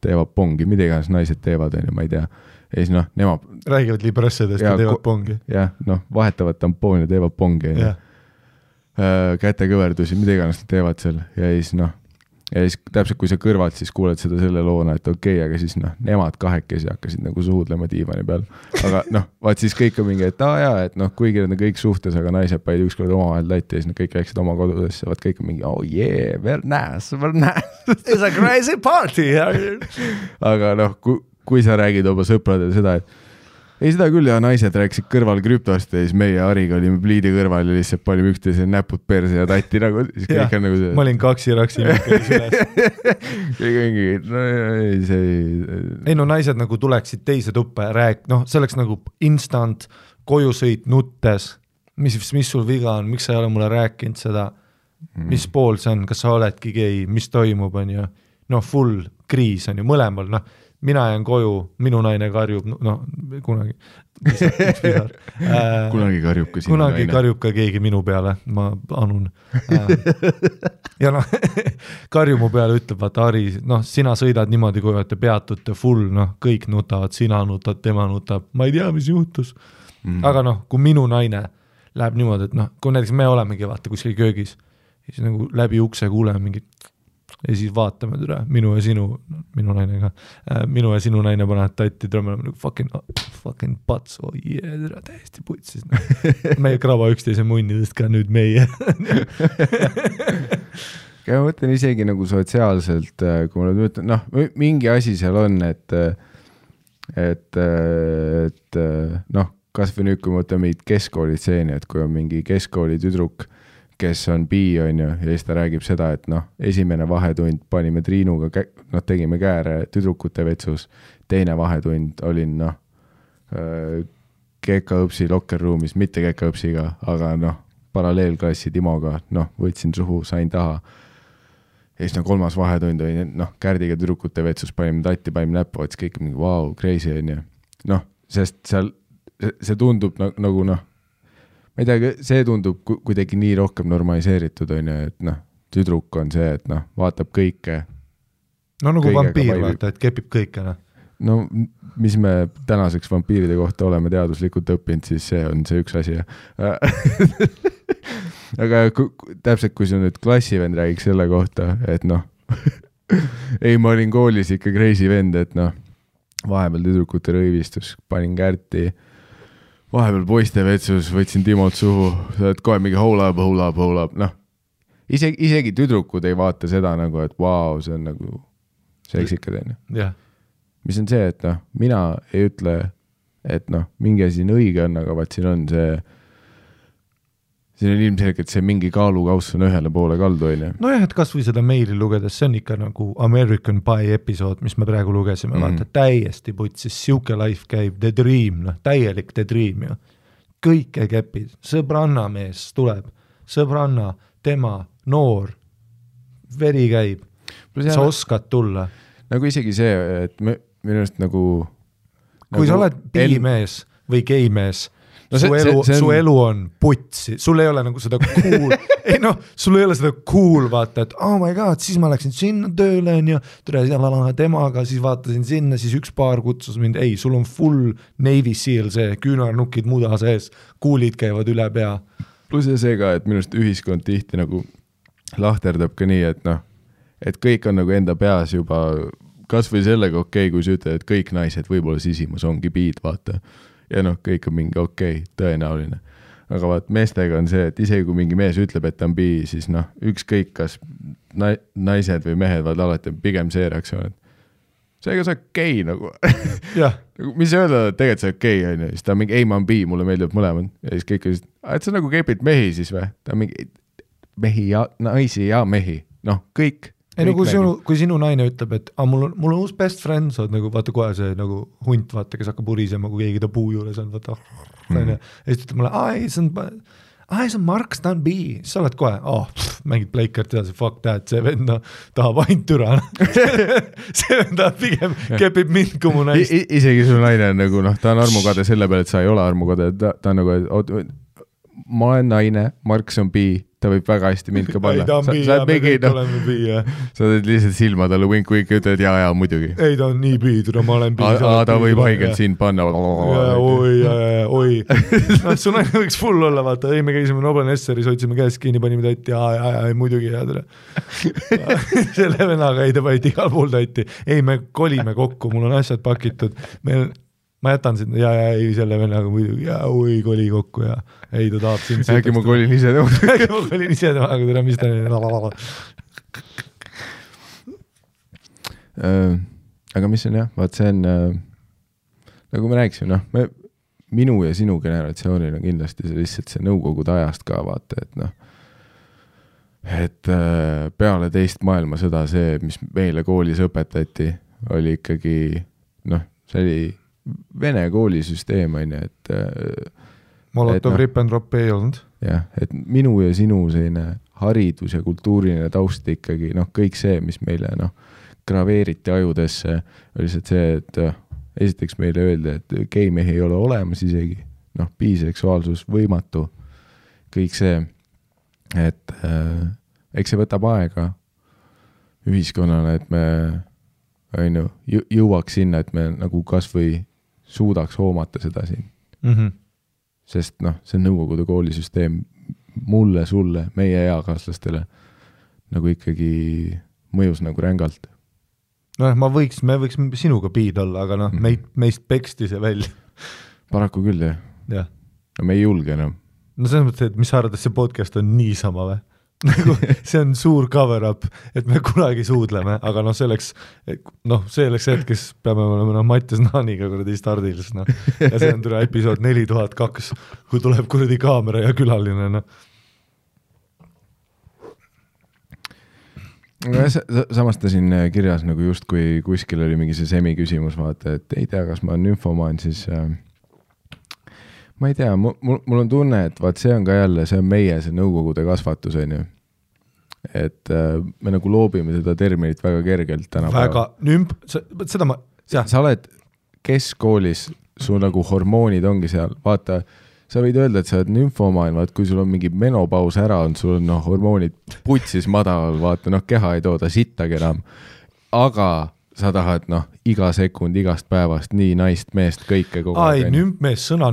teevad pongi, mida iganes naised teevad, on ju, ma ei tea. Ja siis nemad... Räägivad librassedest ja teevad pongi. Jah, vahetavad tampooni ja teevad pongi. Kätekõverdusi, mida iganes nad teevad seal. Ja siis täpselt kui sa kõrvalt siis kuuled seda selle loona, et okei, aga siis nemad kahekesi hakkasid suhudlema diivani peal. Aga vaat siis kõik on mingi, et et kuigi nad on kõik suhtes, aga naised paid ükskord omavahel tatti ja siis kõik läksid oma kodudesse. Vaat kõik on mingi, oh yeah, very nice. It's a crazy party. Aga kui sa räägid oma sõpradele seda, et ei seda küll ja naised rääkisid kõrval krüptost ja siis meie Ariga olime pliidi kõrval ja lihtsalt panime üksteise näpud perse ja tatti siis kõik on see. Ma olin kaksi-raksi üles. Kõik ongi, ei naised tuleksid teise tuppa ja see oleks instant kojusõit nuttes, mis sul viga on, miks sa ei ole mulle rääkinud seda, mis pool see on, kas sa oledki gei, mis toimub, on ju, full kriis on ju mõlemal, mina jään koju, minu naine karjub, kunagi kunagi karjub ka sinu naine. Kunagi karjub ka keegi minu peale, ma anun. Ja karju mu peale ütleb, vaata Ari, sina sõidad niimoodi, kui olete peatute full, kõik nutavad, sina nutad, tema nutab, ma ei tea, mis juhtus. Aga kui minu naine läheb niimoodi, et kui näiteks me olemegi vaata kuskil köögis, siis läbi ukse kuuleme mingit ja siis vaatame türa, minu ja sinu naine panevad tatti, türa me oleme fucking pats, oh yeah, türa täiesti putsis. Meie kraba üksteise munnidest ka nüüd meie. Ma mõtlen isegi sotsiaalselt, kui ma ütlen, mingi asi seal on, et kas või nüüd, kui ma mõtlen meid keskkoolitseeni, et kui on mingi keskkooli tüdruk, kes on bi, on ju, ja siis ta räägib seda, et esimene vahetund panime Triinuga, tegime kääre tüdrukute vetsus, teine vahetund olin, Kekaõpsi lokkerruumis, mitte Kekaõpsiga, aga noh, paralleelklassi Timoga, noh, võtsin suhu, sain taha. Ja siis kolmas vahetund oli, noh, Kärdiga tüdrukute vetsus panime tatti, panime näppu, ots kõik mingi wow, crazy on ju. Noh, sest seal see tundub nagu noh, ma ei tea, see tundub kuidagi nii rohkem normaliseeritud on ju, et noh, tüdruk on see, et noh, vaatab kõike. No nagu vampiir vaata, et kepib kõike, noh. No mis me tänaseks vampiiride kohta oleme teaduslikult õppinud, siis see on see üks asi. Aga täpselt, kui see nüüd klassivend räägiks selle kohta, et noh, ei, ma olin koolis ikka crazy vend, et noh, vahepeal tüdrukute rõivistus, panin Kärti, vahepeal poiste vetsus, võtsin Timot suhu, sa oled kohe mingi hold up, noh, isegi tüdrukud ei vaata seda nagu, et vau, see on nagu seksikad, on ju. Jah. Mis on see, et noh, mina ei ütle, et noh, mingi asi on õige on, aga vaat siin on ilmselgelt see mingi kaalukauss on ühele poole kaldu, on ju. No jah, et kas või seda meili lugedes, see on ikka nagu American Pie episood, mis me praegu lugesime, vaata, täiesti putsis, siuke life käib, the dream, noh, täielik the dream ju. Kõike käpid, sõbranna mees tuleb, sõbranna, tema, noor, veri käib, sa oskad tulla. Nagu isegi see, et minu arust nagu kui sa oled biimees või geimees, no su elu on putsi, sul ei ole nagu seda cool, ei noh, sul ei ole seda cool vaata, et oh my god, siis ma läksin sinna tööle ja temaga, siis vaatasin sinna, siis üks paar kutsus mind, ei, sul on full Navy Seal see, küünarnukid muda sees, kuulid käivad üle pea. Plus see ka, et minu arust ühiskond tihti nagu lahterdab ka nii, et noh, et kõik on nagu enda peas juba kas või sellega okei, kui sa ütled, et kõik naised võib-olla sisimas ongi biid, vaata. Ja noh, kõik on mingi okei, tõenäoline. Aga vaat meestega on see, et isegi kui mingi mees ütleb, et ta on bii, siis noh, ükskõik kas naised või mehed vaid alati pigem see reaktsioon, et seega sa okei nagu. Mis öelda, et tegelikult sa okei, on ju. Siis ta on mingi, ei, ma on bii, mulle meeldib mõlemad. Ja siis kõik on, et sa nagu kepid mehi siis või? Ta on mingi mehi ja naisi ja mehi. Noh, kõik. Ei no kui sinu naine ütleb, et mul on uus best friend, sa oled nagu, vaata kohe see nagu hunt, vaata, kes hakkab urisema, kui keegi ta puu juures on, vaata, ja siis ütleb mulle, see on Mark, ta on B, sa oled kohe, mängid pleikart edasi, fuck that, see vend tahab ainult türa. See vend tahab pigem kepib mind, kui mu naist. Isegi sul naine on nagu, noh, ta on armukade selle peale, et sa ei ole armukade, ta on nagu, ma olen naine, Marks on B, ta võib väga hästi mind ka panna. Ei, ta on B, ja me kõik oleme B, jah. Sa oled lihtsalt silma talle wink ja ütled, jaa, muidugi. Ei, ta on nii B, ma olen B. Ta võib haigelt sind panna. Oi. Su naine võiks full olla, vaata, ei, me käisime Nobel Nesseris, hoidsime käest kinni, panime tatti, jaa, muidugi, jaa. Selle venaga ei, ta panid igal pool tatti. Ei, me kolime kokku, mul on asjad pakitud. Ma jätan sind, ei, selle vennaga muidugi, oi, koli kokku ja ei, ta tahab sind. Äkki ma kolin ise temaga, tere, mis ta aga mis on jah, vaat see on nagu me rääkisime, noh, minu ja sinu generatsioonil on kindlasti see lihtsalt see nõukogude ajast ka vaata, et noh, et peale teist maailmasõda see, mis meile koolis õpetati, oli ikkagi, noh, see oli Vene koolisüsteem on ju, et Molotov rip and drop ei olnud. Jah, et minu ja sinu selline haridus ja kultuuriline taust ikkagi, noh, kõik see, mis meile noh, graveeriti ajudesse, oli lihtsalt see, et esiteks meile öeldi, et geimehi ei ole olemas isegi, noh, biseksuaalsus võimatu, kõik see, et eks see võtab aega ühiskonnale, et me on ju, jõuaks sinna, et me nagu kas või suudaks hoomata seda siin. Sest noh, see nõukogude koolisüsteem mulle, sulle, meie eakaaslastele nagu ikkagi mõjus nagu rängalt. No me võiks sinuga biid olla, aga noh, meist peksti see välja. Paraku küll, jah. No me ei julge enam. No selles mõttes, et mis sa arvad, et see podcast on niisama või? Nagu, see on suur cover up, et me kunagi suudleme, aga noh, selleks hetkes peame olema Mattias Naaniga kuradi stardilis, noh. Ja see on tule episood 4002, kui tuleb kuradi kaamera ja külaline, noh. Samas ta siin kirjas nagu just kui kuskil oli mingi see semi küsimus, vaata, et ei tea, kas ma olen nymfomaan, siis ma ei tea, mul on tunne, et vaat see on ka jälle, see on meie, see nõukogude kasvatus, on ju. Et me nagu loobime seda terminit väga kergelt tänapäeval. Seda ma... Sa oled keskkoolis, su nagu hormoonid ongi seal, vaata, sa võid öelda, et sa oled nümfomaan, vaat kui sul on mingi menopaus ära on, sul on hormoonid putsis madalal, vaata, keha ei tooda sittagi enam, aga sa tahad, iga sekund, igast päevast, nii naist, meest, kõike kogu aeg. Nümpmees, sõna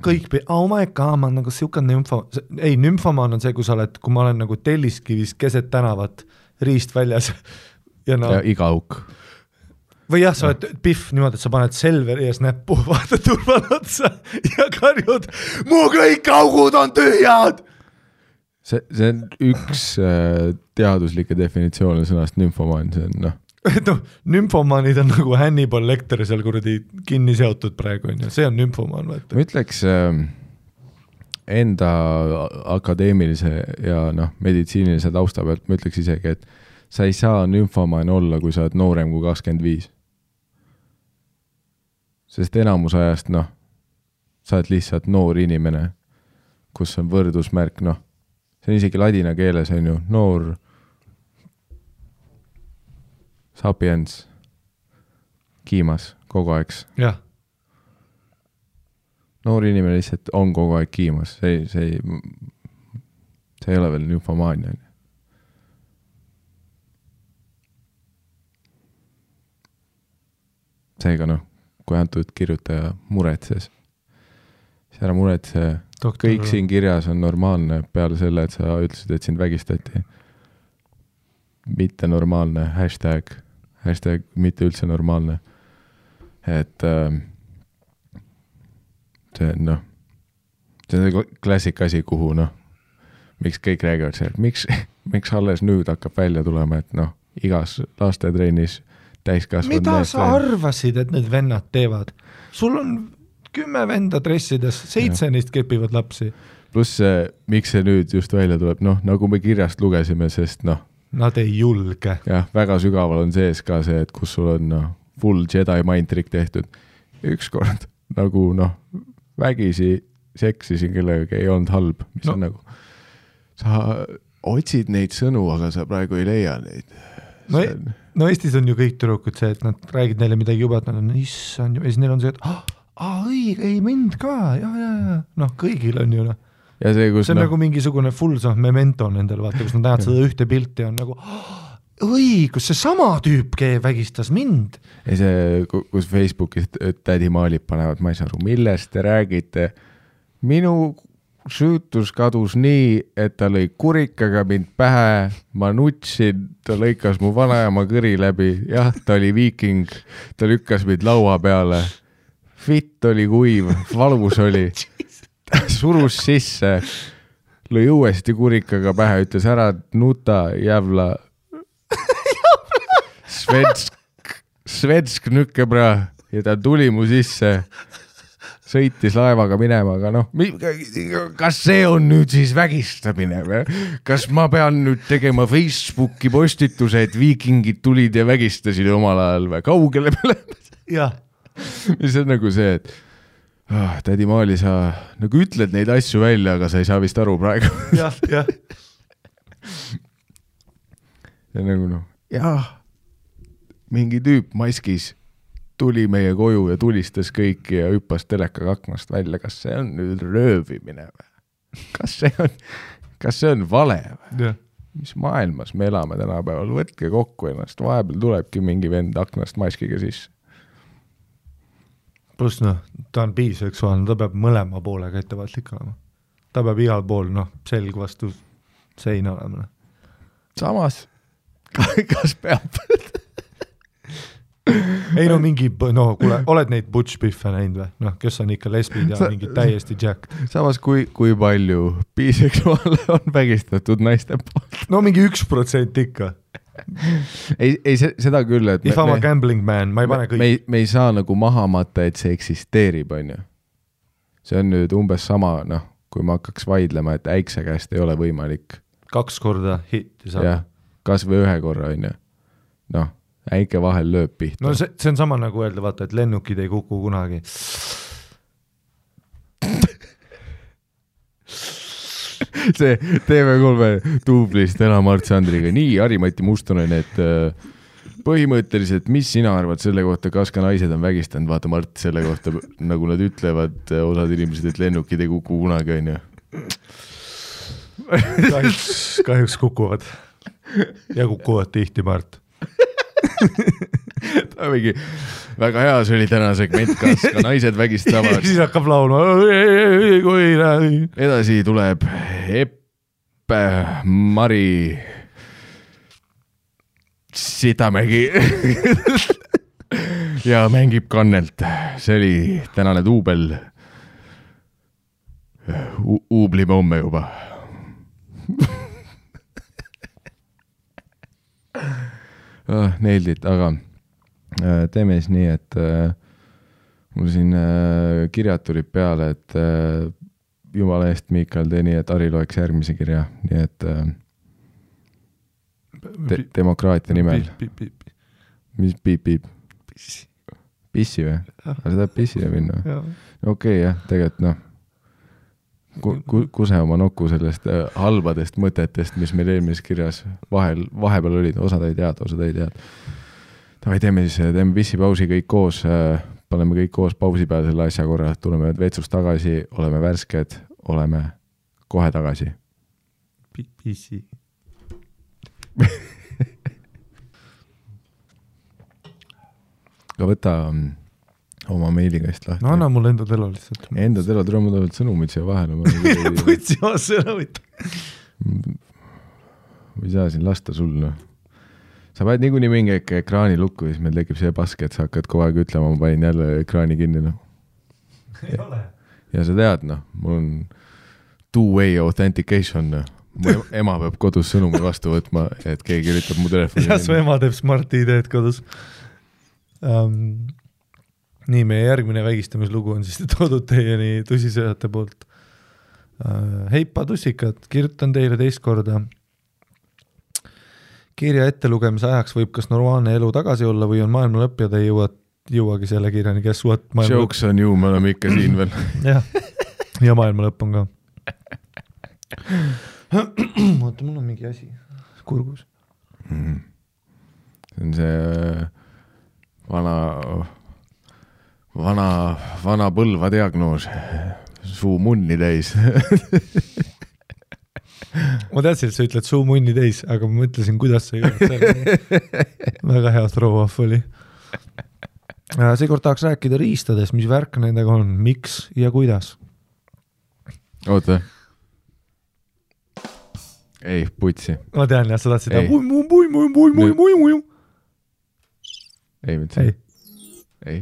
kõik, oh my god, ma nagu siuke nümfomaan on see, kui ma olen nagu Telliskivis keset tänavat riist väljas ja iga auk. Või jah, sa oled pihv niimoodi, et sa paned Selveri ees näppu, vaata turval otsa ja karjud, mu kõik augud on tühjad! See on üks teaduslikke definitsioone sõnast nümfomaan, see on nümfomaanid on nagu Hannibal Lecter seal kuradi kinni seotud praegu, see on nümfomaan. Vaata. Ma ütleks enda akadeemilise ja meditsiinilise tausta pealt, ma ütleks isegi, et sa ei saa nümfomaan olla, kui sa oled noorem kui 25. Sest enamus ajast, sa oled lihtsalt noor inimene, kus on võrdusmärk, see on isegi ladina keeles, on ju, noor sapiens, kiimas kogu aeg. Jah. Noor inimene lihtsalt on kogu aeg kiimas, see ei ole veel nümfomaania. Seega kui antud kirjutaja muretses, siis ära muretse, kõik siin kirjas on normaalne peale selle, et sa ütlesid, et sind vägistati. Mitte normaalne, hashtag mitte üldse normaalne. Et see on klassik asi, kuhu miks kõik räägivad see, et miks alles nüüd hakkab välja tulema, et igas lastetrennis täiskasvanud. Mida sa arvasid, et need vennad teevad? Sul on 10 venda dressides, 7 neist kepivad lapsi. Pluss miks see nüüd just välja tuleb, nagu me kirjast lugesime, sest nad ei julge. Jah, väga sügaval on sees ka see, et kus sul on full Jedi mind trick tehtud. Ükskord nagu vägisi seksisin kellega ei olnud halb, mis on nagu sa otsid neid sõnu, aga sa praegu ei leia neid. Eestis on ju kõik tüdrukud see, et nad räägid neile midagi juba, et nad on issand ju, ja siis neil on see, et õige, ei mind ka, ja. Kõigil on ju Ja see on nagu mingisugune full memento nendel, vaata, kus nad näevad seda ühte pilti on nagu õigus, see sama tüüp vägistas mind. Ja see, kus Facebookis tädi maalib panevad, ma ei saa aru, millest te räägite. Minu süütus kadus nii, et ta lõi kurikaga mind pähe, ma nutsin, ta lõikas mu vanaema kõri läbi, jah, ta oli viiking, ta lükkas mind laua peale, fitt oli kuiv, valus oli. Surus sisse, lõi uuesti kurikaga pähe, ütles ära nuta, jävla. Svensk nükkebra ja ta tuli mu sisse, sõitis laevaga minema, aga kas see on nüüd siis vägistamine või? Kas ma pean nüüd tegema Facebooki postituse, et viikingid tulid ja vägistasid omal ajal või? Kaugele peale? Jah. Mis on nagu see, et tädi Maali, sa nagu ütled neid asju välja, aga sa ei saa vist aru praegu. Jah. Ja nagu mingi tüüp maskis tuli meie koju ja tulistas kõiki ja hüppas telekaga aknast välja. Kas see on nüüd röövimine või? Kas see on vale või? Ja. Mis maailmas me elame tänapäeval? Võtke kokku ennast. Vahepeal tulebki mingi vend aknast maskiga sisse. Plus ta on biseksuaalne, ta peab mõlema poolega ettevaatlik olema. Ta peab igal pool, selg vastu seina olema. Samas, kas peab? Ei mingi, kuule, oled neid butch biffe näinud või? Kes on ikka lesbid ja mingi täiesti jacked. Samas, kui palju biseksuaale on vägistatud naiste poolt? Mingi 1% ikka. Ei seda küll, et If I'm a gambling man, ma ei pane kõik. Me ei saa nagu maha matta, et see eksisteerib, on ju. See on nüüd umbes sama, kui ma hakkaks vaidlema, et äikse käest ei ole võimalik. 2 korda hitti saab. Jah, kas või 1 korra, on ju. Äike vahel lööb pihta. See on sama nagu öelda, vaata, et lennukid ei kuku kunagi. see TV3 duublist Ela-Mart Sandriga. Nii, Harri-Mati Mustonen, et põhimõtteliselt, mis sina arvad selle kohta, kas ka naised on vägistanud? Vaata, Mart, selle kohta, nagu nad ütlevad, osad inimesed, et lennukid ei kuku kunagi, on ju. Kahjuks kukuvad. Ja kukuvad tihti, Mart. Ta mingi, väga hea, see oli täna segment, kas ka naised vägistavad. Siis hakkab laulma. Edasi tuleb Eppe Mari Sidamägi ja mängib kannelt. See oli tänane duubel. Uublime homme juba. Nailed it, aga teeme siis nii, et mul siin kirjad tulid peale, et jumala eest, Miikal, tee nii, et Harri loeks järgmise kirja, nii et demokraatia nimel. Mis piip? Pissi või? Sa tahad pissile minna? Okei, jah, tegelikult kuse oma nokku sellest halbadest mõtetest, mis meil eelmises kirjas vahepeal olid, osad ei teada. Tavai, teeme pissipausi kõik koos, paneme kõik koos pausi peale selle asja korra, tuleme vetsust tagasi, oleme värsked, oleme kohe tagasi. Pissi. Aga võta oma meilikäist lahti. No anna mulle enda telo lihtsalt. Enda telo, tule mul tulevad sõnumid siia vahele. Võtsi oma sõnumid. Või saa siin lasta sul, no. Sa paned niikuinii mingi ekraani lukku, siis meil tekib see paske, et sa hakkad kogu aeg ütlema, ma panin jälle ekraani kinni, no. Ei ole. Ja sa tead, no, mul on two-way authentication, no. Mu ema peab kodus sõnumi vastu võtma, et keegi üritab mu telefoni. Ja su ema teeb Smart ID-d kodus. Nii, meie järgmine vägistamislugu on siis toodud teieni tõsisõjate poolt. Heipa tussikad, kirjutan teile teist korda. Kirja ettelugemise ajaks võib kas normaalne elu tagasi olla või on maailma lõpp ja te jõuagi selle kirjani, kes suht maailma lõpp. Jokes on ju, me oleme ikka siin veel. Ja maailma lõpp on ka. Oota, mul on mingi asi kurgus. See on see vana põlva diagnoos. Suu munni täis. Ma teadsin, et sa ütled suu munni täis, aga ma mõtlesin, kuidas sa jõud. Väga hea throw-off oli. Seekord tahaks rääkida riistades, mis värk nendega on, miks ja kuidas. Oota. Ei, putsi. Ma tean, jah, sa tahtsid Ei, mitte see. Ei.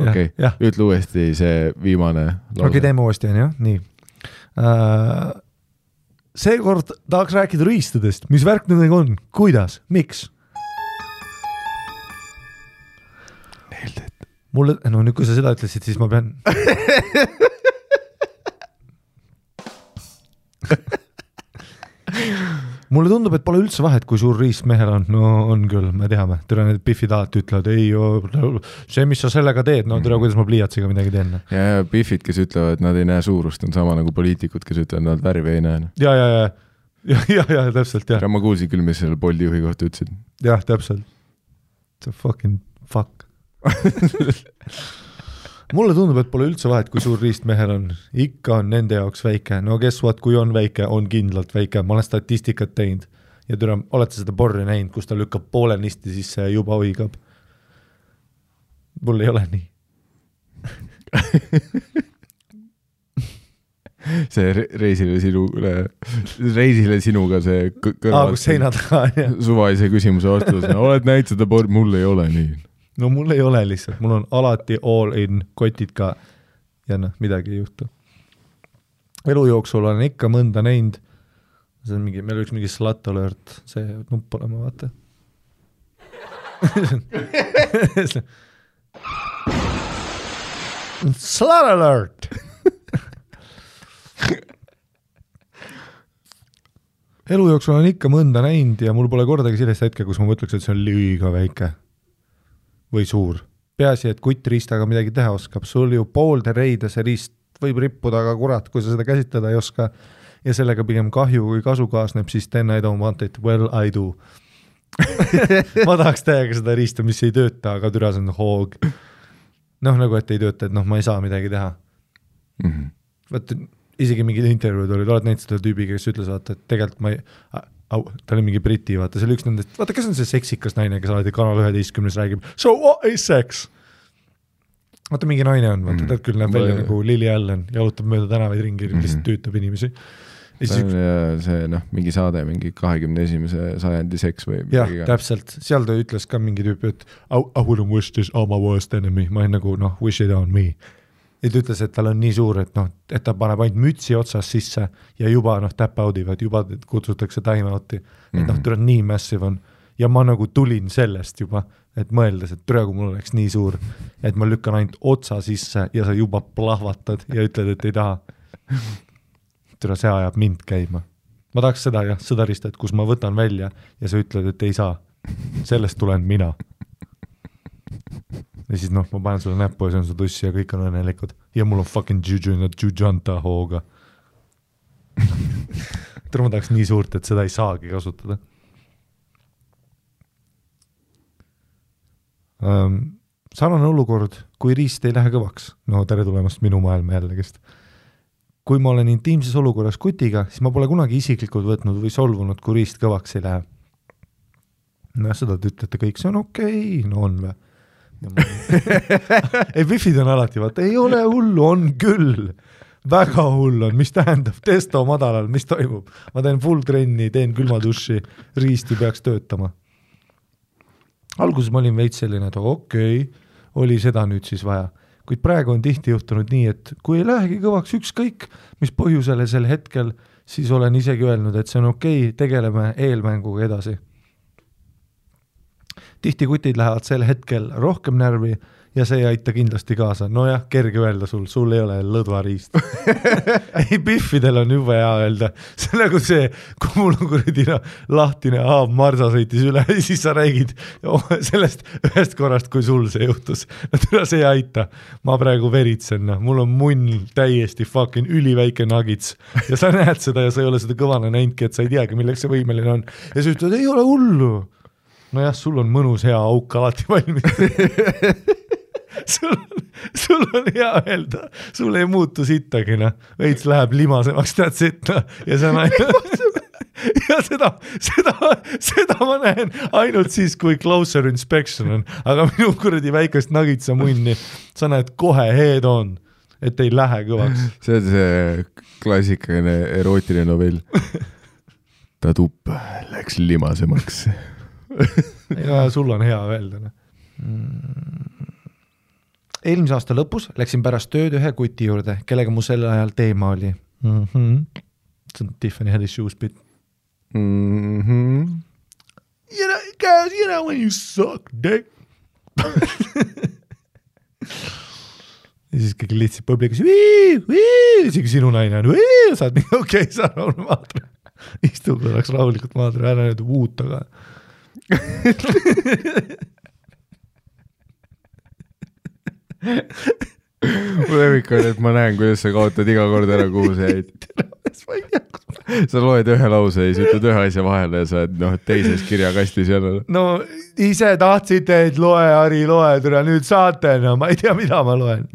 Okei, ütle uuesti see viimane lause. Okei, teeme uuesti, on jah? Nii. Seekord tahaks rääkida riistadest, mis värk nendega on, kuidas, miks? Mulle, no nüüd kui sa seda ütlesid, siis ma pean... Mulle tundub, et pole üldse vahet, kui suur riist mehel on. No on küll, me teame. Türa need Biffid alati ütlevad, ei, see, mis sa sellega teed, no türa, kuidas ma pliiatsiga midagi teen. Ja Biffid, kes ütlevad, nad ei näe suurust, on sama nagu poliitikud, kes ütlevad, nad värvi ei näe. Ja, täpselt, jah. Ma kuulsin küll, mis selle Boldi juhi kohta ütlesid. Jah, täpselt. See fucking fuck. Mulle tundub, et pole üldse vahet, kui suur riist mehel on. Ikka on nende jaoks väike. No guess what, kui on väike, on kindlalt väike. Ma olen statistikat teinud. Ja türa, olete seda porri näinud, kus ta lükkab poole nisti, siis see juba hoigab. Mul ei ole nii. See reisile sinuga see kõrval. Kus seina taga on, jah. Suvaise küsimuse vastus. Oled näinud seda porri? Mul ei ole nii. No mul ei ole lihtsalt, mul on alati all in kotid ka ja midagi ei juhtu. Elu jooksul olen ikka mõnda näinud, see on mingi, meil üks mingi slut alert, see nupp olema, vaata. Slut alert! Elu jooksul olen ikka mõnda näinud ja mul pole kordagi sellist hetke, kus ma mõtleks, et see on liiga väike. Või suur. Peaasi, et kutt riistaga midagi teha oskab. Sul ju poolde reide see riist võib rippuda, aga kurat, kui sa seda käsitleda ei oska ja sellega pigem kahju kui kasu kaasneb, siis then I don't want it, well I do. Ma tahaks täiega seda riista, mis ei tööta, aga türa see on hoog. Noh, nagu et ei tööta, et noh, ma ei saa midagi teha. Vaata, isegi mingid intervjuud olid, oled näinud seda tüübi, kes ütles, vaata, et tegelikult ma ei... ta oli mingi briti, vaata, see oli üks nendest, vaata, kes on see seksikas naine, kes alati Kanal 11 räägib, so what is sex? Vaata, mingi naine on, vaata, ta küll näeb välja nagu Lily Allen, jalutab mööda tänavaid ringi, lihtsalt tüütab inimesi. See mingi saade, mingi 21. sajandi seks või jah, täpselt, seal ta ütles ka mingi tüüpi, et I wouldn't wish this on my worst enemy, ma ei nagu, wish it on me. Ja ta ütles, et tal on nii suur, et et ta paneb ainult mütsi otsas sisse ja juba tap out'ivad, juba kutsutakse time out'i, et ta on nii massive on. Ja ma nagu tulin sellest juba, et mõeldes, et türa, kui mul oleks nii suur, et ma lükkan ainult otsa sisse ja sa juba plahvatad ja ütled, et ei taha. Türa, see ajab mind käima. Ma tahaks seda sõdarist, et kus ma võtan välja ja sa ütled, et ei saa. Sellest tulen mina. Ja siis ma panen sulle näppu ja see on su tussi ja kõik on õnnelikud. Ja mul on fucking jujanta hooga. Türa, ma tahaks nii suurt, et seda ei saagi kasutada. Sarnane olukord, kui riist ei lähe kõvaks. No tere tulemast minu maailma jällegist. Kui ma olen intiimses olukorras kutiga, siis ma pole kunagi isiklikult võtnud või solvunud, kui riist kõvaks ei lähe. No seda te ütlete kõik, see on okei, no on või? Ei, Biffid on alati, vaata, ei ole hullu, on küll. Väga hull on, mis tähendab testo madalal, mis toimub? Ma teen full trenni, teen külmaduši, riist ei peaks töötama. Alguses ma olin veits selline, et okei, oli seda nüüd siis vaja. Kuid praegu on tihti juhtunud nii, et kui ei lähegi kõvaks ükskõik, mis põhjusele sel hetkel, siis olen isegi öelnud, et see on okei, tegeleme eelmänguga edasi. Tihti kutid lähevad sel hetkel rohkem närvi ja see ei aita kindlasti kaasa. No jah, kerge öelda sul ei ole lõdvariist. Ei, Biffidel on juba hea öelda. See on nagu see, kui mul on kuridina lahtine marsa sõitis üle ja siis sa räägid sellest ühest korrast, kui sul see juhtus. No see ei aita. Ma praegu veritsen. Mul on munn täiesti fucking üliväike nagits ja sa näed seda ja sa ei ole seda kõvana näinudki, et sa ei teagi, milleks see võimeline on. Ja sa ütled, ei ole hullu. No jah, sul on mõnus hea auk alati valmis. sul on hea öelda. Sul ei muutu sittagi, Veits läheb limasemaks, tead sitta. Ja see on ja seda ma näen ainult siis, kui closer inspection on. Aga minu kuradi väikest nagitsa munni, sa näed kohe head on, et ei lähe kõvaks. See on see klassikaline erootiline novell. Ta tupp läks limasemaks. Ja sul on hea öelda. Eelmise aasta lõpus läksin pärast tööd ühe kuti juurde, kellega mu sel ajal teema oli. See on Tiffany Haddish shoes bit. Guys, you know when you suck dick. Ja siis kõik lihtsalt publikus isegi sinu naine on saad nii okei, sa rahulikult maadra. Istu korraks rahulikult maadra, ära nüüd uut aga. Mu lemmik on, et ma näen, kuidas sa kaotad iga kord ära, kuhu sa jäid. Sa loed ühe lause ja siis ütled ühe asja vahele ja sa oled teises kirjakastis jälle. No ise tahtsite, et loe, Ari, loe, türa, nüüd saate, ma ei tea, mida ma loen.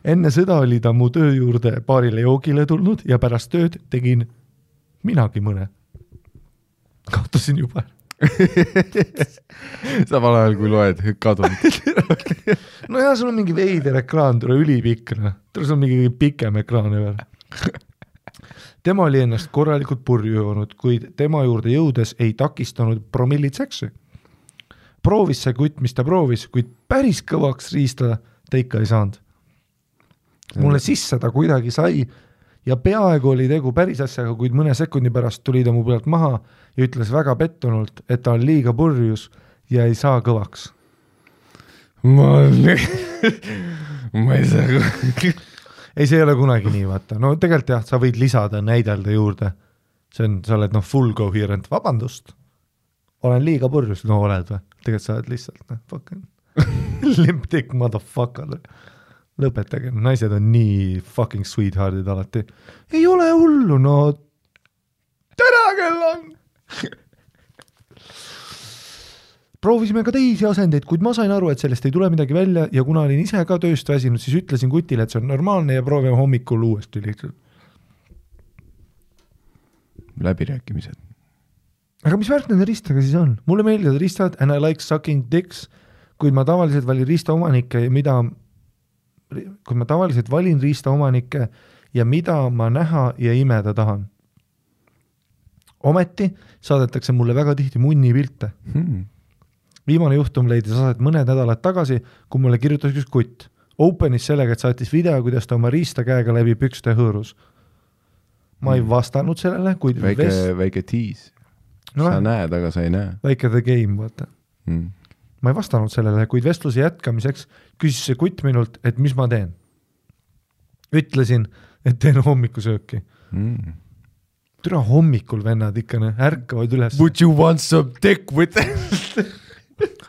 Enne sõda oli ta mu töö juurde paarile joogile tulnud ja pärast tööd tegin minagi mõne. Kaotasin juba. Samal ajal kui loed kadunud. No jah, sul on mingi veider ekraan, tule ülipikk. Sul on mingi pikem ekraan veel. Tema oli ennast korralikult purju joonud, kuid tema juurde jõudes ei takistanud promillid seksi. Proovis see kutt, mis ta proovis, kuid päris kõvaks riistada ta ikka ei saanud. Mulle sisse ta kuidagi sai ja peaaegu oli tegu päris asjaga, kuid mõne sekundi pärast tuli ta mu pealt maha ja ütles väga pettunult, et ta on liiga purjus ja ei saa kõvaks. Ma ei saa Ei, see ei ole kunagi nii, vaata. No tegelikult jah, sa võid lisada, näidelda juurde. See on, sa oled full coherent. Vabandust. Olen liiga purjus. No oled või? Tegelikult sa oled lihtsalt, fucking limp dick motherfucker. lõpetage, naised on nii fucking sweetheart'id alati. Ei ole hullu, no tere kell on! Proovisime ka teisi asendeid, kuid ma sain aru, et sellest ei tule midagi välja ja kuna olin ise ka tööst väsinud, siis ütlesin kutile, et see on normaalne ja proovime hommikul uuesti lihtsalt. Läbirääkimised. Aga mis värk nende ristadega siis on? Mulle meeldivad ristad and I like sucking dicks, kuid ma tavaliselt valin riista omanikke ja mida ma näha ja imeda tahan. Ometi saadetakse mulle väga tihti munni pilte. Viimane juhtum leidis aset mõned nädalad tagasi, kui mulle kirjutas üks kutt. Openis sellega, et saatis video, kuidas ta oma riista käega läbi pükste hõõrus. Ma ei vastanud sellele, kuid väike tiis. Sa näed, aga sa ei näe. Väike the game, vaata. Ma ei vastanud sellele, kuid vestluse jätkamiseks küsis see kutt minult, et mis ma teen. Ütlesin, et teen hommikusööki. Türa hommikul vennad ikka ärkavad üles. Would you want some dick with it?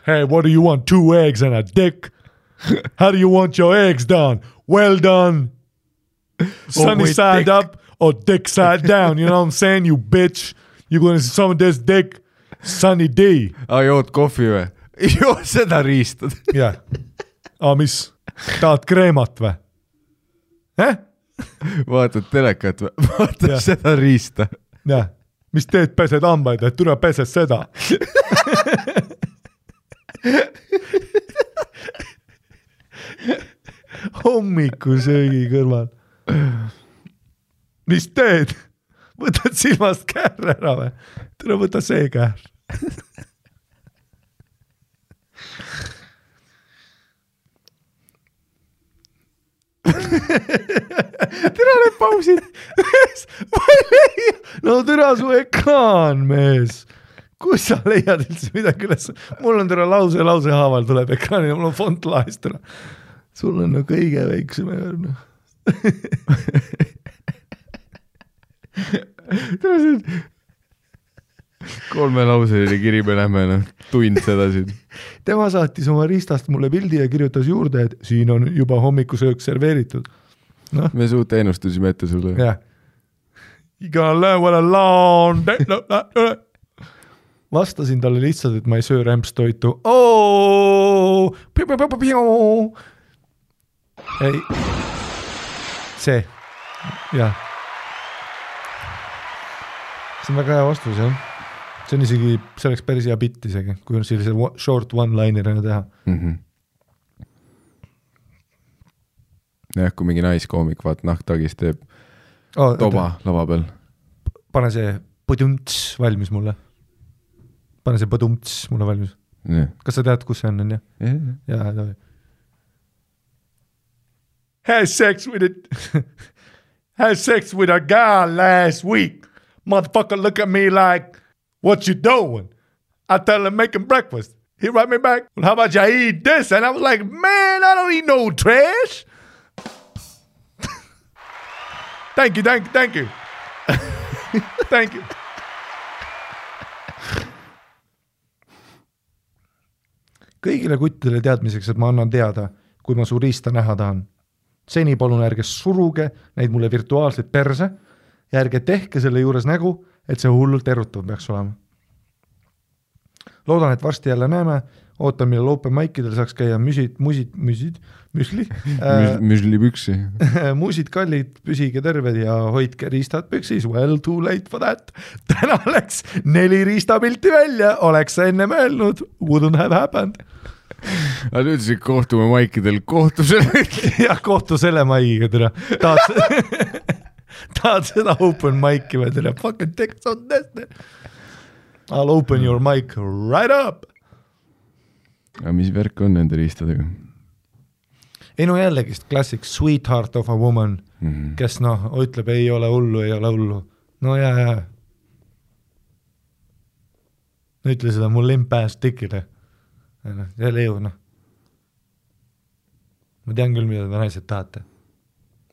Hey, what do you want? 2 eggs and a dick? How do you want your eggs done? Well done. Sunny side dick. Up or dick side down. You know what I'm saying, you bitch? You gonna see some of this dick? Sunny D. Jood kohvi või? Joo, seda riistad. Jah. Mis? Tahad kreemat või? Vaatad telekat või? Vaatad seda riista. Jah. Mis teed, pesed hambaid, et tule pesed seda? Hommikusöögi kõrval. Mis teed? Võtad silmast käär ära või? Tule võta see käär. Tere need pausid. No tere su ekraan, mees. Kus sa leiad üldse midagi üles? Mul on tere lause haaval tuleb ekraanile, mul on font laest tere. Sul on no kõige väiksem ekraan. Tere see 3 lauseline kiri, me lähme tund seda siin. Tema saatis oma riistast mulle pildi ja kirjutas juurde, et siin on juba hommikusöök serveeritud. No. Me suut ennustusime ette sulle. Yeah. You gonna learn what a long day. Vastasin talle lihtsalt, et ma ei söö rämpstoitu. Ei. See. Jah. See on väga hea vastus, jah. See on isegi, see oleks päris hea bitt isegi, kui on sellise short one-linerina teha. Jah, kui mingi naiskoomik vaat nahktagis teeb toba lava peal. Pane see põdumts valmis mulle. Pane see põdumts mulle valmis. Kas sa tead, kus see on, jah? Jah, tohi. Had sex with a guy last week. Motherfucker look at me like, what you doing? I tell him making breakfast. He write me back, well, how about you eat this? And I was like, man, I don't eat no trash. Thank you. Thank you. Kõigile kuttidele teadmiseks, et ma annan teada, kui ma su riista näha tahan. Seni palun ärge suruge neid mulle virtuaalselt perse ja ärge tehke selle juures nägu, et see hullult erutav peaks olema. Loodan, et varsti jälle näeme. Ootan, millal open mic'idel saaks käia müsli. Müslipüksi. Muusid kallid, püsige terved ja hoidke riistad püksis. Well, too late for that. Täna läks 4 riistapilti välja. Oleks sa enne mõelnud. Wouldn't have happened. Aga nüüd siis kohtume maikidel. Kohtu selle. Jah, kohtu selle maigiga tere. Tahad seda open mic'i või tere? Fucking text on this. I'll open your mic right up. Aga mis värk on nende riistadega? Ei no jällegist klassik sweetheart of a woman, kes ütleb ei ole hullu. No jaa. Ütle seda mul limp-ass tikile. Jälle ju, Ma tean küll, mida te naised tahate.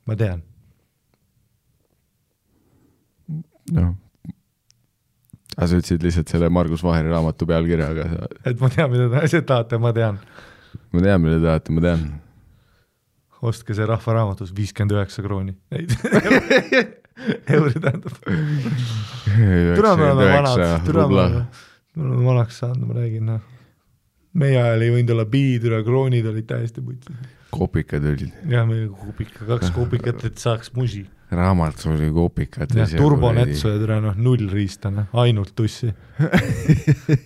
Ma tean. No. Aga sa ütlesid lihtsalt selle Margus Vaheri raamatu pealkirja, aga et ma tean, mida te naised tahate, ma tean. Ma tean, mida tahate, ma tean. ostke see rahvaraamatus 59 krooni. Euri tähendab. Türa me oleme vanaks saanud, ma räägin. Meie ajal ei võinud olla biitüra, kroonid olid täiesti putsi. Kopikad olid. Jah, meil 2 kopikat, et saaks musi. Raamat oli kopikad. Ja turbonetsu ja türa 0 riista, ainult tussi.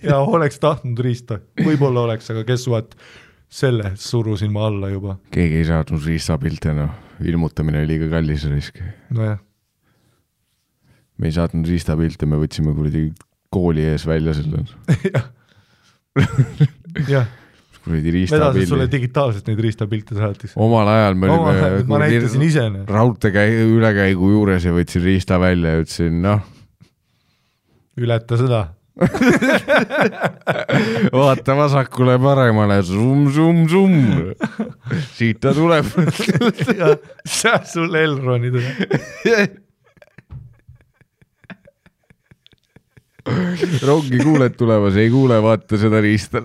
Ja oleks tahtnud riista. Võib-olla oleks, aga kes vaat selle surusin ma alla juba. Keegi ei saadnud riistapilte, ilmutamine oli liiga kallis risk. No jah. Me ei saatnud riistapilte, me võtsime kuradi kooli ees välja selle. Jah. Vedasid sulle digitaalselt neid riistapilte saatis. Omal ajal me olime ma näitasin ise. Raudte ülekäigu juures ja võtsin riista välja ja ütlesin, Ületa seda. Vaata vasakule paremale, zoom. Siit ta tuleb. See sul Elroni tuleb. Rongi kuuled tulemas, ei kuule, vaata seda riista.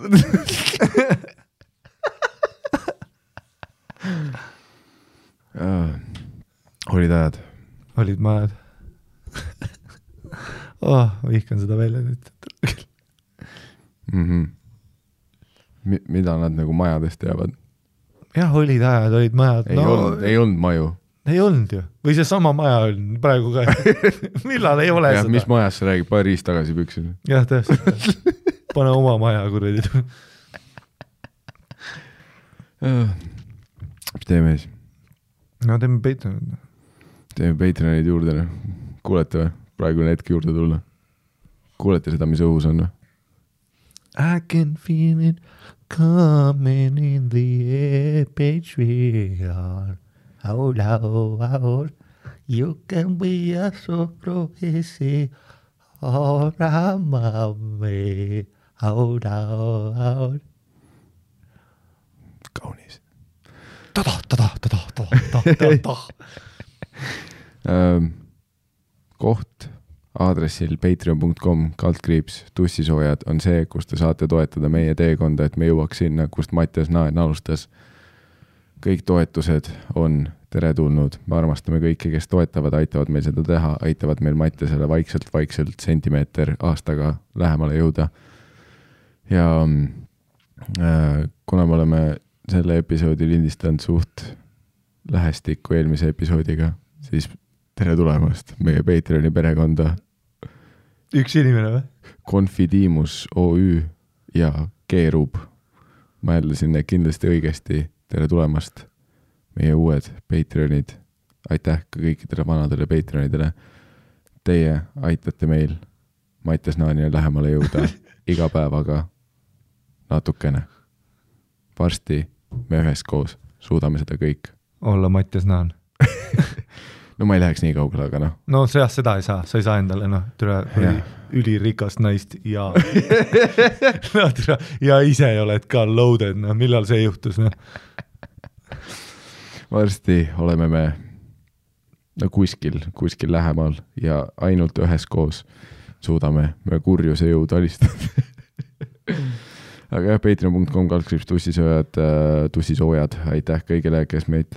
Olid ajad? Olid majad. Vihkan seda välja nüüd. Mida nad nagu majadest teavad? Jah, olid ajad, olid majad. Ei olnud maju. Ei olnud ju. Või see sama maja on praegu ka. Millal ei ole seda? Mis majas sa räägid? Paar riist tagasi püksin. Jah, täpselt. Pane oma maja kuradi. Mis teeme siis? No teeme Patreonid. Teeme Patreonid juurde. Kuulete või? Praegu on hetk juurde tulla. Kuulete seda, mis õhus on? I can feel it coming in the air, Patreon. Hold. You can be a surprise. Hold. Kaunis. Koht aadressil patreon.com/tussisoojad on see, kus te saate toetada meie teekonda, et me jõuaks sinna, kust Mattias Naen alustas. Kõik toetused on teretulnud. Me armastame kõiki, kes toetavad, aitavad meil seda teha, aitavad meil Mattiasele vaikselt sentimeeter aastaga lähemale jõuda. Ja kuna me oleme selle episoodi lindistanud suht lähestikku eelmise episoodiga, siis tere tulemast meie Patreoni perekonda. Üks inimene või? Confidimus OÜ ja Keerub. Ma jätlasin need kindlasti õigesti. Tere tulemast meie uued Patreonid. Aitäh ka kõikidele vanadele Patreonidele. Teie aitate meil Mattias Naanile lähemale jõuda iga päevaga natukene. Varsti me üheskoos suudame seda kõik. Olla Mattias Naan. No ma ei läheks nii kaugele, aga No seda ei saa, sa ei saa endale ülirikast naist ja ja ise oled ka loaded, millal see juhtus? Varsti oleme me kuskil lähemal ja ainult üheskoos suudame me kurjuse jõud alistada. Aga jah, patreon.com/tussisoojad, aitäh kõigile, kes meid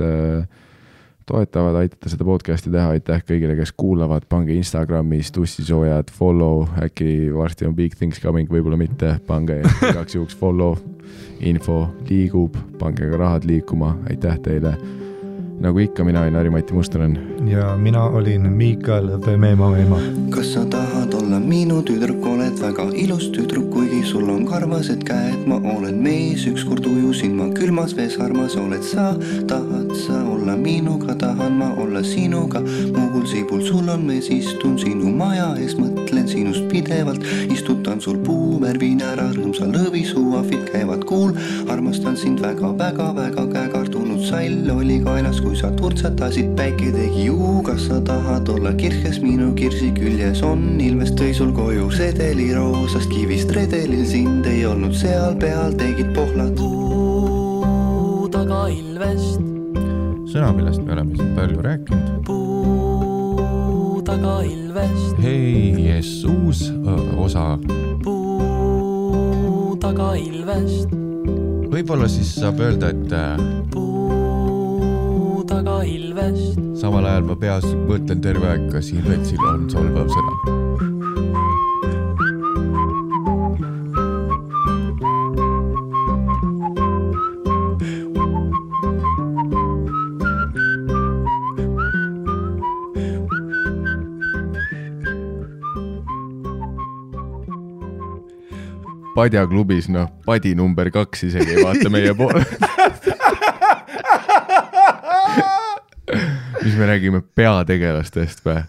toetavad, aitate seda podcasti teha, aitäh kõigile, kes kuulavad, pange Instagramis tussisoojad, follow, äkki varsti on big things coming, võib-olla mitte, pange igaks juhuks follow, info liigub, pange ka rahad liikuma, aitäh teile. Nagu ikka, mina olin Harri-Mati Mustonen. Ja mina olin Miikael Meema. Kas sa tahad olla minu tüdruk, oled väga ilus tüdruk, kuigi sul on karvased käed, ma olen mees, ükskord ujusin ma külmas vees, armas oled sa, tahad sa olla minuga, tahan ma olla sinuga, muugul siibul sul on mees, istun sinu maja ees, mõtlen sinust pidevalt, istutan sul puu, värvin ära rõõmsa lõvi, suafid käivad kuul, armastan sind väga, käekartunud sall oli kaenas, kui sa turtsatasid, päike tegi juu, kas sa tahad olla kirkes minu kirsi küljes on, ilmest tõi sul koju sedeli roosast kivist redelil, sind ei olnud seal peal, tegid pohlad puu taga ilvest. Sõna, millest me oleme siin palju rääkinud. Puu taga ilvest. Hei, uus osa. Puu taga ilvest. Võib-olla siis saab öelda, et vest. Samal ajal ma peas mõtlen terve aeg, kas Ilvetsil on solvav sõna. Padja klubis, padi number 2 isegi ei vaata meie poole. Mis me räägime peategelastest või?